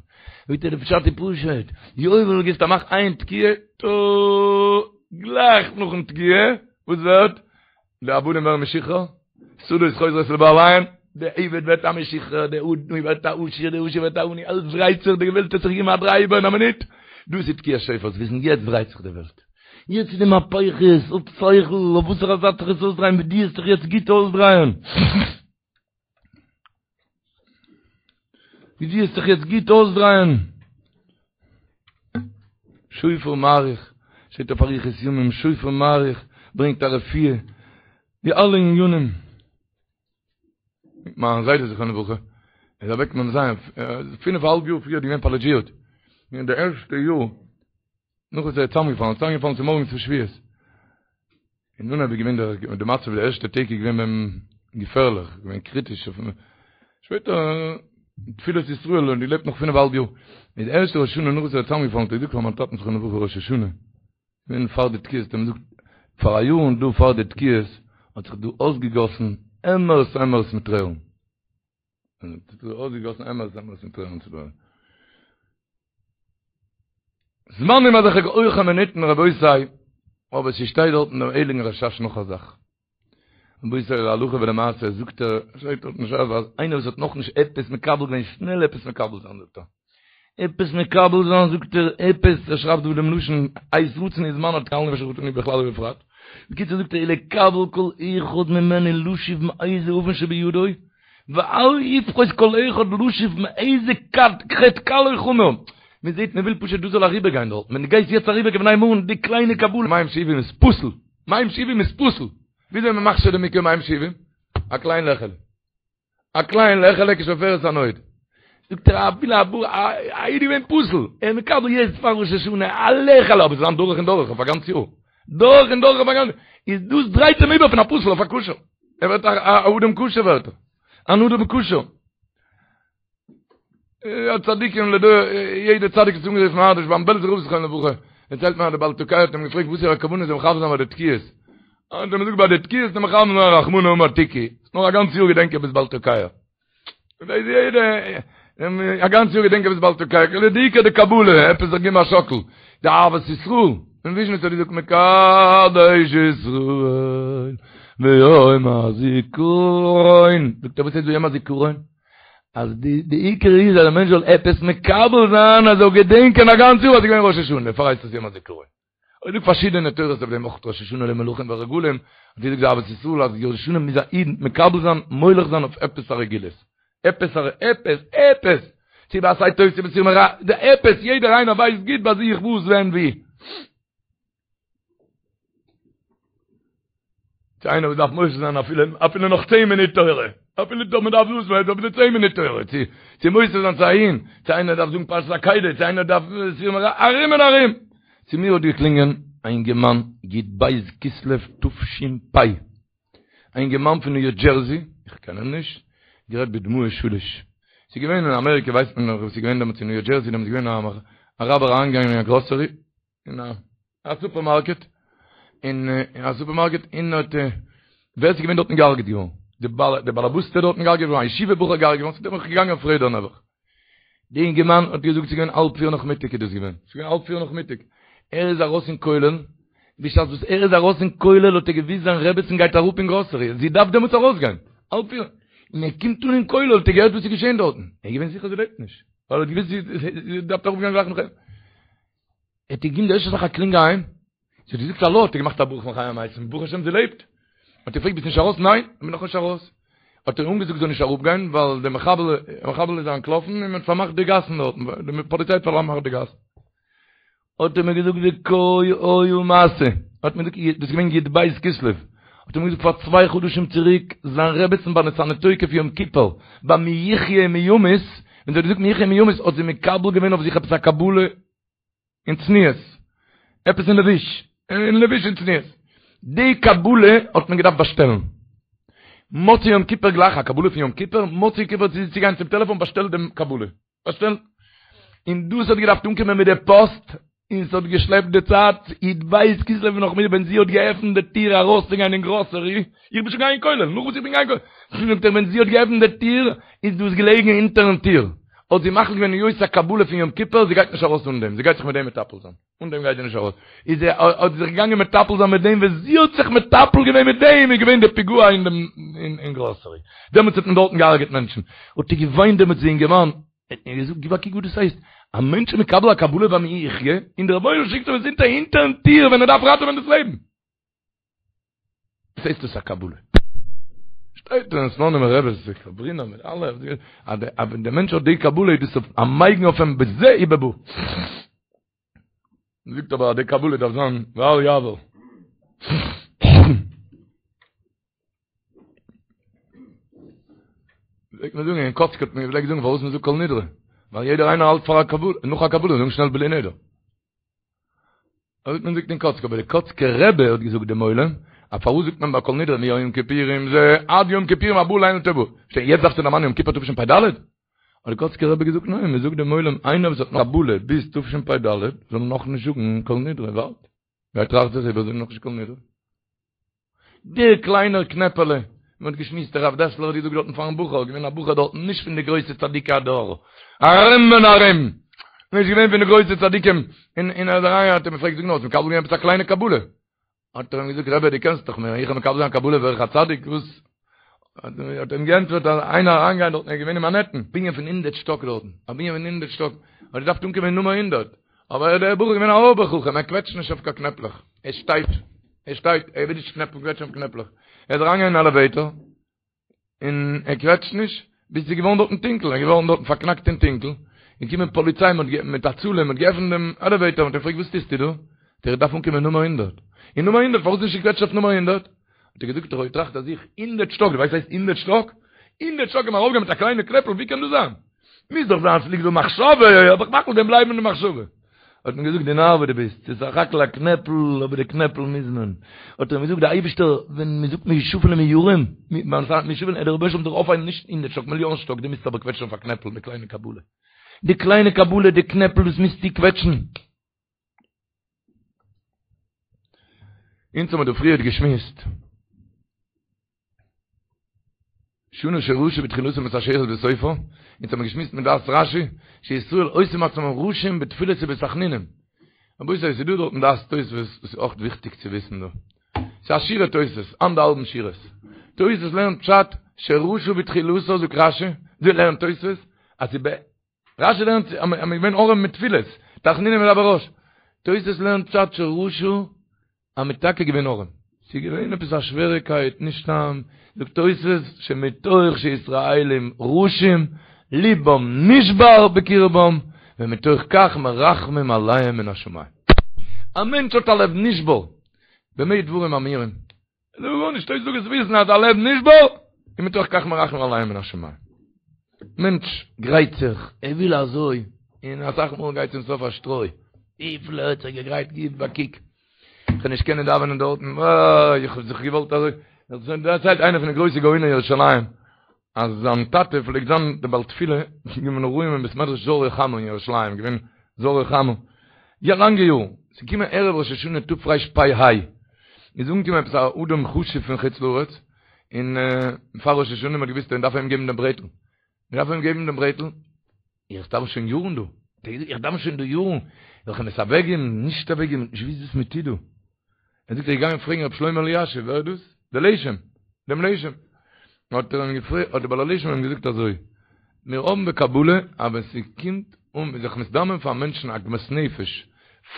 זאגט ער די פשט איז פשוט, יובל גיבסט א מאך איין תקיעה, טא גלייך נאכן תקיעה וואס ווערט? די עבדים ווערן משוחרר, שדות חוזרות לבעליהן, די עבד ווערט א משוחרר, די עני ווערט א עשיר, די עשיר ווערט א עני, אלעס דרייט זיך, די וועלט האט זיך געגעבן א דריי איבער אין א מינוט, דאס איז תקיעת שופר, וויסן יעצט דרייט זיך די וועלט. יעצט איז די מהפכות, האב שכל, אויף וואסערע זייט זיך עס אויסדרייען, ווי דו וועסט זיך יעצט גוט אויסדרייען. ווי דו וועסט זיך יעצט גוט אויסדרייען. שופר מאריך, שטייט אויף אריכות ימים, שופר מאריך ברענגט א רפואה, די אלע ענינים. מיין זיידע זכרונו לברכה איז אוועק מ ז, פינף א האלב יאר פריער געווען פאראליזשירט, אין די ערשטע יאר נאך וואס ער איז צוזאמגעפאלן, ער איז צוזאמגעפאלן צומארגנס פון שבועות, אין אנהייב איז געווען דער די מצב די ערשטע טעג איז געווען ביי אים געפערליך, געווען קריטיש, שפעטער. תפילת ישראל און געלעבט נאך פינף אהאלב יאר. איז די ערשטע ראש השנה נאך וואס ער איז צוזאמגעפאלן האט ער געזאגט פאר מיין טאטן זכרונו לברכה ראש השנה, געווען פאר די תקיעות האט ער אים געזאגט פאר א יאר און דא פאר די תקיעות האט זיך דא אויסגעגאסן עמערס עמערס מיט טרערן. האט זיך דא אויסגעגאסן עמערס עמערס מיט טרערן צו דא. זמנים אזעלכע הויכע מינוטן רבותי, אבער ס'שטייט דארט אין דעם הייליגן רשש נאך א זאך. רבותי להלכה ולמעשה זאגט ער, שטייט דארט אין שס אז איינער וואס האט נאכנישט עפעס מקבל געווען שנעל עפעס מקבל זיין זאגט ער. עפעס מקבל זיין זאגט ער עפעס, ער שרייבט דא דעם לשון עת רצון היא זמן התקלנו ושחטנו בכלל ובפרט. בקיצור זאגט ער ולקבל כל אחד ממנו לשוב מאיזה עוון שבידו ואל יפחות כל אחד לשוב מאיזה חטא קל או חמור. מען זעט מען וויל פשוט דאס זאל אריבער גיין דארט, ווען דו גייסט יעצט אריבער כבני מרון די קליינע קבלה מים שאובים איז פסול, מים שאובים איז פסול, וויאזוי מען מכשיר די מקוה מים שאובים? א קליין לעכעלע. א קליין לעכעלע כשפופרת הנוד. זאגט ער אפילו א בור א איד געווען פסול, ער איז מקבל יעצט פאר ראש השנה א לעכעלע אבער ס'זאל זיין דורך און דורך אויף א גאנץ יאר. דורך און דורך אויף א גאנץ איז דאס דרייט אים איבער פון א פסול אויף א כשר. ער ווערט א אדם כשר ווערט ער. אן אדם כשר. יא צדיקים לדור, יעדער צדיק איז אנגערופן אנדערש, ביים בעלזער רב זכרונו לברכה, דערציילט מען אז דער בעל תוקע האט אים געפרעגט וואס איז א כוונה זאל מכוון זיין ביי די תקיעות, האט ער אים געזאגט ביי די תקיעות זאל מכוון זיין רחמנא אמר תקעו, נאר א גאנץ יאר געדענק איך ביסט בעל תוקע. דאס יעדע א גאנץ יאר געדענק איך ביסט בעל תוקע, די עיקר די קבלה, עפעס זיך געבן א שאקל, די אהבת ישראל, אין וויזשניץ האט געזאגט מקדש ישראל ביום הזיכרון, זאגט ער וואס הייסט ביום הזיכרון? אז די די עיקר איז אז דער מענטש זאל עפעס מקבל זיין אז ער זאל געדענקען א גאנץ יאר אז ס'איז געווען ראש השנה, דערפאר הייסט עס יום הזיכרון. אויך דא פארשידענע תורות אויף דעם אויך ראש השנה למלכים ורגלים, האט געזאגט די אהבת ישראל אז ראש השנה מוז א איד מקבל זיין מולך זיין אויף עפעס א רגילות, עפעס א עפעס עפעס, צו בעשה טוב צו בסור מרע, די עפעס יעדער איינער ווייסט גוט ביי זיך וואס ווען ווי. צו איינער וואס דארף מוסיף זיין אפילו אפילו נאך צען מינוט תורה, אפילו דא מען דארף דאס מען דארף צען מינוט תורה, צו צו מוסיף זיין צו אהין, צו איינער דארף זאגן פרשת עקידה, צו איינער דארף סור מרע, ארום און ארום. צו מיר האט געקלינגען א אינגערמאן י"ב כסלו תש"פ, א אינגערמאן פון ניו דזשערזי, איך קען אים נישט, גערעדט בדמעות שליש. ס'איז געווען אין אמעריקע ווייסט מען נאך וואס איז געווען דעמאלטס אין ניו דזשערזי, דעמאלטס איז געווען א אראבער אריינגעגאנגען אין א גראסערי, אין א סופערמארקעט, אין א סופערמארקעט און האט ווער ס'איז געווען דארטן געהארגעט געווארן, די בעל די באלעבאסטע דארטן געהארגעט געווארן, א ישיבה בחור געהארגעט געווארן, ס'איז דערנאך געגאנגען אויף רעדער נעבעך. די אינגערמאן האט געזאגט ס'איז געווען האלב פיר נאכמיטאג איז דאס געווען, ס'איז געווען האלב פיר נאכמיטאג, ער איז ארויס אין כולל, בשעת וואס ער איז ארויס אין כולל האט ער געוויסט זיין רעבעצן גייט אראפ אין גראסערי, זי דארף דעמאלטס ארויסגיין, האלב פיר, און ער קומט אן אין כולל האט ער געהערט וואס איז געשען דארטן, ער איז געווען זיכער זי לעבט נישט, ווייל ער האט געוויסט זי דארף אראפגיין גלייך נאך אים. ער האט געגעבן די ערשטע זאך א קלינג אהיים, זי האט געזאגט האלא, האט ער געמאכט א ברכה מחיה המתים, ברוך השם זי לעבט. האט ער געפרעגט ביסט נישט ארויס? ניין, איך בין נאכנישט ארויס. האט ער אנגעזאגט זאל נישט אראפגיין ווייל די מחבל מחבל איז אנטלאפן און מען האט פארמאכט די גאסן דארטן, די פאליציי האט פארמאכט די גאסן. האט ער מיר געזאגט וכה היה מעשה, האט מיר געזאגט דאס איז געווען י"ב כסלו, האט ער מיר געזאגט פאר צוויי חדשים צוריק זיין רעבעצן ביי ונתנה תוקף יום כיפור, ביי מי יחיה ומי ימות, ווען זי האט געזאגט מי יחיה ומי ימות האט זי מקבל געווען אויף זיך עפעס א קבלה, אין צניעות, עפעס אין לבוש, אין לבוש אין צניעות. די קבלה האט מען געדארפט באשטעלן. מוצאי יום כיפור גלייך, א קבלה פון יום כיפור, מוצאי יום כיפור צו גיין צום טעלעפאן באשטעלט דעם קבלה. באשטעלט. און דאס האט געדארפט אנקומען מיט די פאסט, און ס'האט געשלעפט די צייט, י"ב כסלו נאכמיטאג ווען זי האט געעפנט די טיר ארויסצוגיין אין גראסערי, איך בין שוין געגאנגען אין כולל, נאך וואס איך בין געגאנגען אין כולל, זאגט ער ווען זי האט געעפנט די טיר איז דאס געלעגן אונטערן טיר. האט זי מחליט געווען היות א קבלה פון יום כיפור, זי גייט נישט ארויס אן דעם, זי גייט זיך מיט דעם מטפל זיין, אן דעם גייט זי נישט ארויס, איז זי האט זי זיך געגאנגען מטפל זיין מיט דעם, ווען זי האט זיך מטפל געווען מיט דעם איז געווען די פיגוע אין דעם אין גראסערי, דעמאלטס האט מען דארטן געהארגעט מענטשן, האט ער געוויינט דעמאלטס די אינגערמאן, האט מיר געזאגט גיב א קוק וואס דאס הייסט, א מענטש איז מקבל א קבלה ביי מי יחיה, און דער רבונו של עולם שיקט אים עס אונטער הינטערן טיר ווען ער דארף ראטעווען דאס לעבן. וואס הייסט דאס א קבלה? שטייט אין סלאנימער רבי זיך קאברינער מיט אלע אז ווען דער מענטש האט די קבלה איז דאס א מגן אויף אים בזה ובבא. מ'זאגט אבער אז די קבלה דארף זיין ואל יעבור. פלעגט מען זאגן אין קאצק האט מען געפלעגט זאגן פארוואס מ'זאגט כל נדרי ווייל יעדער איינער האלט פאר א קבלה נאך א קבלה זאגן שנעל בלי נדר. אזוי האט מען געזאגט אין קאצק, אבער די קאצקער רבי האט געזאגט דעם עולם, אז פארוואס זאגט מען ביי כל נדרי מיום כיפורים זה עד יום כיפורים הבא עלינו לטובה? שטיין יעצט דארפסטו דערמאנען יום כיפור תשפ"ד? האט די קאצקער רבי געזאגט ניין, מען זאגט דעם עולם איינער וואס האט נאך קבלה ביז תשפ"ד זאל נאכנישט זאגן כל נדרי, ווארט, גיי טראכט זיך איבער זאג נאכנישט כל נדרי. דער קליינער קנעפעלע, מען האט געשמועסט הרב דעסלער האט געזאגט דארטן פארן בחור, געווען א בחור דארטן נישט פון די גרויסע צדיקי הדור, ארום און ארום, נישט געווען פון די גרויסע צדיקים, און און ער איז אריין האט ער אים געפרעגט זאג נאר האסט מקבל געווען עפעס א קליינע קבלה? האט ער אים געזאגט רבי דו קענסט דאך מיר, איך האב מקבל זיין קבלה ווער איך א צדיק וואס? האט ער אים געענטפערט אז איינער אריינגיין דארטן ער איז געווען אין מאנהעטן, בנין פון הונדערט שטאק דארטן, א בנין פון הונדערט שטאק, האט געדארפט אנקומען אין נומער הונדערט, אבער דער בחור איז געווען א אויבער חכם, ער קוועטשט נישט אויף קיין קנעפלעך, ער שטייט, ער שטייט, ער וויל נישט קנעפל קוועטשן אויף קנעפלעך, ער איז אריינגעגאנגען אין עלעוועיטאר, און ער קוועטשט נישט, ביז ס'איז געווארן דארטן טונקל, ער איז געווארן דארטן פארקנאקט אין טונקל, און קומען פאליציי מיט הצלה, מ'האט געעפנט דעם עלעוועיטאר, מ'האט אים געפרעגט וואס טוסטו דא? זאגט ער איך דארף אנקומען נומער הונדערט, און נומער הונדערט פארוואס נישט געקוועטשט אויף נומער הונדערט? האט ער געזאגט איך האב געטראכט אז איך הונדערט שטאק, דו ווייסט וואס הייסט הונדערט שטאק? הונדערט שטאק קען מען ארויפגיין מיט א קליינע קנעפל, ווי קען דאס זיין? מוז דאך זיין ס'ליגט דא מחשבה, אבער איך מאך דעם בלייבן אין די מחשבה. האט מען געזאגט דו נאר וואס דו ביסט, ס'איז סך הכל א קנעפל, אבער די קנעפל מוז מען. האט ער אים געזאגט דער אייבערשטער, ווען מען זאגט מי שפל ומי ירום, מי שפל, דער רבונו של עולם זאל אויפהייבן נישט הונדערט שטאק, מיליאן שטאק, דו מוזט אבער קוועטשן אויף א קנעפל, די קליינע קבלה. די קליינע קבלה, די קנעפל, דאס מוזטו קוועטשן. אונז האבן מיר דא פריערט געשמועסט. שנה שרשה בתחילתה מתעשרת בסופה, אונז האבן געשמועסט מיט דעת רשי, שישראל עושים עצמם רשים בתפילות ובתחנונים. רבותי, ס'איז דא דארטן דעת תוספות וואס איז אויך וויכטיג צו וויסן דא. ס'איז א שורה תוספות, אנדערהאלבן שורות. תוספות לערנט פשט שרשה בתחילתה זאגט רשי, אזוי לערנט תוספות, אז ס'איז רשי לערנט אז מ'איז געווען ארעם מיט תפילות, תחנונים ידבר רש. תוס' לערנט פשט שרשה אז מ'איז טאקע געווען ארעם. ס'איז געווען עפעס א שוועריקייט, נישט סתם, זאגט תוס' שמתוך שישראלים רשים ליבם נשבר בקרבם ומתוך כך מרחמים עליהם מן השמים. א מענטש האט א לב נשבר, במה דברים אמורים? זאג גארנישט, תוס' זאגט זאלסט וויסן אז א לב נשבר, און מתוך כך מרחמים עליהם מן השמים. מענטש גרייט זיך, ער וויל אזוי, און אסאך מאל גייט צום סוף א שטרוי. וויפיל ער האט זיך געגרייט, גיב א קוק. איך וועל נישט קענען דאווענען דארטן, אוי, איך האב זיך געוואלט אזוי. דערציילט איינער פון די גרויסע גאוני ירושלים, אז זיין טאטע פלעגט זיין די בעל תפילה בימים נוראים אין בית מדרש זהרי חמה אין ירושלים, געווען זהרי חמה יא לאנגע יארן, ס'איז געקומען ערב ראש השנה תרפ"ה, איז אנגעקומען עפעס א אדם חשוב פון חוץ לארץ, און פאר ראש השנה מ'האט געוואוסט אז מ'דארף אים געבן דעם ברעטל, מ'דארף אים געבן דעם ברעטל, איך דאוון שוין יארן דא, איך דאוון שוין דא יארן, זאל איך אים עס אוועקגעבן, נישט אוועקגעבן, נישט געוואוסט וואס מ'טוט דא. ער זאגט ער איז געגאנגען פרעגן רבי שלמה אלישיב, ווער איז דאס? דער לשם, דעם לשם. האט ער אים געפרעגט, האט דער בעל הלשם אים געזאגט אזוי, מיר האבן בקבלה אז ווען ס'קומט אן זיך מזדמן פאר מענטשן עגמת נפש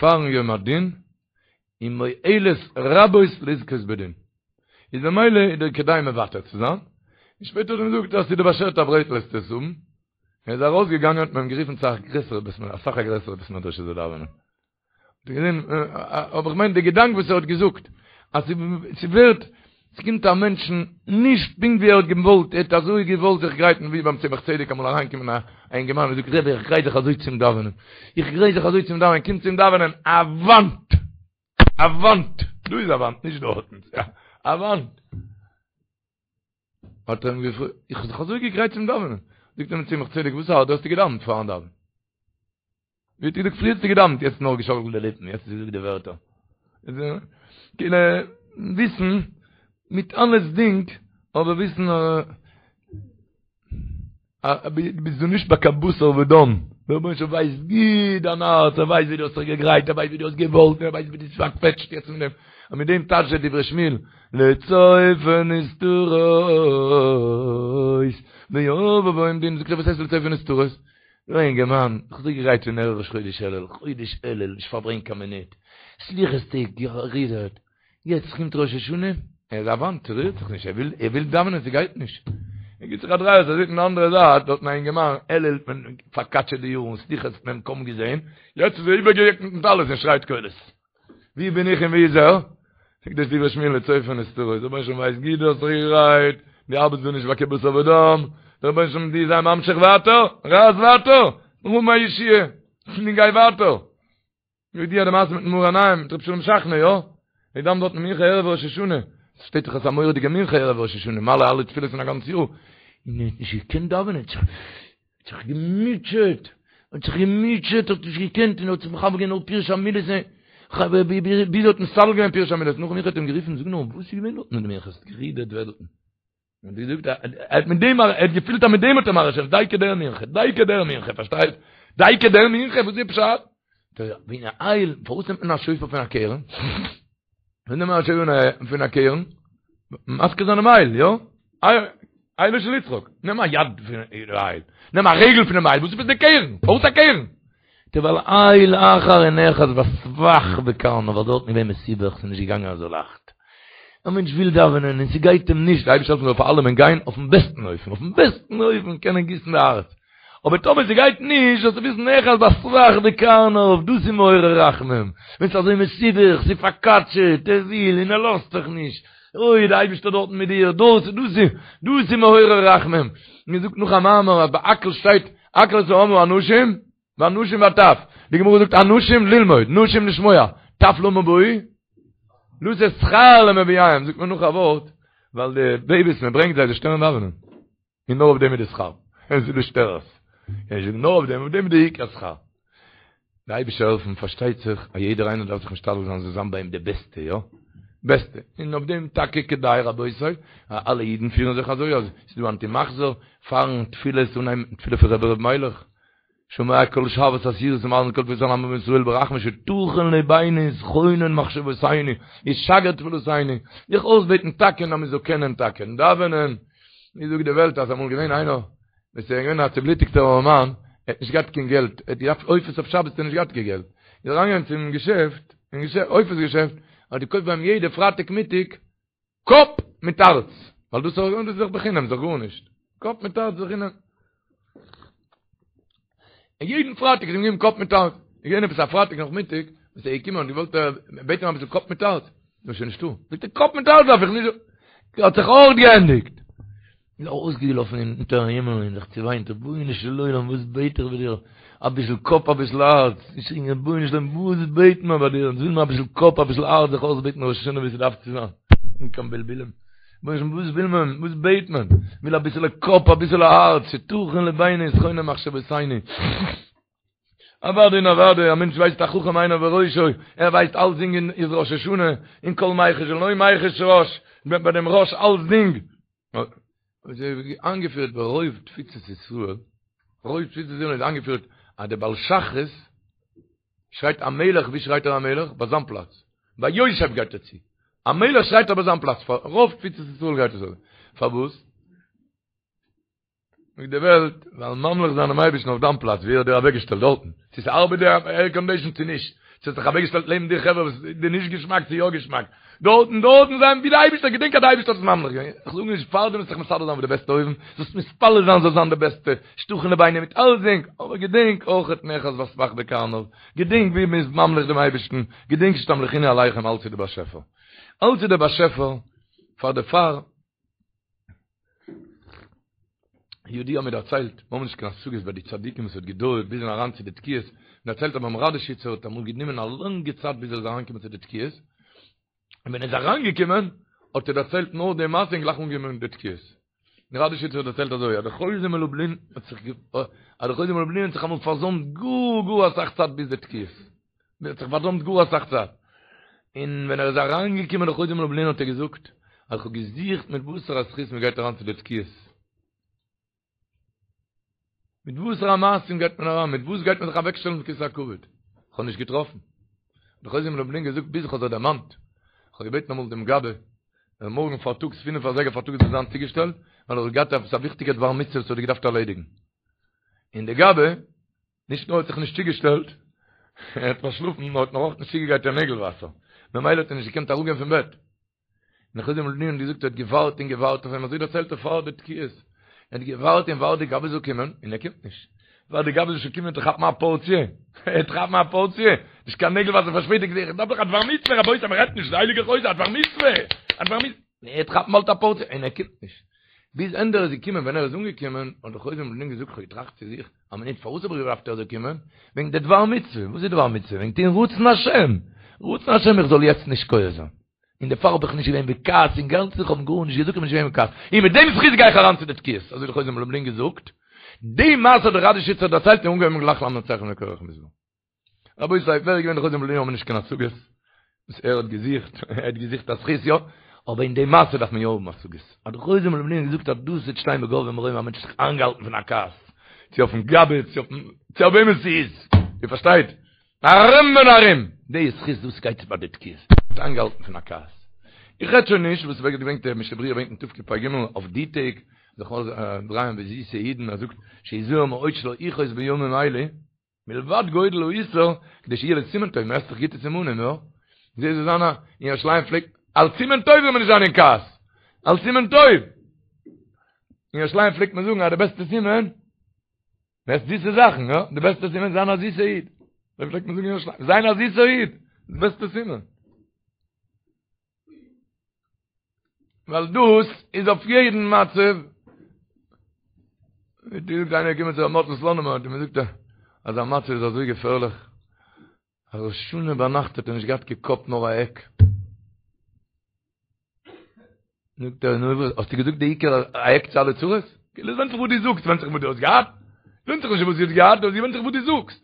פארן יום הדין, איז מועלת רבות לזכות בדין. איז במילא איז דיר כדאי מוותר צו זיין. און שפעטער האט ער אים געזאגט אז ס'איז דיר באשערט א ברעטל וועסטו עס האבן. ער איז ארויסגעגאנגען האט מען אים גערופן צו א גרעסערע בית מדרש, אסאך א גרעסערע בית מדרש ער זאל דאווענען. אבער איך מיין די געדאנק וואס ער האט געזאגט, אז ס'ווערט, ס'קומט א מענטשן נישט פונקט ווי ער האט געוואלט, ער האט אזוי געוואלט זיך גרייטן ווי ביים צמח צדק אמאל אריינגעקומען א אינגערמאן און זאגט רבי איך גרייט זיך אזוי צום דאווענען, איך גרייט זיך אזוי צום דאווענען, קומט צום דאווענען א וואנט! א וואנט! דא איז א וואנט, נישט דארטן, א וואנט! האט ער אים געפרעגט, איך האב זיך אזוי געגרייט צום דאווענען, זאגט אים צמח צדק, וואס הארט, דו האסט געדאווענט פארן דאווענען? ווי האט געזאגט פריער האסטו געדאווענט יעצט נאר געשאקלט די ליפן יעצט האסטו געזאגט די ווערטער כאילו וויסן מיט אלעסדינג אבער וויסן אז ביסט דא נישט ביי קיין בשר ודם דער רבונו של עולם ווייסט גוט דיין הארץ ער ווייסט ווי דו האסט זיך געגרייט ער ווייסט ווי דו האסט געוואלט ער ווייסט ווי דו ביסט פארקוועטשט יעצט מיט דעם און מיט דעם טייטשט דער דברי שמואל לצופה נסתרות ויבוא דין זאגט ער וואס הייסט לצופה נסתרות נו אינגערמאן, איך האב זיך געגרייט פון ערב ראש חודש אלול, חודש אלול, נישט פארברענגט קיין מינוט, סליחות טעג גערודערט, יעצט קומט ראש השנה, ער איז א וואנט, ער רירט זיך נישט, ער וויל, ער וויל דאווענען, ס'גייט נישט. ער גיבט זיך א דריי אויס, ער זעט אין די אנדערע זייט, דארטן א אינגערמאן, אלול האט מען פארקאטשעט די יארן, סליחות האט מען אים קוים געזען, יעצט איז ער איבערגעדעקט מיטן טלית און שרייט קולות. ווי בין איך און ווי איז ער? זאגט דער דברי שמואל לצופה נסתרות, דער רבונו של עולם ווייסט גוט דו האסט זיך געגרייט, דו ארבעטסט דא נישט ביי קיין בשר ודם, דער רבונו של עולם דו זיי ממשיך ווייטער, רייס ווייטער, האב א ישועה, און גיי ווייטער. ידוע די מעשה מיטן מאור עיניים, מיט רבי שלום שכנא, יא? ער דאווענט דארט מנחה ערב ראש השנה, עס שטייט דאך אז ס'איז א מורא'דיגע מנחה ערב ראש השנה, מעלה אלע תפילות פון א גאנץ יאר, און ער האט נישט געקענט דאווענען. זיך געמוטשעט, האט זיך געמוטשעט, האט נישט געקענט, און האט זיך מכוון געווען נאר פירוש המילות, ביז ער האט מסדר געווען פירוש המילות, נאכן מנחה האט אים גערופן, זאג נאר, וואס איז געווען דארטן אין די מנחה, האסט גערודערט וועלטן. און די זאגט ער האט מיט דעם ער האט געפילט אז מיט דעם האט ער מרעיש דייקא דער מנחה דייקא דער מנחה פארשטייט דייקא דער מנחה וואס איז פשט ווען א איל פארוואס נעמט מען א שופר פון א קרן ווען נעמט מען א שופר פון א קרן מזכיר זיין דעם איל יא אילו של יצחק נעם א יד פון איל נעם א רגל פון דעם איל וואס איז די קרן פארוואס א קרן ווייל איל אחר איז נאחז בסבך בקרניו, ווייל דארטן איז געווען מסובך, ס'איז נישט געגאנגען אזוי לייכט. א מענטש וויל דאווענען און ס'גייט אים נישט, די אייבערשטער זאל העלפן זאל פאר אלעמען גיין אויפן בעסטן אופן, אויפן בעסטן אופן קענען גיסן די הארץ. אבער טאמער ס'גייט נישט, זאלסטו וויסן נאחז בסבך בקרניו, דאס איז מעורר רחמים. ווען ס'איז אזוי מסובך, ס'איז פארקאטשעט, ער וויל און ער לאזט זיך נישט, אוי די אייבערשטער דארטן מיט דיר, דאס דאס איז דאס איז מעורר רחמים. מען זאגט נאך א מאמר אז ביי הקהל שטייט הקהל את העם האנשים והנשים והטף, די גמרא זאגט אנשים ללמוד, נשים לשמוע, טף למה באו? לתת שכר למביאיהם, זאגט מען נאך א ווארט, ווייל די בעיביס מען ברענגט זיי זיי שטערן דאווענען, און נאר אויף דעם איז די שכר, עס איז די שטערערס, נאר אויף דעם, אויף דעם איז די עיקר שכר. די אייבישטער העלפן פארשטייט זיך אז יעדער איינער דארף זיך משתדל זיין זאל זיין ביי אים די בעסטע, יא? בעסטע, און אויף דעם טאקע כדאי רבותי, אז אלע אידן פירן זיך אזוי, אז ס'איז דא אנטי מחזור פארן תפילות אנהייבן מיטן תפילה פון רבי ר' מיילעך, שומע כל שועת אסירות ומאזין כל תפילת עמו ישראל ברחמים שתכין לבינו ותכונן מחשבותינו ותשגר תפילותינו, זיך אויסבעטן טאקע אז מען זאל קענען טאקע דאווענען, ווי זאגט די וועלט אז אמאל געווען איינער וואס איז געווען א צובלוטיגטער ארעמאן, ער האט נישט געהאט קיין געלט, ער האט געדארפט עופות אויף שבת האט ער נישט געהאט קיין געלט, איז ער אריינגעגאנגען צום געשעפט, אין געשעפט, עופות געשעפט, האט געקויפט ביי אים יעדע פרייטאג מיטאג קאפ מיט הארץ, ווייל דאס איז דאך בחינם, איז דאך גארנישט, קאפ מיט הארץ בחינם. און יעדן פרייטאג איז אים געגעבן קאפ מיט הארץ. איז געווען עפעס א פרייטאג נאכמיטאג, וואס ער איז געקומען און געוואלט בעטן אביסל קאפ מיט הארץ, איז שוין נישטא. זאגט ער, קאפ מיט הארץ דארף איך נישט. האט זיך אויך געענדיגט. איז ער ארויסגעלאפן אונטערן הימל און זיך צעוויינט, רבונו של עולם וואס בעט איך ביי דיר, אביסל קאפ אביסל הארץ, געשריגן רבונו של עולם וואס בעט מען ביי דיר, אונז וויל מען אביסל קאפ אביסל הארץ זיך אויסבעטן ראש השנה ווי ס'דארף צו זיין, אן קיין בלבולים, רבונו של עולם וואס וויל מען, וואס בעט מען, מ'וויל אביסעלע קאפ אביסעלע הארץ, שתכין לבינו ותכונן מחשבותינו. אוודאי און אוודאי, א מענטש ווייסט החכם עיניו בראשו, ער ווייסט אלסדינג איז ראש השנה, און כל מיחוש ולא מיחוש ראש, ביי דעם ראש אלסדינג. איז איינגעפירט ברוב תפוצות ישראל, רוב תפוצות ישראל איז איינגעפירט אז דער בעל שחרית שרייט המלך, ווי שרייט ער המלך? ביי זיין פלאץ, ביי יושב גייט ער צו, המלך שרייט ער ביי זיין פלאץ, פאר רוב תפוצות ישראל גייט עס אזוי, פארוואס? זאגט די וועלט, ווייל ממליך זיין דעם אייבערשטן אויף דיין פלאץ, ווי ער האט דיר אוועקגעשטעלט דארטן, צו ס'ארבעט די עירקאנדישן צו נישט, צו האט זיך אוועקגעשטעלט לעבן דיר חברה וואס איז דיר נישט געשמאק צו יא געשמאק, דארטן, דארטן זיין ווי די אייבערשטער, געדענק אז די אייבערשטער האט עס ממליך געווען, איך זאג נישט פארדעם זאלסט זיך מסדר זיין אויף די בעסטע אופן, זאלסט מתפלל זיין זאל זיין די בעסטע, שתכין לבינו מיט אלסדינג, אבער געדענק אויכעט נאחז בסבך בקרניו, געדענק ווי מ'איז ממליך דעם אייבערשטן, געדענק שתמליכוני עליכם אלץ איז די באשעפער, אלץ איז דער באשעפער, פאר דערפאר. ידוע מיר דערציילט, מיר האבן נישט קיין השגות ביי די צדיקים וואס האט געדויערט ביז אריין צו די תקיעות, מען דערציילט אז ביים ראדאשיצער האט אמאל גענומען א לאנגע צייט ביז ער איז אריינגעקומען צו די תקיעות, און ווען ער איז אריינגעקומען האט ער דערציילט נאר די מעשה און גלייך אנגעהויבן די תקיעות. דער ראדאשיצער האט דערציילט אזוי, אז דער חוזה מלובלין האט זיך אז דער חוזה מלובלין האט זיך אמאל פארזוימט גאר גאר אסאך צייט ביז די תקיעות. ער האט זיך פארזוימט גאר אסאך צייט. און ווען ער איז אריינגעקומען דער חוזה מלובלין האט ער געזאגט, אז איך האב געזוכט מיט וואסערע זכות מען גייט אריין צו די תקיעות. מיט וואסערע מעשים גייט מען אריין, מיט וואס גייט מען זיך אוועקשטעלן אויף כסא הכבוד. איך האב נישט געטראפן. האט דער חוזה מלובלין געזאגט ביז איך האב זיך דערמאנט. איך האב געבעטן אמאל דעם גבאי, אז מארגן פארטאגס פינף אזייגער פארטאגס זאל זיין צוגעשטעלט, ווייל איך האב געהאט עפעס א וויכטיגע דבר מצוה וואס האט געדארפט ערלעדיגן. און דער גבאי נישט נאר האט זיך נישט צוגעשטעלט, ער האט פארשלאפן, נאר האט נאך אויך נישט צוגעגרייט קיין נעגל וואסער, ממילא האט ער נישט געקענט אראפגיין פון בעט. און דער חוזה מלובלין האט געזאגט ער האט געווארט און געווארט אויף אים, אזוי דערציילט ער פאר די תקיעות, ער האט געווארט און ווארט די גבאי זאל קומען, און ער קומט נישט. ווארט די גבאי זאל שוין קומען צו כאפן א פארציע, ער וועט כאפן א פארציע, נישט קיין נעגל וואסער פארשפעטיגט זיך, איך דארף דאך א דבר מצוה, רבותי מען רעדט נישט, די הייליגע חוזה, א דבר מצוה, א דבר מצוה. ער וועט כאפן באלד א פארציע, און ער קומט נישט. ביז ענדע ער איז געקומען, ווען ער איז אנגעקומען, האט דער חוזה מלובלין געזאגט, כ'האב געטראכט צו זיך, א מינוט, פארוואס האב איך געדארפט ער זאל קומען? וועגן די דבר מצוה. וואס איז דבר מצוה? וועגן טון רצון השם! רצון השם איך זאל יעצט נישט כועס זיין. און דערפאר האב איך נישט געווען בכעס אינגאנצן, איך האב אים גארנישט געזאגט, איך בין נישט געווען בכעס. און מיט דעם זכות גיי איך אריין צו די תקיעות. אזוי האט דער חוזה מלובלין געזאגט. די מעשה האט דער ראדישיצער דערציילט און אנגעהויבן גלייך למנצח לבני קרח מזמור. רבותי, ווער איז געווען דער חוזה מלובלין האבן נישט קיין השגות וואס ער האט געזוכט, ער האט געזוכט א זכות יא, אבער אין די מעשה דארף מען יא האבן השגות. אז דער חוזה מלובלין האט געזאגט אז דאס וועט שטיין בגבהי מרומים א מענטש האט זיך איינגעהאלטן פון א כעס, צו אויפן גבאי, צו אויפן, צו אויף וועמען ס'איז, איר פארשטייט? ארום און ארום! די זכות דאס גייט ביי די תקיעות, האט איינגעהאלטן פון א כעס. איך רעד שוין נישט וואס ווערט געברענגט דער משנה ברורה ברענגט אין תקפ"ג אויף די טעג, זיך דרייען ווי זיסע אידן, ער זאגט שיזהר מאוד שלא יכעוס בימים אלה, מלבד גודל האיסור, כדי שיהיה לסימן טוב, מ'עסט דאך גוטע סימנים, יא? זי זאל זיין א, אין ירושלים פלעגט, אלס סימן טוב זאל מען נישט זיין אין כעס! אלס סימן טוב! אין ירושלים פלעגט מען זאגן אז די בעסטע סימן, מ'עסט זיסע זאכן, יא? די בעסטע סימן זיין א זיסע איד. אזוי פלעגט מען זאגן אין ירושלים, זיין א זיסע איד, די בעסטע סימן. ווייל דאס איז אויף יעדן מצב. ווי די זאגט איינער געקומען צו ר' מאטל סלאנימער האט אים געזאגט אז זיין מצב איז אזוי געפערליך אז ראש השנה ביינאכט האט ער נישט געהאט קיין קאפ נאר א עק. זאגט ער נו וואס האסטו געזאגט די עיקר א עק צו אלע צרות? כאילו עס ווענדט זיך וואס דו זאגסט, ווענדט זיך וואס דו האסט געהאט, ווענדט זיך נישט וואס דו האסט געהאט, עס ווענדט זיך וואס דו זאגסט.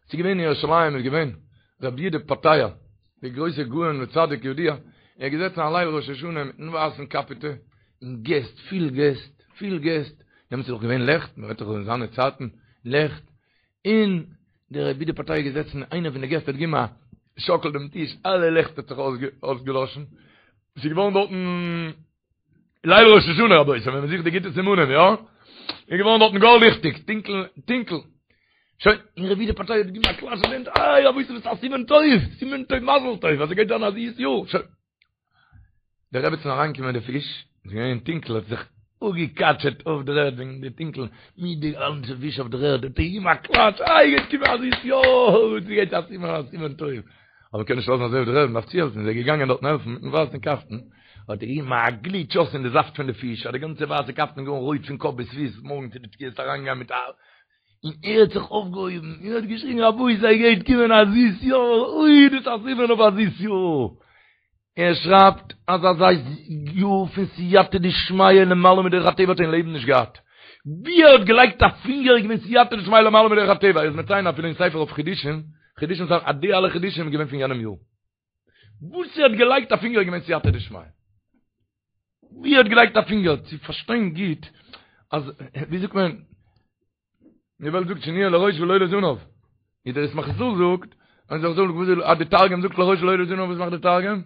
ס'איז געווען אין ירושלים איז געווען רבי יהודה פתיה, דער גרויסער גאון וצדיק ידוע, ער איז געזעצן א ליל ראש השנה מיטן ווייסן קאפעטע, און געסט, פיל געסט, פיל געסט, דעמאלטס איז דאך געווען לעכט, מען רעדט דאך אין זיינע צייטן, לעכט, און דער רבי יהודה פתיה איז געזעצן, איינער פון די געסט האט געגעבן א שאקל דעם טיש, אלע לעכט האט זיך אויסגעלאשן, ס'איז געווארן דארטן ליל ראש השנה רבותי, ווען מען זוכט די גוטע סימנים, יא? איז געווארן דארטן גאר ליכטיג, טונקל, טונקל. שוין, און רבי יהודה פתיה האט געגעבן א קלאטש אין די הענט, איי רבותי וואס א סימן טוב, סימן טוב מזל טוב, אז ס'גייט זיין א זיס יאר, שוין. די רעבעצן אריינגעקומען מיט די פיש, איז געווען טונקל, האט זיך אפגעקאטשעט אויף דער ערד וועגן די טונקל, מיט די גאנצע פיש אויף דער ערד, האט ער געגעבן א קלאטש, איי גייט קומען א זיס יאר, ס'גייט א סימן א סימן טוב. אבער מ'קען נישט לאזן אזוי אויף דער ערד, מ'דארף צוהעלפן, איז ער געגאנגען דארטן העלפן מיטן ווייסן קאפטן, האט ער געגעבן א גליטש אויס אין די זאפט פון די פיש, אז די גאנצע ווייסע קאפטן איז געווארן רויט פון קאפ ביז פיס, מארגן צו די תקיעות אריינגיין מיט א, און ער האט זיך אויפגעהויבן און האט געשריגן רבותי ס'גייט קומען א זיס יאר, אוי דאס איז א סימן אויף א זיס יאר, ער שרייבט אז אזא יאר פון סייעתא דשמיא למעלה מדרך הטבע האט ער אין לעבן נישט געהאט, ווי ער האט געלייגט א פינגער איז געווען סייעתא דשמיא למעלה מדרך הטבע, ער איז מציין אפילו אין ספר אויף חידושים, חידושים זיינע אז די אלע חידושים איז געווען פון יענעם יאר. וואס ער האט געלייגט א פינגער איז געווען סייעתא דשמיא. ווי ער האט געלייגט א פינגער צו פארשטיין גוט אז ווי זאגט מען די וועלט זאגט שנהיה לראש ולא לזנב. ווי דער ישמח ישראל זאגט, אז איך זאג וואס אז די תרגום זאגט לראש ולא לזנב וואס מאכט די תרגום?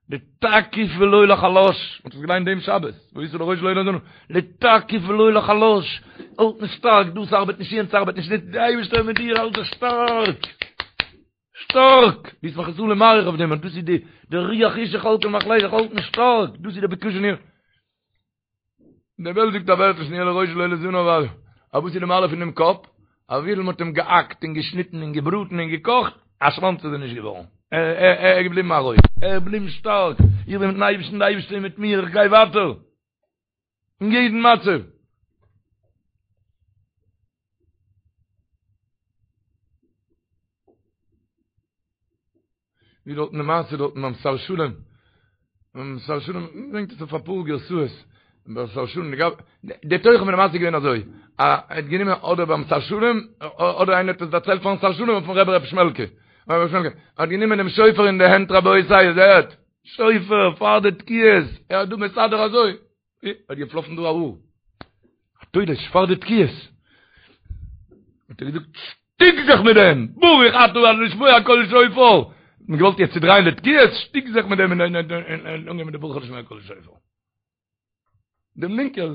לתקיף ולא לחלש, מ'האט עס געליינט דעם שבת, והיית לראש ולא לזנב, לתקיף ולא לחלש, האלטן שטארק, דאס ארבעט נישט, יענץ ארבעט נישט, די אייבערשטער איז מיט דיר, האלט זיך שטארק, שטארק, די ישמח ישראל איז מאריך אויף דעם, אז דאס איז די, די רוח ישוך על כל מחלך, האלטן שטארק, דאס איז די בקשה ניר. די וועלט זאגט א ווערטל שנהיה לראש ולא לזנב ווייל א וואס איז די מעלה פון דעם קאפ? אז וויפיל מ'האט אים געהאקט און געשניטן און געבראטן און געקאכט, א שוואנץ איז ער נישט געווארן. ער איז געבליבן א ראש. ער איז געבליבן שטארק. איך בין מיטן אייבערשטן, די אייבערשטער איז מיט מיר, איך גיי ווייטער. אין יעדן מצב. ווי דארטן די מעשה דארטן ביים שר שלום, ביים שר שלום ברענגט עס אויף אפאר גרסאות, ביים שר שלום, די תוכן פון די מעשה איז געווען אזוי, ער האט גענומען אדער ביים שר שלום, אדער איינער האט עס דערציילט פארן שר שלום אויפן רבי ר' שמעלקע, רבי שמעלקע, ער האט גענומען דעם שופר אין די הענט רבותי, איר זעהט? שופר פאר די תקיעות, ער האט דא מסדר אזוי, האט געפלאפן דא א האר, א תולש פאר די תקיעות, האט ער געזאגט, שטיק זיך מיט דעם, ברוך אתה ה' לשמוע קול שופר, האט מען געוואלט יעצט צודרייען די תקיעות, שטיק זיך מיט דעם און אנגיין מיט די ברוך אתה לשמוע קול שופר. דעם לינקער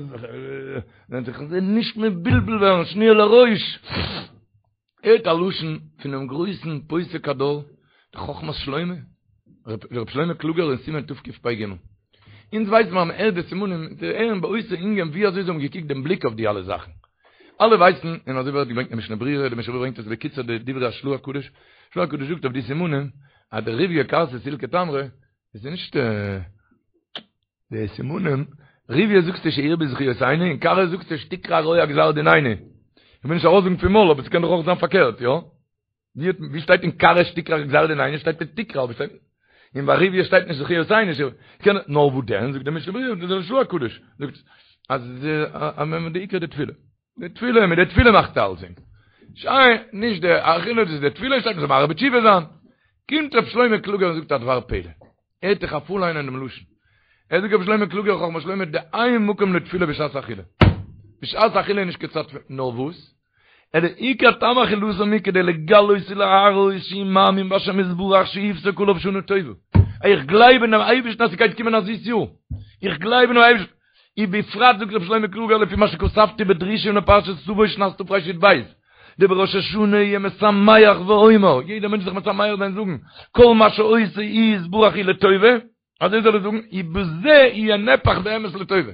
זיך נישט מבולבל ווערן, שנהיה לראש. הערט א לשון פונעם גרויסן פוסק הדור, דער חכמת שלמה, ר' שלמה קלוגער אין סימן תקפ"ג. אונז ווייסן מיר אז מען הערט די סימנים, צו הערן באותו ענין ווי אזוי זיי האבן געקוקט דעם בליק אויף די אלע זאכן. אלע ווייסן, און אזוי ווערט געברענגט אין משנה ברורה, די משנה ברורה ברענגט עס בקיצור די דברי השל"ה הקדוש, של"ה הקדוש זאגט אויף די סימנים, אז דריוויא כרסא סילקא תמרי, עס איז נישט די סימנים, ריוויא זאגסטו שירבו זכיותינו, און כרעא זאגסטו שתקרע רוע גזר דיננו. איך וויל נישט ארויסזאגן פון מויל, אבער ס'קען דאך אויך זיין פארקערט, יא? ווי האט ווי שטייט אין כרעא שתקרע גזר דיננו שטייט שתקרע אבער שטייט אין ביי ריוויא שטייט נישט זכיותינו קען נאר וואו דען זאגט דער משנה ברורה דער של"ה הקדוש זאגט. אז די עיקר די תפילה. די תפילה, מיט די תפילה מאכט אלסדינג. שוין, נישט די אכילה, דאס איז די תפילה, שטייט מ'זאל מהרהר בתשובה זיין. קומט ר' שלמה קלוגער און זאגט א דבר פלא. הערט איך א פארליינען דעם לשון. ער זאגט ר' שלמה קלוגער חכמת שלמה דאין מקום לתפילה בשעת אכילה. בשעת אכילה איז נישט קיין צייט תפילה. נאר וואס? אלא עיקר טעם אכילתם היא כדי לגלות ולהראות שהוא מאמין בהשם יתברך שיפסוק עליו שנה טובה. איך גלייב אינעם אייבערשטן אז ס'גייט קומען א זיס יאר. איך גלייב אינעם אייבערשטן. ובפרט זאגט ר' שלמה קלוגער לפי מה שכתבתי בדרושים לפרשת תבוא שנת תרי"ב דבראש השנה יהיה משמח ואומר, יעדער מענטש זיך משמח זיין זאגן, כל מה שעושה יתברך הוא לטובה, אזוי זאל ער זאגן, ובזה יהיה נהפך באמת לטובה.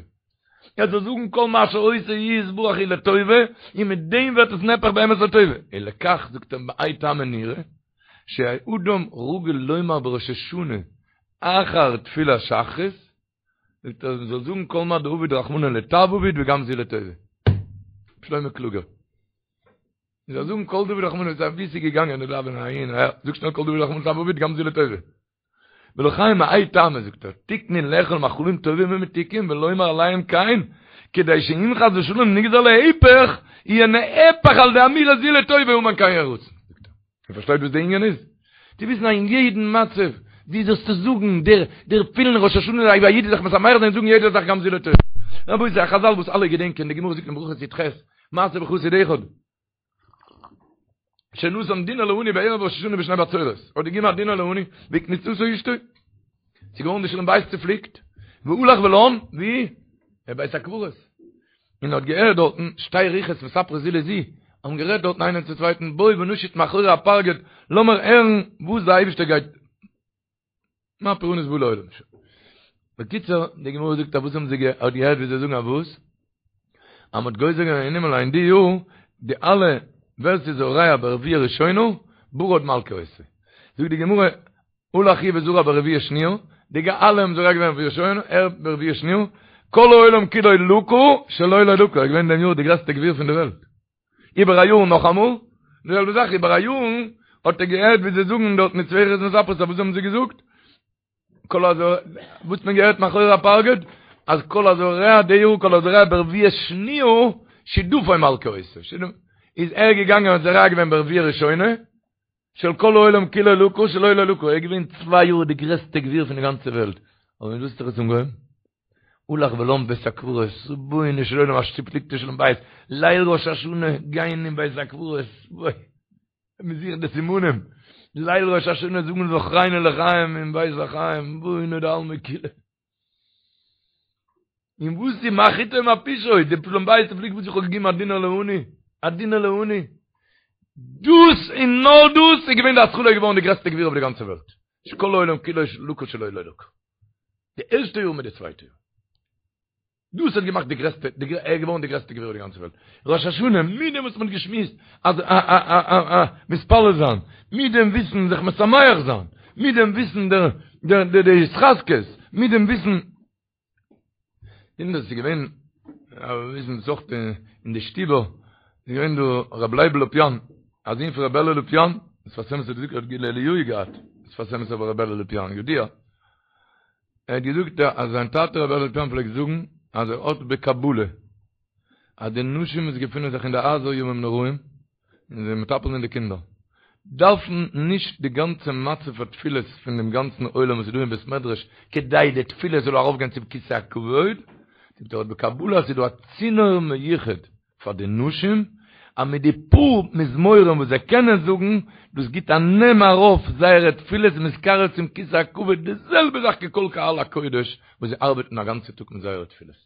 ער זאל זאגן כל מה שעושה יתברך הוא לטובה, און מיט דעם ווערט עס נהפך באמת לטובה. ולכך זאגט ער מהאי טעמא נראה, שהאדם רגיל לומר בראש השנה אחר תפילת שחרית, זאגט ער מ'זאל זאגן כל מה דעביד רחמנא לטב עביד וגם זו לטובה. שלמה קלוגער. מ'זאל זאגן כל דעביד רחמנא לטב, ווי ס'איז געגאנגען די דאווענען אהין אהער, זאג שנעל כל דעביד רחמנא לטב עביד גם זו לטובה. ולכן מהאי טעמא זאגט ער, תיקנו לאכול מאכלים טובים ומתוקים ולומר עליהם כן, כדי שאם חס ושלום נגזר להיפך, יהיה נהפך על ידי אמירה זו לטובה אמן כן יהי רצון. זאגט ער. איר פארשטייט וואס די ענין איז? צו וויסן אז אין יעדן מצב, ווי זאלסטו זאגן, דער דער פילן ראש השנה אויב א איד איז זיך משמח זיין זאגן יעדע זאך גם זו לטובה. רבותי, א חזל וואס אלע געדענקען, די גמרא זאגט אין ברכות י"ח, מעשה בחסיד אחד, שנתן דינר לעני בערב ראש השנה בשני בצורת, האט געגעבן א דינר לעני, והקניטתו אשתו. ס'איז געווארן די שלום בית צופליקט, והלך ולן, ווי? אין בית הקברות. און האט געהערט דארטן שתי רוחות מספרות זו לזו, האבן גערעדט דארטן איינער צום צווייטן, בואי ונשוט מאחורי הפרגוד, לאמיר הערן וואס דער אייבערשטער גייט, מה פורענות בא לעולם. בקיצור, די גמרא זאגט אז וואס האבן זיי האט געהערט ווי זיי זאגן אז וואס? אז מ'האט גוזר געווען אין הימל אין די יאר, די אלע ווער ס'איז זורע ברביעה ראשונה, ברד מלקה אותו. זאגט די גמרא, הלך הוא וזרע ברביעה שניה, די אלע האבן זורע געווען ברביעה ראשונה, ער ברביעה שניה, כל העולם כולו לקה, שלו לא לקה, ער איז געווען דעם יאר די גרעסטע גביר פון די וועלט. איבער א יאר נאכאמאל, די זעלבע זאך איבער א יאר, האט ער געהערט ווי זיי זאגן דארט מיט צוויי רוחות מספרות, וואס האבן זיי געזאגט? כל הזורע, וואס האט מען געהערט מאחורי הפרגוד? אז כל הזורע די יאר כל הזורע ברביעה שניה, שדפון מלקה אותו. איז ער געגאנגען און זורע געווען ברביעה ראשונה, של כל העולם כולו לקה שלו לא לקה, ער איז געווען צוויי יאר די גרעסטע גביר פון די גאנצע וועלט, אבער מיט וואס האט זיך עס אנגעהויבן? הלך ולן בית הקברות, רבונו של עולם א צופליקטע שלום בית, ליל ראש השנה גיין אין בית הקברות, אוי, מען זוכט די סימנים, ליל ראש השנה זאגן זכרנו לחיים אין בית החיים, רבונו דעלמא כולא. און וואס איז מה חטאו מה פשעו, די שלום בית צופליקט וואס איך האב געגעבן א דינר לעני, א דינר לעני, דאס און נאר דאס איז געווען די התחלה געווארן די גרעסטע גביר אויף די גאנצע וועלט, שכל העולם כולו לקה שלו לא לקה, די ערשטע יאר מיט די צווייטע יאר. דאס האט געמאכט די גרעסטע, ער איז געווארן די גרעסטע גביר אויף די גאנצע וועלט. ראש השנה, מיט דעם וואס מען האט געשמועסט אז א א א א א מתפלל זיין, מיט דעם וויסן זיך משמח זיין, מיט דעם וויסן דער דער דער די התחזקות, מיט דעם וויסן, און דאס איז געווען, וויסן זאגט אין די שטיבער, איז געווען דא רבי לייבל לופיאן, א זון פון רבי אלי' לופיאן, שפת אמת האט געזאגט ער האט גילוי אליהו געהאט, שפת אמת אבער רבי אלי' לופיאן, ידוע. ער האט געזאגט אז זיין טאטע רבי אלי' לופיאן פלעגט זאגן אז ער האט בקבלה אז די נשים וואס געפינען זיך אין די הייזער ימים נוראים און זענען מטפל אין די קינדער דארפן נישט די גאנצע מצב התפילות פון דעם גאנצן עולם וואס איז דא אין בית מדרש כדי די תפילה זאל ארויפגיין צום כסא הכבוד, זאגט ער האט בקבלה אז ס'איז דא א צינור מיוחד פאר די נשים, אז מיט די פאר מזמורים וואס זיי קענען זאגן, דאס גיט א נעם ארויף זייערע תפילות מתקרב צום כסא הכבוד, די זעלבע זאך ככל קהל הקודש וואס זיי ארבעטן א גאנצע טאג מיט זייערע תפילות.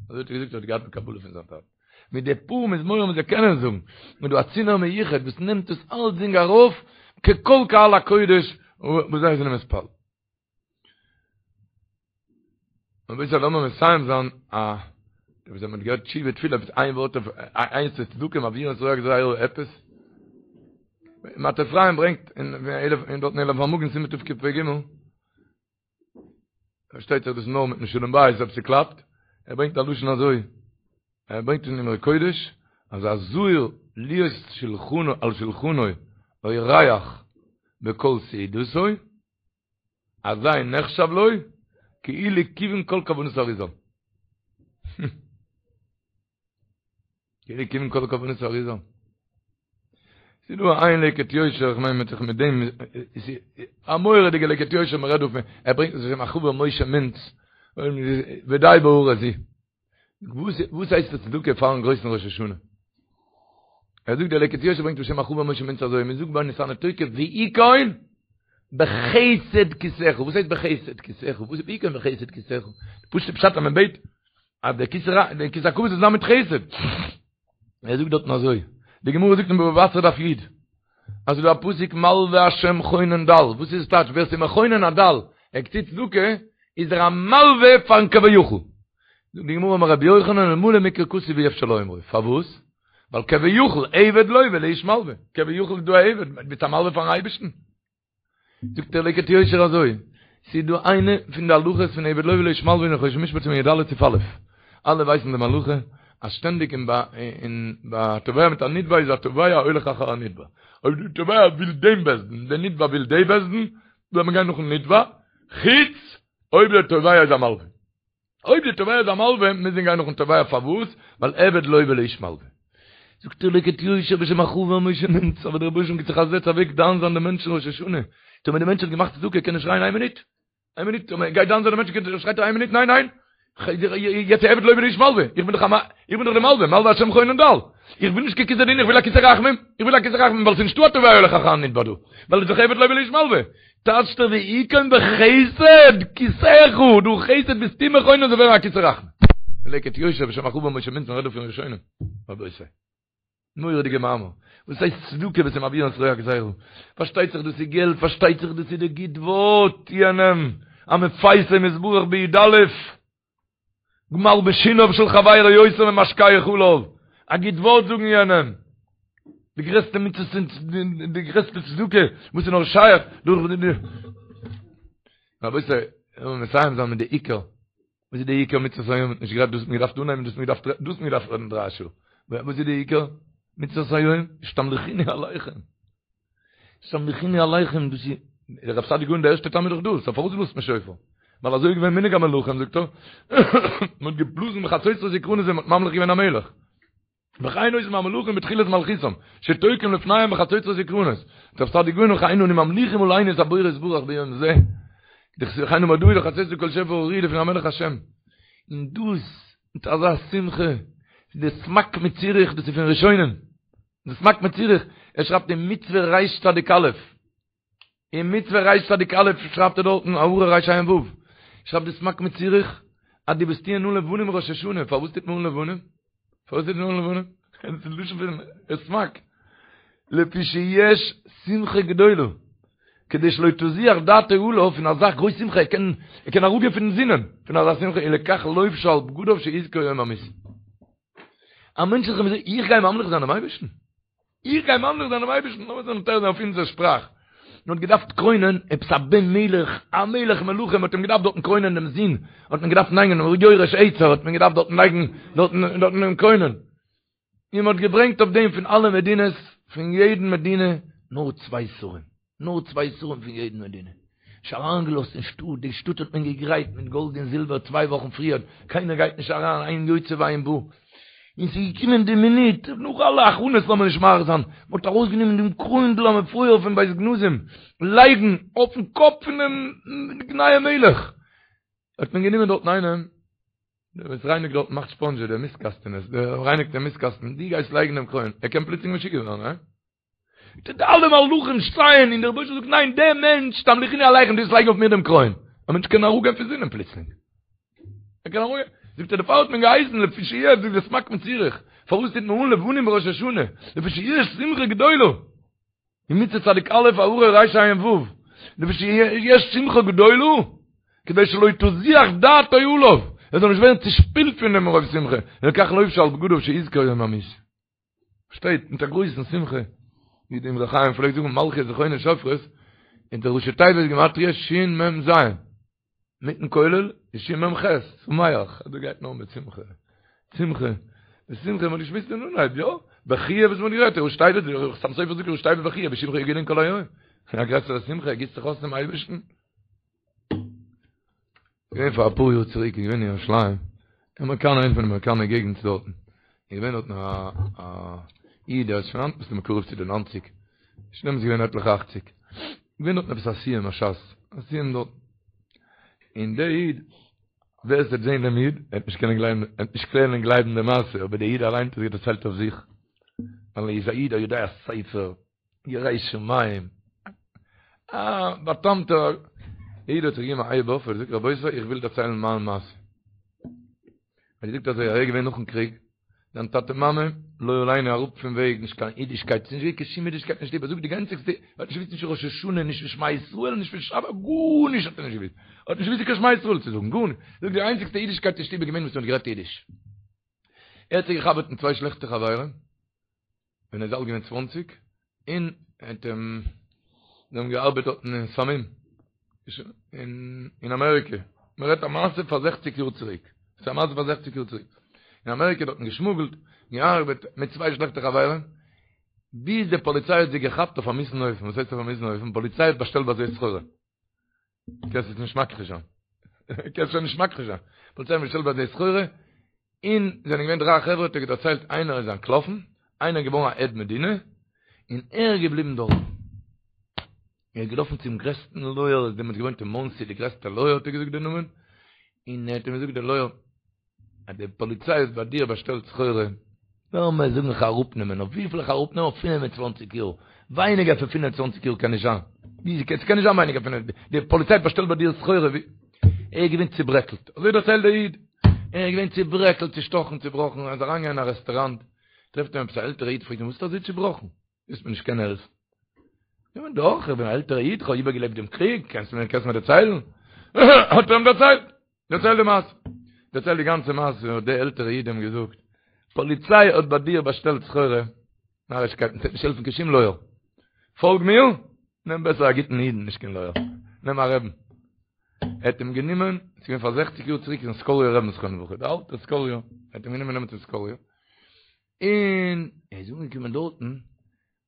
אזוי האט ער געזאגט ער האט געהאט בקבלה פון זיין טאטן. מיט די פאר מזמורים וואס זיי קענען זאגן, איז דא א צינור מיוחד וואס נעמט דאס אלצדינג ארויף ככל קהל הקודש וואס זיי זענען מתפלל. רבותי לאמיר מסיים זיין א וואס האט מען געהערט תשובה תפילה עפעס איין ווארט אויף איינס צו צדקה מעבירין את רוע הגזירה עפעס מטה אפרים ברענגט אין אלף אין דארט אין אלף המגן סימן תקפ"ג פארשטייט זיך דאס נאר מיטן שלום בית אויב ס'קלאפט ער ברענגט א לשון אזוי ער ברענגט אין אמרי קודש אז הזהיר להיות שולחנו על שולחנו אורח בכל סעודתו אזי נחשב לו כאילו כיוון כל כוונות האריזל. כאילו כיוון כל כוונות האריזל. ס'איז דא איין לקט יושר, איך מיין מיט זיך מיט דעם, א מורא'דיגע לקט יושר מ'רעדט דא פון, ער ברענגט עס בשם החבר משה מינץ, ודי בהערה זו. וואס וואס הייסט עס צדקה פארן גרויסן ראש השנה? ער זאגט דער לקט יושר ברענגט בשם החבר משה מינץ אזוי, מ'זאגט ביי ונתנה תוקף ויכון בחסד כסאך, וואס הייסט בחסד כסאך? וואס איז ויכון בחסד כסאך? פשוט'ע פשט אז מען בעט אז דער כסא דער כסא הכבוד זאל זיין מיט חסד. ער זאגט דארטן אזוי, די גמרא זאגט אין בבא בתרא דף י', אז ס'איז דא א פסוק מלוה השם חונן דל, וואס איז עס טייטש ווער ס'איז מחונן א דל, ער טוט צדקה, איז ער א מלווה פארן כביכול. זאגט די גמרא אמר רבי יוחנן אלמלא מקרא כתוב אי אפשר לאומרו, פארוואס? ווייל כביכול עבד לוה לאיש מלווה, כביכול איז דא א עבד, ביסט א מלווה פארן אייבערשטן. זאגט דער לקט יושר אזוי, ס'איז דא איינע פון די הלכות פון עבד לוה לאיש מלווה אין חושן משפט סימן י"ד סעיף א', אלע ווייסן דעם הלכה אז שטענדיג אין ביי אין ביי א תובע מיט א נתבע איז התובע הולך אחר הנתבע, אויב די תובע וויל דעם בית דין, דער נתבע וויל די בית דין, זאל מען גיין נאכן נתבע, חוץ אויב דער תובע איז א מלווה. אויב די תובע איז א מלווה, מוז מען גיין נאכן תובע, פארוואס? ווייל עבד לוה לאיש מלווה. זאגט דער לקט יושר בשם החבר משה מינץ, אבער דער רבוש"ע גיט זיך א זעץ אוועק דן זיין די מענטשן ראש השנה, טאמער די מענטש האט געמאכט צדקה קען ער שרייען איין מינוט, איין מינוט, טאמער גייט דן זיין די מענטש קען שרייט ער איין מינוט ניין ניין, יעצט עבד לוה לאיש מלווה, איך בין דאך א איך בין דאך די מלווה, מלווה השם חונן דל, איך וויל נישט קיין כסא דין איך וויל א כסא רחמים, איך וויל א כסא רחמים ווייל ס'איז נישטא א תובע הולך אחר הנתבע דא, ווייל איז דאך עבד לוה לאיש מלווה, טייטשט ער ויכון בחסד כסאך, דורך חסד ביסטו מחונן זאל ווערן א כסא רחמים. לקט יושר בשם החבר משה מינץ מ'רעדט דא פון ראשונים, רבותי. מורא'דיגע מאמר. וואס הייסט צדקה וואס איז מעביר את רוע הגזירה? פארשטייט זיך דאס איז געלט, פארשטייט זיך דאס איז די גוט ווארט יענעם, המפייסו מתברך בי"א. מלבשינו של חברו יותר ממשקהו חלב, א גוט ווארט זאגן יענעם, די גרעסטע מצוות און די גרעסטע צדקה וואס איז נאר שייך דורך די רבותי, לאמיר מסיים זיין מיט די עיקר, וואס איז די עיקר מצוות היום, נישט גערעדט דאס האט מען געדארפט אנהייבן דאס האט מען געדארפט דאס האט מען געדארפט רעדן דריי שעה, וואס איז די עיקר מצוות היום, שתמליכוני עליכם. שתמליכוני עליכם, דאס איז, דער רב סעדיה גאון דער ערשטער טעם איז דאך דאס, פארוואס בלאזט מען שופר? ווייל אזוי איז געווען מנהג המלכים, זאגט ער, מען האט געבלאזן בחצוצרות וקרנות ווען מען האט ממליך געווען א מלך. וכן עושים המלכים בתחילת מלכותם, שתוקעים לפניהם בחצוצרות וקרנות. זאגט רב סעדיה גאון וכן אנו ממליכים עלינו את הבורא יתברך ביום זה. וכן אמר דוד בחצוצרות וקול שופר הריעו לפני המלך השם. און דאס, מיט אזא שמחה, די סמ"ק מציריך, דאס איז פון ראשונים. די סמ"ק מציריך, ער שרייבט אין מצוה ריש צדיק א', אין מצוה ריש צדיק א' שרייבט ער דארטן הערה ריש עין ו', שרייבט די סמ"ק מציריך, אז די וואס טוען אן לבנים ראש השנה, פארוואס טוט מען אן לבנים? פארוואס טוט מען אן לבנים? דאס איז לשון פון סמ"ק, לפי שיש שמחה גדולה, כדי שלא תזוח דעתו עליו פון אזא גרויס שמחה, ער קען ער קען אראפגיין פון זינען פון אזא שמחה, ולכך לובשו על בגדיו שיזכור יום המיתה. א מענטש איז זיך איך גיי ממליך זיין דעם אייבערשטן? איך גיי ממליך זיין דעם אייבערשטן? לאמיר זיך מתאר זיין אויף אונזער שפראך. מען האט געדארפט קרוינען עפעס א בן מלך, א מלך מלכים, מען האט אים געדארפט דארטן קרוינען דעם זון, האט מען געדארפט לייגן יורש עצר, האט מען געדארפט דארטן לייגן, דארטן דארטן אים קרוינען. און מען האט געברענגט אויף דעם פון אלע מדינות, פון יעדן מדינה, נאר צוויי שרים, נאר צוויי שרים פון יעדן מדינה. נישט אריינגעלאזט אין שטאט, די שטאט האט מען געגרייט מיט גאלד און זילבער צוויי וואכן פריער, קיינער גייט נישט אריין, אין יוצא ואין בא. און ס'איז געקומען די מינוט, נאך אלע הכנות לאמיר נישט מאריך זיין, מען האט ארויסגענומען דעם קרוינדל המפואר פון בית גנזים, לייגן אויפן קאפ פונעם נייעם מלך, האט מען גענומען דארטן איינעם, דער וואס רייניגט דארט מאכט ספאנדזשע דער מיסטקאסטענעס, דער רייניגט דעם מיסטקאסטן, דו גייסט לייגן דעם קרוין, ער קען פלוצלינג משוגע ווערן, הא? די אלע מלאכים שטייען און דער רבוש"ע זאגט ניין דער מענטש תמליכוני עליכם דו וועסט לייגן אויף מיר דעם קרוין, א מענטש קען אראפגיין פון זינען פלוצלינג, ער קען אראפגיין, זאגט ער דערפאר האט מען געהייסן לפי שיש זאגט דער סמ"ק מציריך, פארוואס טוט מען אן לבנים בראש השנה, לפי שיש שמחה גדולה. אין מצוה צדיק א' הערה ריש עין ו', לפי שיש שמחה גדולה, כדי שלא תזוח דעתו עליו, ער זאל נישט ווערן צושפילט פון דעם מרוב שמחה, ולכך לובשו על בגדיו שיזכור יום המיתה. שטייט מיט א גרויסן שמחה, ווי די אמרי חיים פלעגט זאגן מלכיות זכרונות שופרות, און די ראשי תיבות גימטריא שין מ ז. מיטן כולל איז שין מ ח, שמח, אז דא גייט נאר מיט שמחה, שמחה, בשמחה, מ'האט געשמועסט אין אנהייב, יא, בכיה וואס מ'האט גערעדט, ראשי תיבות, חתם סופר זאגט ראשי תיבות בכיה, בשמך יגילון כל היום, א גרעסערע שמחה, ער גיסט זיך אויס צום אייבערשטן. געווען פאר אפאר יאר צוריק, געווען אין ירושלים, אין אמעריקאנער, איינע פון די אמעריקאנער געגנטס דארטן. איז געווען דארטן א א איד ער איז שוין היינט מסתמא קרוב צו די ניינציג, שוין דעמאלטס געווען עטליכע אכציג, געווען דארטן עפעס א סיום הש"ס, א סיום דארט, און דער איד, ווער עס וועט זען דעם איד, ער וועט נישט קענען גלייבן, ער וועט נישט קענען גלייבן די מעשה, אבער דער איד אליין האט עס דערציילט אויף זיך, ווייל ער איז א איד א יודע ספר, ירא שמים, א בא'טעמ'טער איד האט זיך געגעבן א הייב אויף, ער האט געזאגט רבותי איך וויל דערציילן מיין מעשה. ער האט געזאגט אזוי, ער איז געווען נאכן קריג, זיין טאטע מאמע, לא עלינו אראפ פון וועג, נישט קיין אידישקייט, ס'איז נישט געווען קיין שום אידישקייט אין שטוב, ער זאגט די איינציגסטע, ער האט נישט געוואוסט נישט ראש השנה, נישט פון שמע ישראל, נישט פון שבת, גארנישט האט ער נישט געוואוסט, ער האט נישט געוואוסט קיין שמע ישראל צו זאגן, גארנישט, ער זאגט די איינציגסטע אידישקייט אין שטוב איז געווען וואס מען האט גערעדט אידיש. ער האט זיך געחבר'ט מיט צוויי שלעכטע חברים, ווען ער איז אלט געווען צוואנציג, און האט אים, זיי האבן געארבעט דארטן אין סמים, אין אמעריקע, מען רעדט א מעשה פאר זעכציג יאר צוריק, ס'איז א מעשה פאר זעכציג יאר צוריק, אין אמעריקע דארטן געשמוגלט, געארבעט מיט צוויי שלעכטע חברים, ביז די פאליציי האט זיי געכאפט אויף א מיאוס'ן אופן, וואס הייסט אויף א מיאוס'ן אופן? פאליציי האט באשטעלט ביי זיי סחורה. קענסט עס נישט מכחיש זיין. קענסט שוין נישט מכחיש זיין. פאליציי האט באשטעלט ביי זיי סחורה, און זענען געווען דריי חברה האט ער דערציילט איינער איז אנטלאפן, איינער איז געווארן א עד מדינה, און ער איז געבליבן דארט. ער איז געלאפן צום גרעסטן לויער, ער איז דעמאלטס געוואוינט אין מאנסי, די גרעסטע לויער האט ער געזאגט די נאמען, און ער האט אים געזאגט די לויער, אז די פאליציי האט ביי דיר באשטעלט סחורה, לאמיר זאגן איך אראפנעמען, אויף וויפיל איך אראפנעמען? אויף 25 יאר, ווייניגער פון 25 יאר קען נישט זיין, ווי ס'קען נישט זיין ווייניגער פון, די פאליציי האט באשטעלט ביי דיר סחורה, ווי, ער איז געווען צוברעקלט, אזוי דערציילט דער איד, ער איז געווען צוברעקלט, צושטאכן, צובראכן, ער איז אריינגעגאנגען אין א רעסטוראנט, טרעפט אים עפעס א עלטערע איד, פרעגט אים וואס ביסטו אזוי צובראכן? וועסט מיר נישט קענען העלפן. יא דאך, איך בין א עלטערע איד, איך האב איבערגעלעבט דעם קריג, קענסט מיר קענסט מיר דערציילן? האט ער אים דערציילט, דערציילט די מעשה. דערציילט די גאנצע מעשה, האט דער עלטערע איד אים געזאגט, פאליציי האט ביי דיר באשטעלט סחורה, נארישקייטן, ס'וועט נישט העלפן קיין שום לויער. פאלג מיר, נעם בעסער א גוטן אידן, נישט קיין לויער. נעם א רעבן. ער האט אים גענומען, ס'איז געווען פאר זעכציג יאר צוריק אין סקאליער רעבן זכרונו לברכה, דער אלטער סקאליער, ער האט אים גענומען נעמען צום סקאליער, און ער איז אנגעקומען דארטן,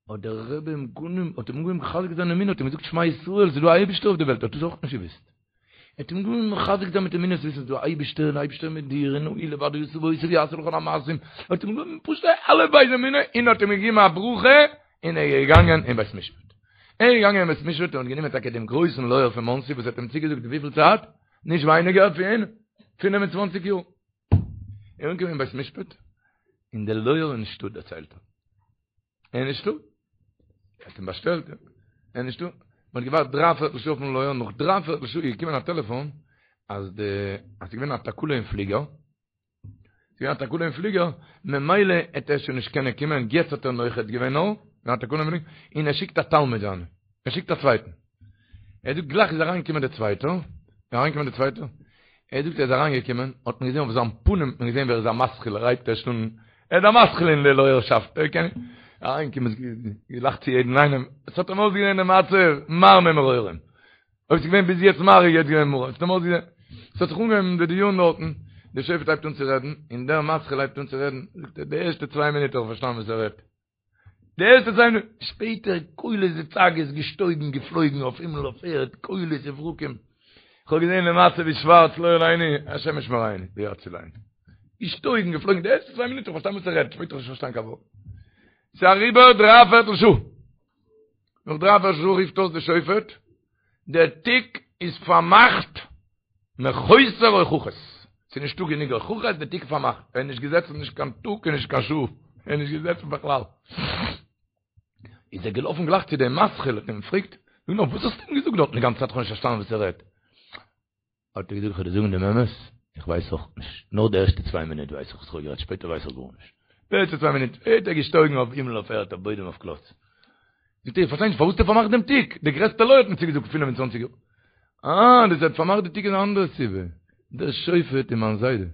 האט דער רבי אים גענומען, האט אים אנגעהויבן מחזק זיין אמונה, האט אים געזאגט שמע ישראל, ס'איז דא א אייבישטער אויף די וועלט, ער האט דאס אויך נישט געוואוסט. ער האט אים אנגעהויבן מחזק זיין מיט אמונה, וויסן ס'איז דא א אייבישטער, און אייבישטער מיט דיר, און הוא לבדו עשה ועושה ויעשה לכל המעשים, ער האט אים געגעבן פשוט אלף בית אמונה, און האט אים געגעבן א ברכה, און ער איז געגאנגען אין בית משפט. ער איז געגאנגען אין בית משפט און האט גענומען טאקע דעם גרויסן לויער פון מאנסי וואס האט אים צוגעזאגט וויפיל צייט? נישט ווייניגער פון פינף און צוואנציג יאר. ער איז אנגעקומען אין בית משפט, און דער לויער איז נישטא, דערציילט ער. ער איז נישטא. ער האט אים באשטעלט, ער איז נישטא. מען האט געווארט דריי פערטל שעה אויפן לויער, נאך דריי פערטל שעה איז געקומען א טעלעפאן, אז די, אז ס'איז געווען א תקלה אין פליגער, ס'איז געווען א תקלה אין פליגער, ממילא העט ער שוין נישט קענען קומען, יעצט האט ער נוחת געווען נאר, געווען א תקלה אין פליגער, און ער שיקט א תלמיד זיינע, ער שיקט א צווייטן. ער זאגט גלייך איז אריינגעקומען דער צווייטער, איז אריינגעקומען דער צווייטער, ער זאגט ער איז אריינגעקומען, האט מען געזען אויף זיין פנים האט מען געזען ווי ער איז א מתחיל, ער הייבט ערשט אן, ער איז א מתחיל אין די לויערשאפט, ער קען, אריינגעקומען געלאכט צו יעדן איינעם, עס האט אים אויסגעזען די מצב מר ממרורים, אויב ס'איז געווען ביז יעצט מר איז יעצט געווען מרור, עס האט אים אויסגעזען, עס האט זיך אנגעהויבן די דיון דארטן, דער שופט הייבט אן צו רעדן, און דער מתחיל הייבט אן צו רעדן, זאגט ער די ערשטע צוויי מינוט האב איך פארשטאנען וואס ער רעדט, די ערשטע צוויי מינוט, שפעטער קולות וצעקות געשטויגן געפלויגן אויף הימל אויף ערד, קולות וברקים, כ'האב געזען די מצב איז שווארץ לא עלינו, השם ישמרינו ויצילנו. געשטויגן געפלויגן, די ערשטע צוויי מינוט האב איך פארשטאנען וואס ער רעדט, שפעטער האב איך נישט פארשטאנען קיין ווארט. ס'איז אריבער דריי פערטל שעה. נאך דריי פערטל שעה רופט אויס די שופט, דער תיק איז פארמאכט מחוסר הוכחות. ס'איז נישטא גענוג הוכחות, די תיק איז פארמאכט. ער איז נישט געזעצן נישט קיין טאג און נישט קיין שעה. ער איז נישט געזעצן בכלל. איז ער געלאפן גלייך צו דעם מתחיל, האט אים געפרעגט, זאג נאר, וואס האסטו אים געזאגט דארטן די גאנצע צייט? איך האב נישט פארשטאנען וואס ער רעדט. האט ער געזאגט, איך וועל דיר זאגן דעם אמת, איך ווייס אויך נישט. נאר די ערשטע צוויי מינוט ווייס איך וואס איך האב גערעדט, שפעטער ווייס איך גארנישט. די ערשטע צוויי מינוט האט ער געשטויגן אויף הימל אויף ערד, אויף בוידעם אויף קלאץ. זאגט ער, איך פארשטיי נישט, פארוואס האט ער פארמאכט דעם תיק? דער גרעסטער לויער האט מיר צוגעזאגט פינף און צוואנציג יאר. אה, דאס ער האט פארמאכט די תיק איז א אנדערע סיבה. דער שופט איז מיין זיידע.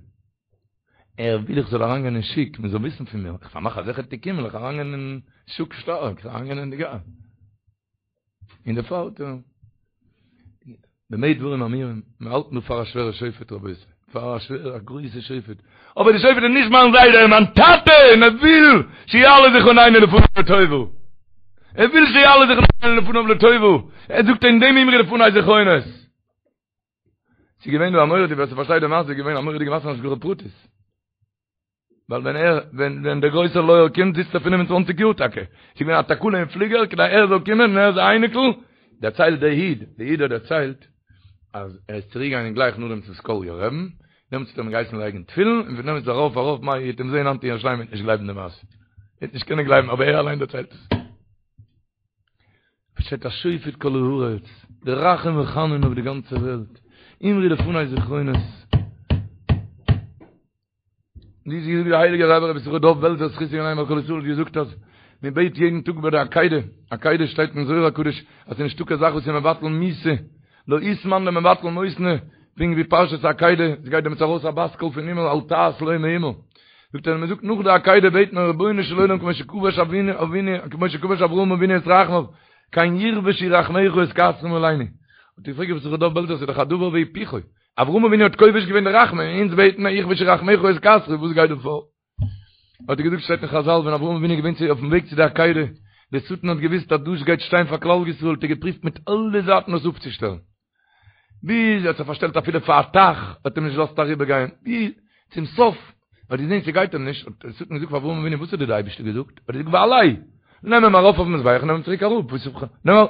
ער וויל איך זאל אריינגיין אין שוק, מען זאל וויסן פון מיר. איך פארמאך אזעלכע תיקים, וועל איך אריינגיין אין שוק שטארק, איך אריינגיין אין די גאס. און דערפאר האט ער במה דברים אמורים, מען האלט נאר פאר א שווערע שופט רבותי, פאר א שווערע א גרויסע שופט, אבער די שופט איז נישט מיין זיידע, מיין טאטע, און ער וויל שיעלה זכרוננו לפניו לטובה, ער וויל שיעלה זכרוננו לפניו לטובה, ער זאגט אין דעם אמרו לפני זכרונות. ס'איז געווען דא א מורא'דיגע, ווער ס'פארשטייט די מעשה, איז געווען א מורא'דיגע מעשה אין השגחה פרטית. ווייל ווען ער, ווען ווען דער גרויסער לויער קומט זיצט ער 25 יאר טאקע, ס'איז געווען א תקלה אין פליגער כדי ער זאל קומען און ער איז א אייניקל, דערציילט דער איד, דער איד האט דערציילט אז ער איז צוריק געגאנגען גלייך נאכדעם צום סקאליער רעבן, דעמאלטס האט ער אים געהייסן לייגן תפילין, און פון דעמאלטס ארויף ארויף מה איר וועט אים זעהן היינט אין ירושלים וועט נישט גלייבן די מעשה, וועט נישט קענען גלייבן אבער ער אליין דערציילט עס. שטייט השופט כל הארץ, דער רחום וחנון אויף די גאנצע וועלט, אמרו לפני זכרונות. ווי זי זאגט דער הייליגער רבי רבי יששכר דוב בעלזער זכותו יגן עלינו ועל כל ישראל האט געזאגט אז מען בעט יעדן טאג ביי די עקידה, עקידה שטייט אין זוהר הקדוש אז ס'איז נישטא קיין זאך וואס איז מבטל מיתה, לא אית מאן דמבטל מותנא, פונקט ווי פרשת עקידה, עס גייט דעמאלטס ארויס א בת קול פון הימל אל תעש לו מאומה. זאגט ער, מען זאגט נאך די עקידה בעט מען רבונו של עולם כמו שכבש אבינו אבינו כמו שכבש אברהם אבינו את רחמיו, כן יכבשו רחמיך את כעסך מעלינו. האט געפרעגט רבי יששכר דוב בעלזער ס'איז דאך א דבר והיפוכו, אברהם אבינו האט כובש געווען די רחמים און אונז בעטן מיר יכבשו רחמיך את כעסך, וואס גייט דא פאר? האט ער געזאגט שטייט אין חזל ווען אברהם אבינו איז געווען צו אויפן וועג צו די עקידה, די שטן האט געוויסט אז דאס גייט שטיין פאר כלל ישראל האט ער געפריווט מיט אלע זייטן עס אפצושטעלן, ביז ער האט זיך פארשטעלט אפילו פאר א טייך, האט אים נישט געלאזט אריבער גיין, ביז צום סוף האט געזען ס'גייט אים נישט, האט דער שטן געזאגט פאר אברהם אבינו וואס האט דיר די אייבערשטער געזאגט? האט ער געזאגט והעלהו, נעם אים ארויף אויפן מזבח און נעם אים צוריק אראפ, וואס נעם אים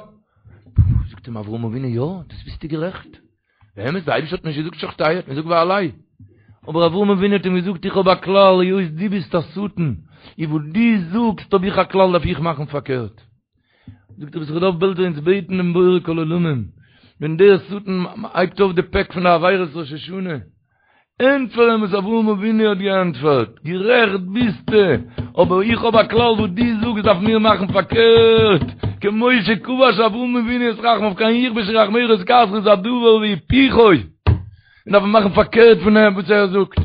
זאגט אים אברהם אבינו יא, דאס ביסטו גערעכט, באמת די אייבערשטער האט נישט געזאגט שחטהו, האט געזאגט והעלהו, אבער אברהם אבינו האט אים געזאגט איך האב א כלל, היות דו ביסט א שטן, און וואס דו זאגסט האב איך א כלל דארף איך מאכן פארקערט. זאגט רבי יששכר דוב בעלזער אונז בעטן דעם בורא כל עולמים, ווען דער שטן הייבט אויף די פעק פון די עבירות ראש השנה, ענטפער אים וואס אברהם אבינו האט געענטפערט, גערעכט ביסטו, אבער איך האב א כלל וואס דו זאגסט דארף מיר מאכן פארקערט, כמו שכבש אברהם אבינו את רחמיו כן יכבשו רחמיך את כעסך איז א דבר והיפוכו, און דארף מען מאכן פארקערט פון דעם וואס ער זאגט.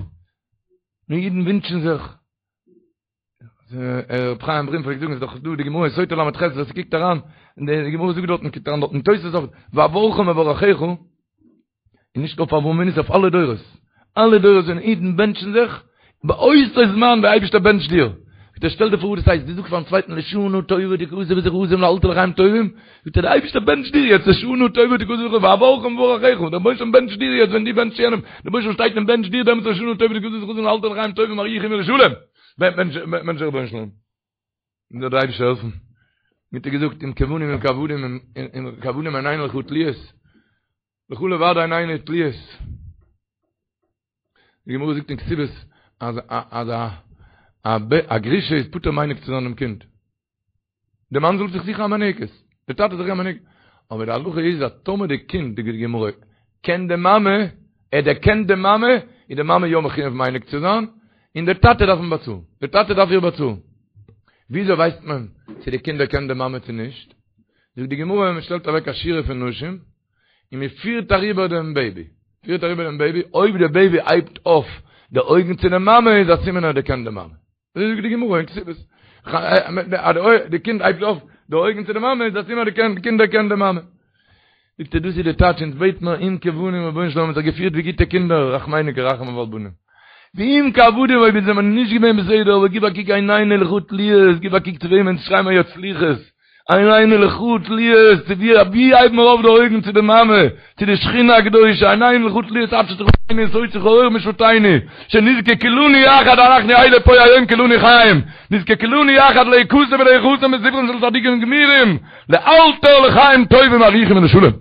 און אידן ווינטשן זיך. ר' חיים ברים פלעגט זאגן, איז דאך דא די גמרא אין סוטה ל"ח, ווער ס'קוקט אריין, די גמרא זאגט דארטן, קוקט אריין דארט אין תוס' אויף, ואברכה מברכיך, און נישט אויף אברהם אבינו, ס'איז אויף אלע דורות, אלע דורות ווען אידן בענטשן זיך, באותו זמן דער אייבערשטער בענטשט דיר. זאגט ער, שטעל דיר פאר וואס דאס הייסט, דו זאגסט פארן צווייטן לשנה טובה תכתב ותחתם לאלתר לחיים טובים, זאגט ער, דער אייבערשטער בענטשט דיר יעצט לשנה טובה תכתב ותחתם, ואברכה מברכיך, דער רבונו של עולם בענטשט דיר יעצט ווען דו בענטשסט יענעם, דער רבונו של עולם שטייט און בענטשט דיר דעמאלטס לשנה טובה תכתב ותחתם לאלתר לחיים טובים ארוכים ולשלום. בענטשט דער רבונו של עולם. זאל דער אייבערשטער העלפן. ווי האט ער געזאגט, אם כבנים אם כעבדים אם כעבדים עינינו לך תלויות. לך לבד עינינו תלויות. די גמרא זאגט אין כתובות אז אז א א גרושה איז פטור מניק צו זיין דעם קינד. די מאן זאל זיך זוכן א מינקת, די טאטע זאל זיך זוכן א מינקת. אבער די הלכה איז אז טאמער די קינד, זאגט די גמרא, קען די מאמע, ער דערקענט די מאמע, איז די מאמע יא מחויב מניק צו זיין, און די טאטע דארף אים באצאלן. די טאטע דארף איר באצאלן. וויאזוי ווייסט מען צו די קינד דערקענט די מאמע צו נישט? זאגט די גמרא, מען שטעלט אוועק א שורה פון נשים, און מען פירט אריבער דעם בעיבי, פירט אריבער דעם בעיבי, אויב דער בעיבי הייבט אויף די אויגן צו די מאמע איז א סימן ער דערקענט די מאמע. אזוי זאגט די גמרא אין כתובות. די קינד הייבט אויף די אויגן צו די מאמע איז א סימן די קינד דערקענט די מאמע. זאגט ער דאס איז די טייטש אונז בעט מיר אם כבנים רבונו של עולם האט זיך געפירט ווי גוטע קינדער רחמינו כרחמי אב על בנים. ואם כעבדים אויב אונז זעמיר נישט געווען בסדר אבער גיב א קוק עינינו לך תלויות גיב א קוק צו וועמען אונז שרייען מיר יעצט סליחות עינינו לך תלויות, צו ווי ווי הייבן מיר אויף די אויגן צו די מאמע, צו די שכינה הקדושה, עינינו לך תלויות עד שתחננו ותוציא כאור משפטנו, שנזכה כולנו יחד אנחנו אלה פה היום כולנו חיים, נזכה כולנו יחד להיכתב ולהיחתם בספרן של צדיקים גמורים, לאלתר לחיים טובים ארוכים ולשלום.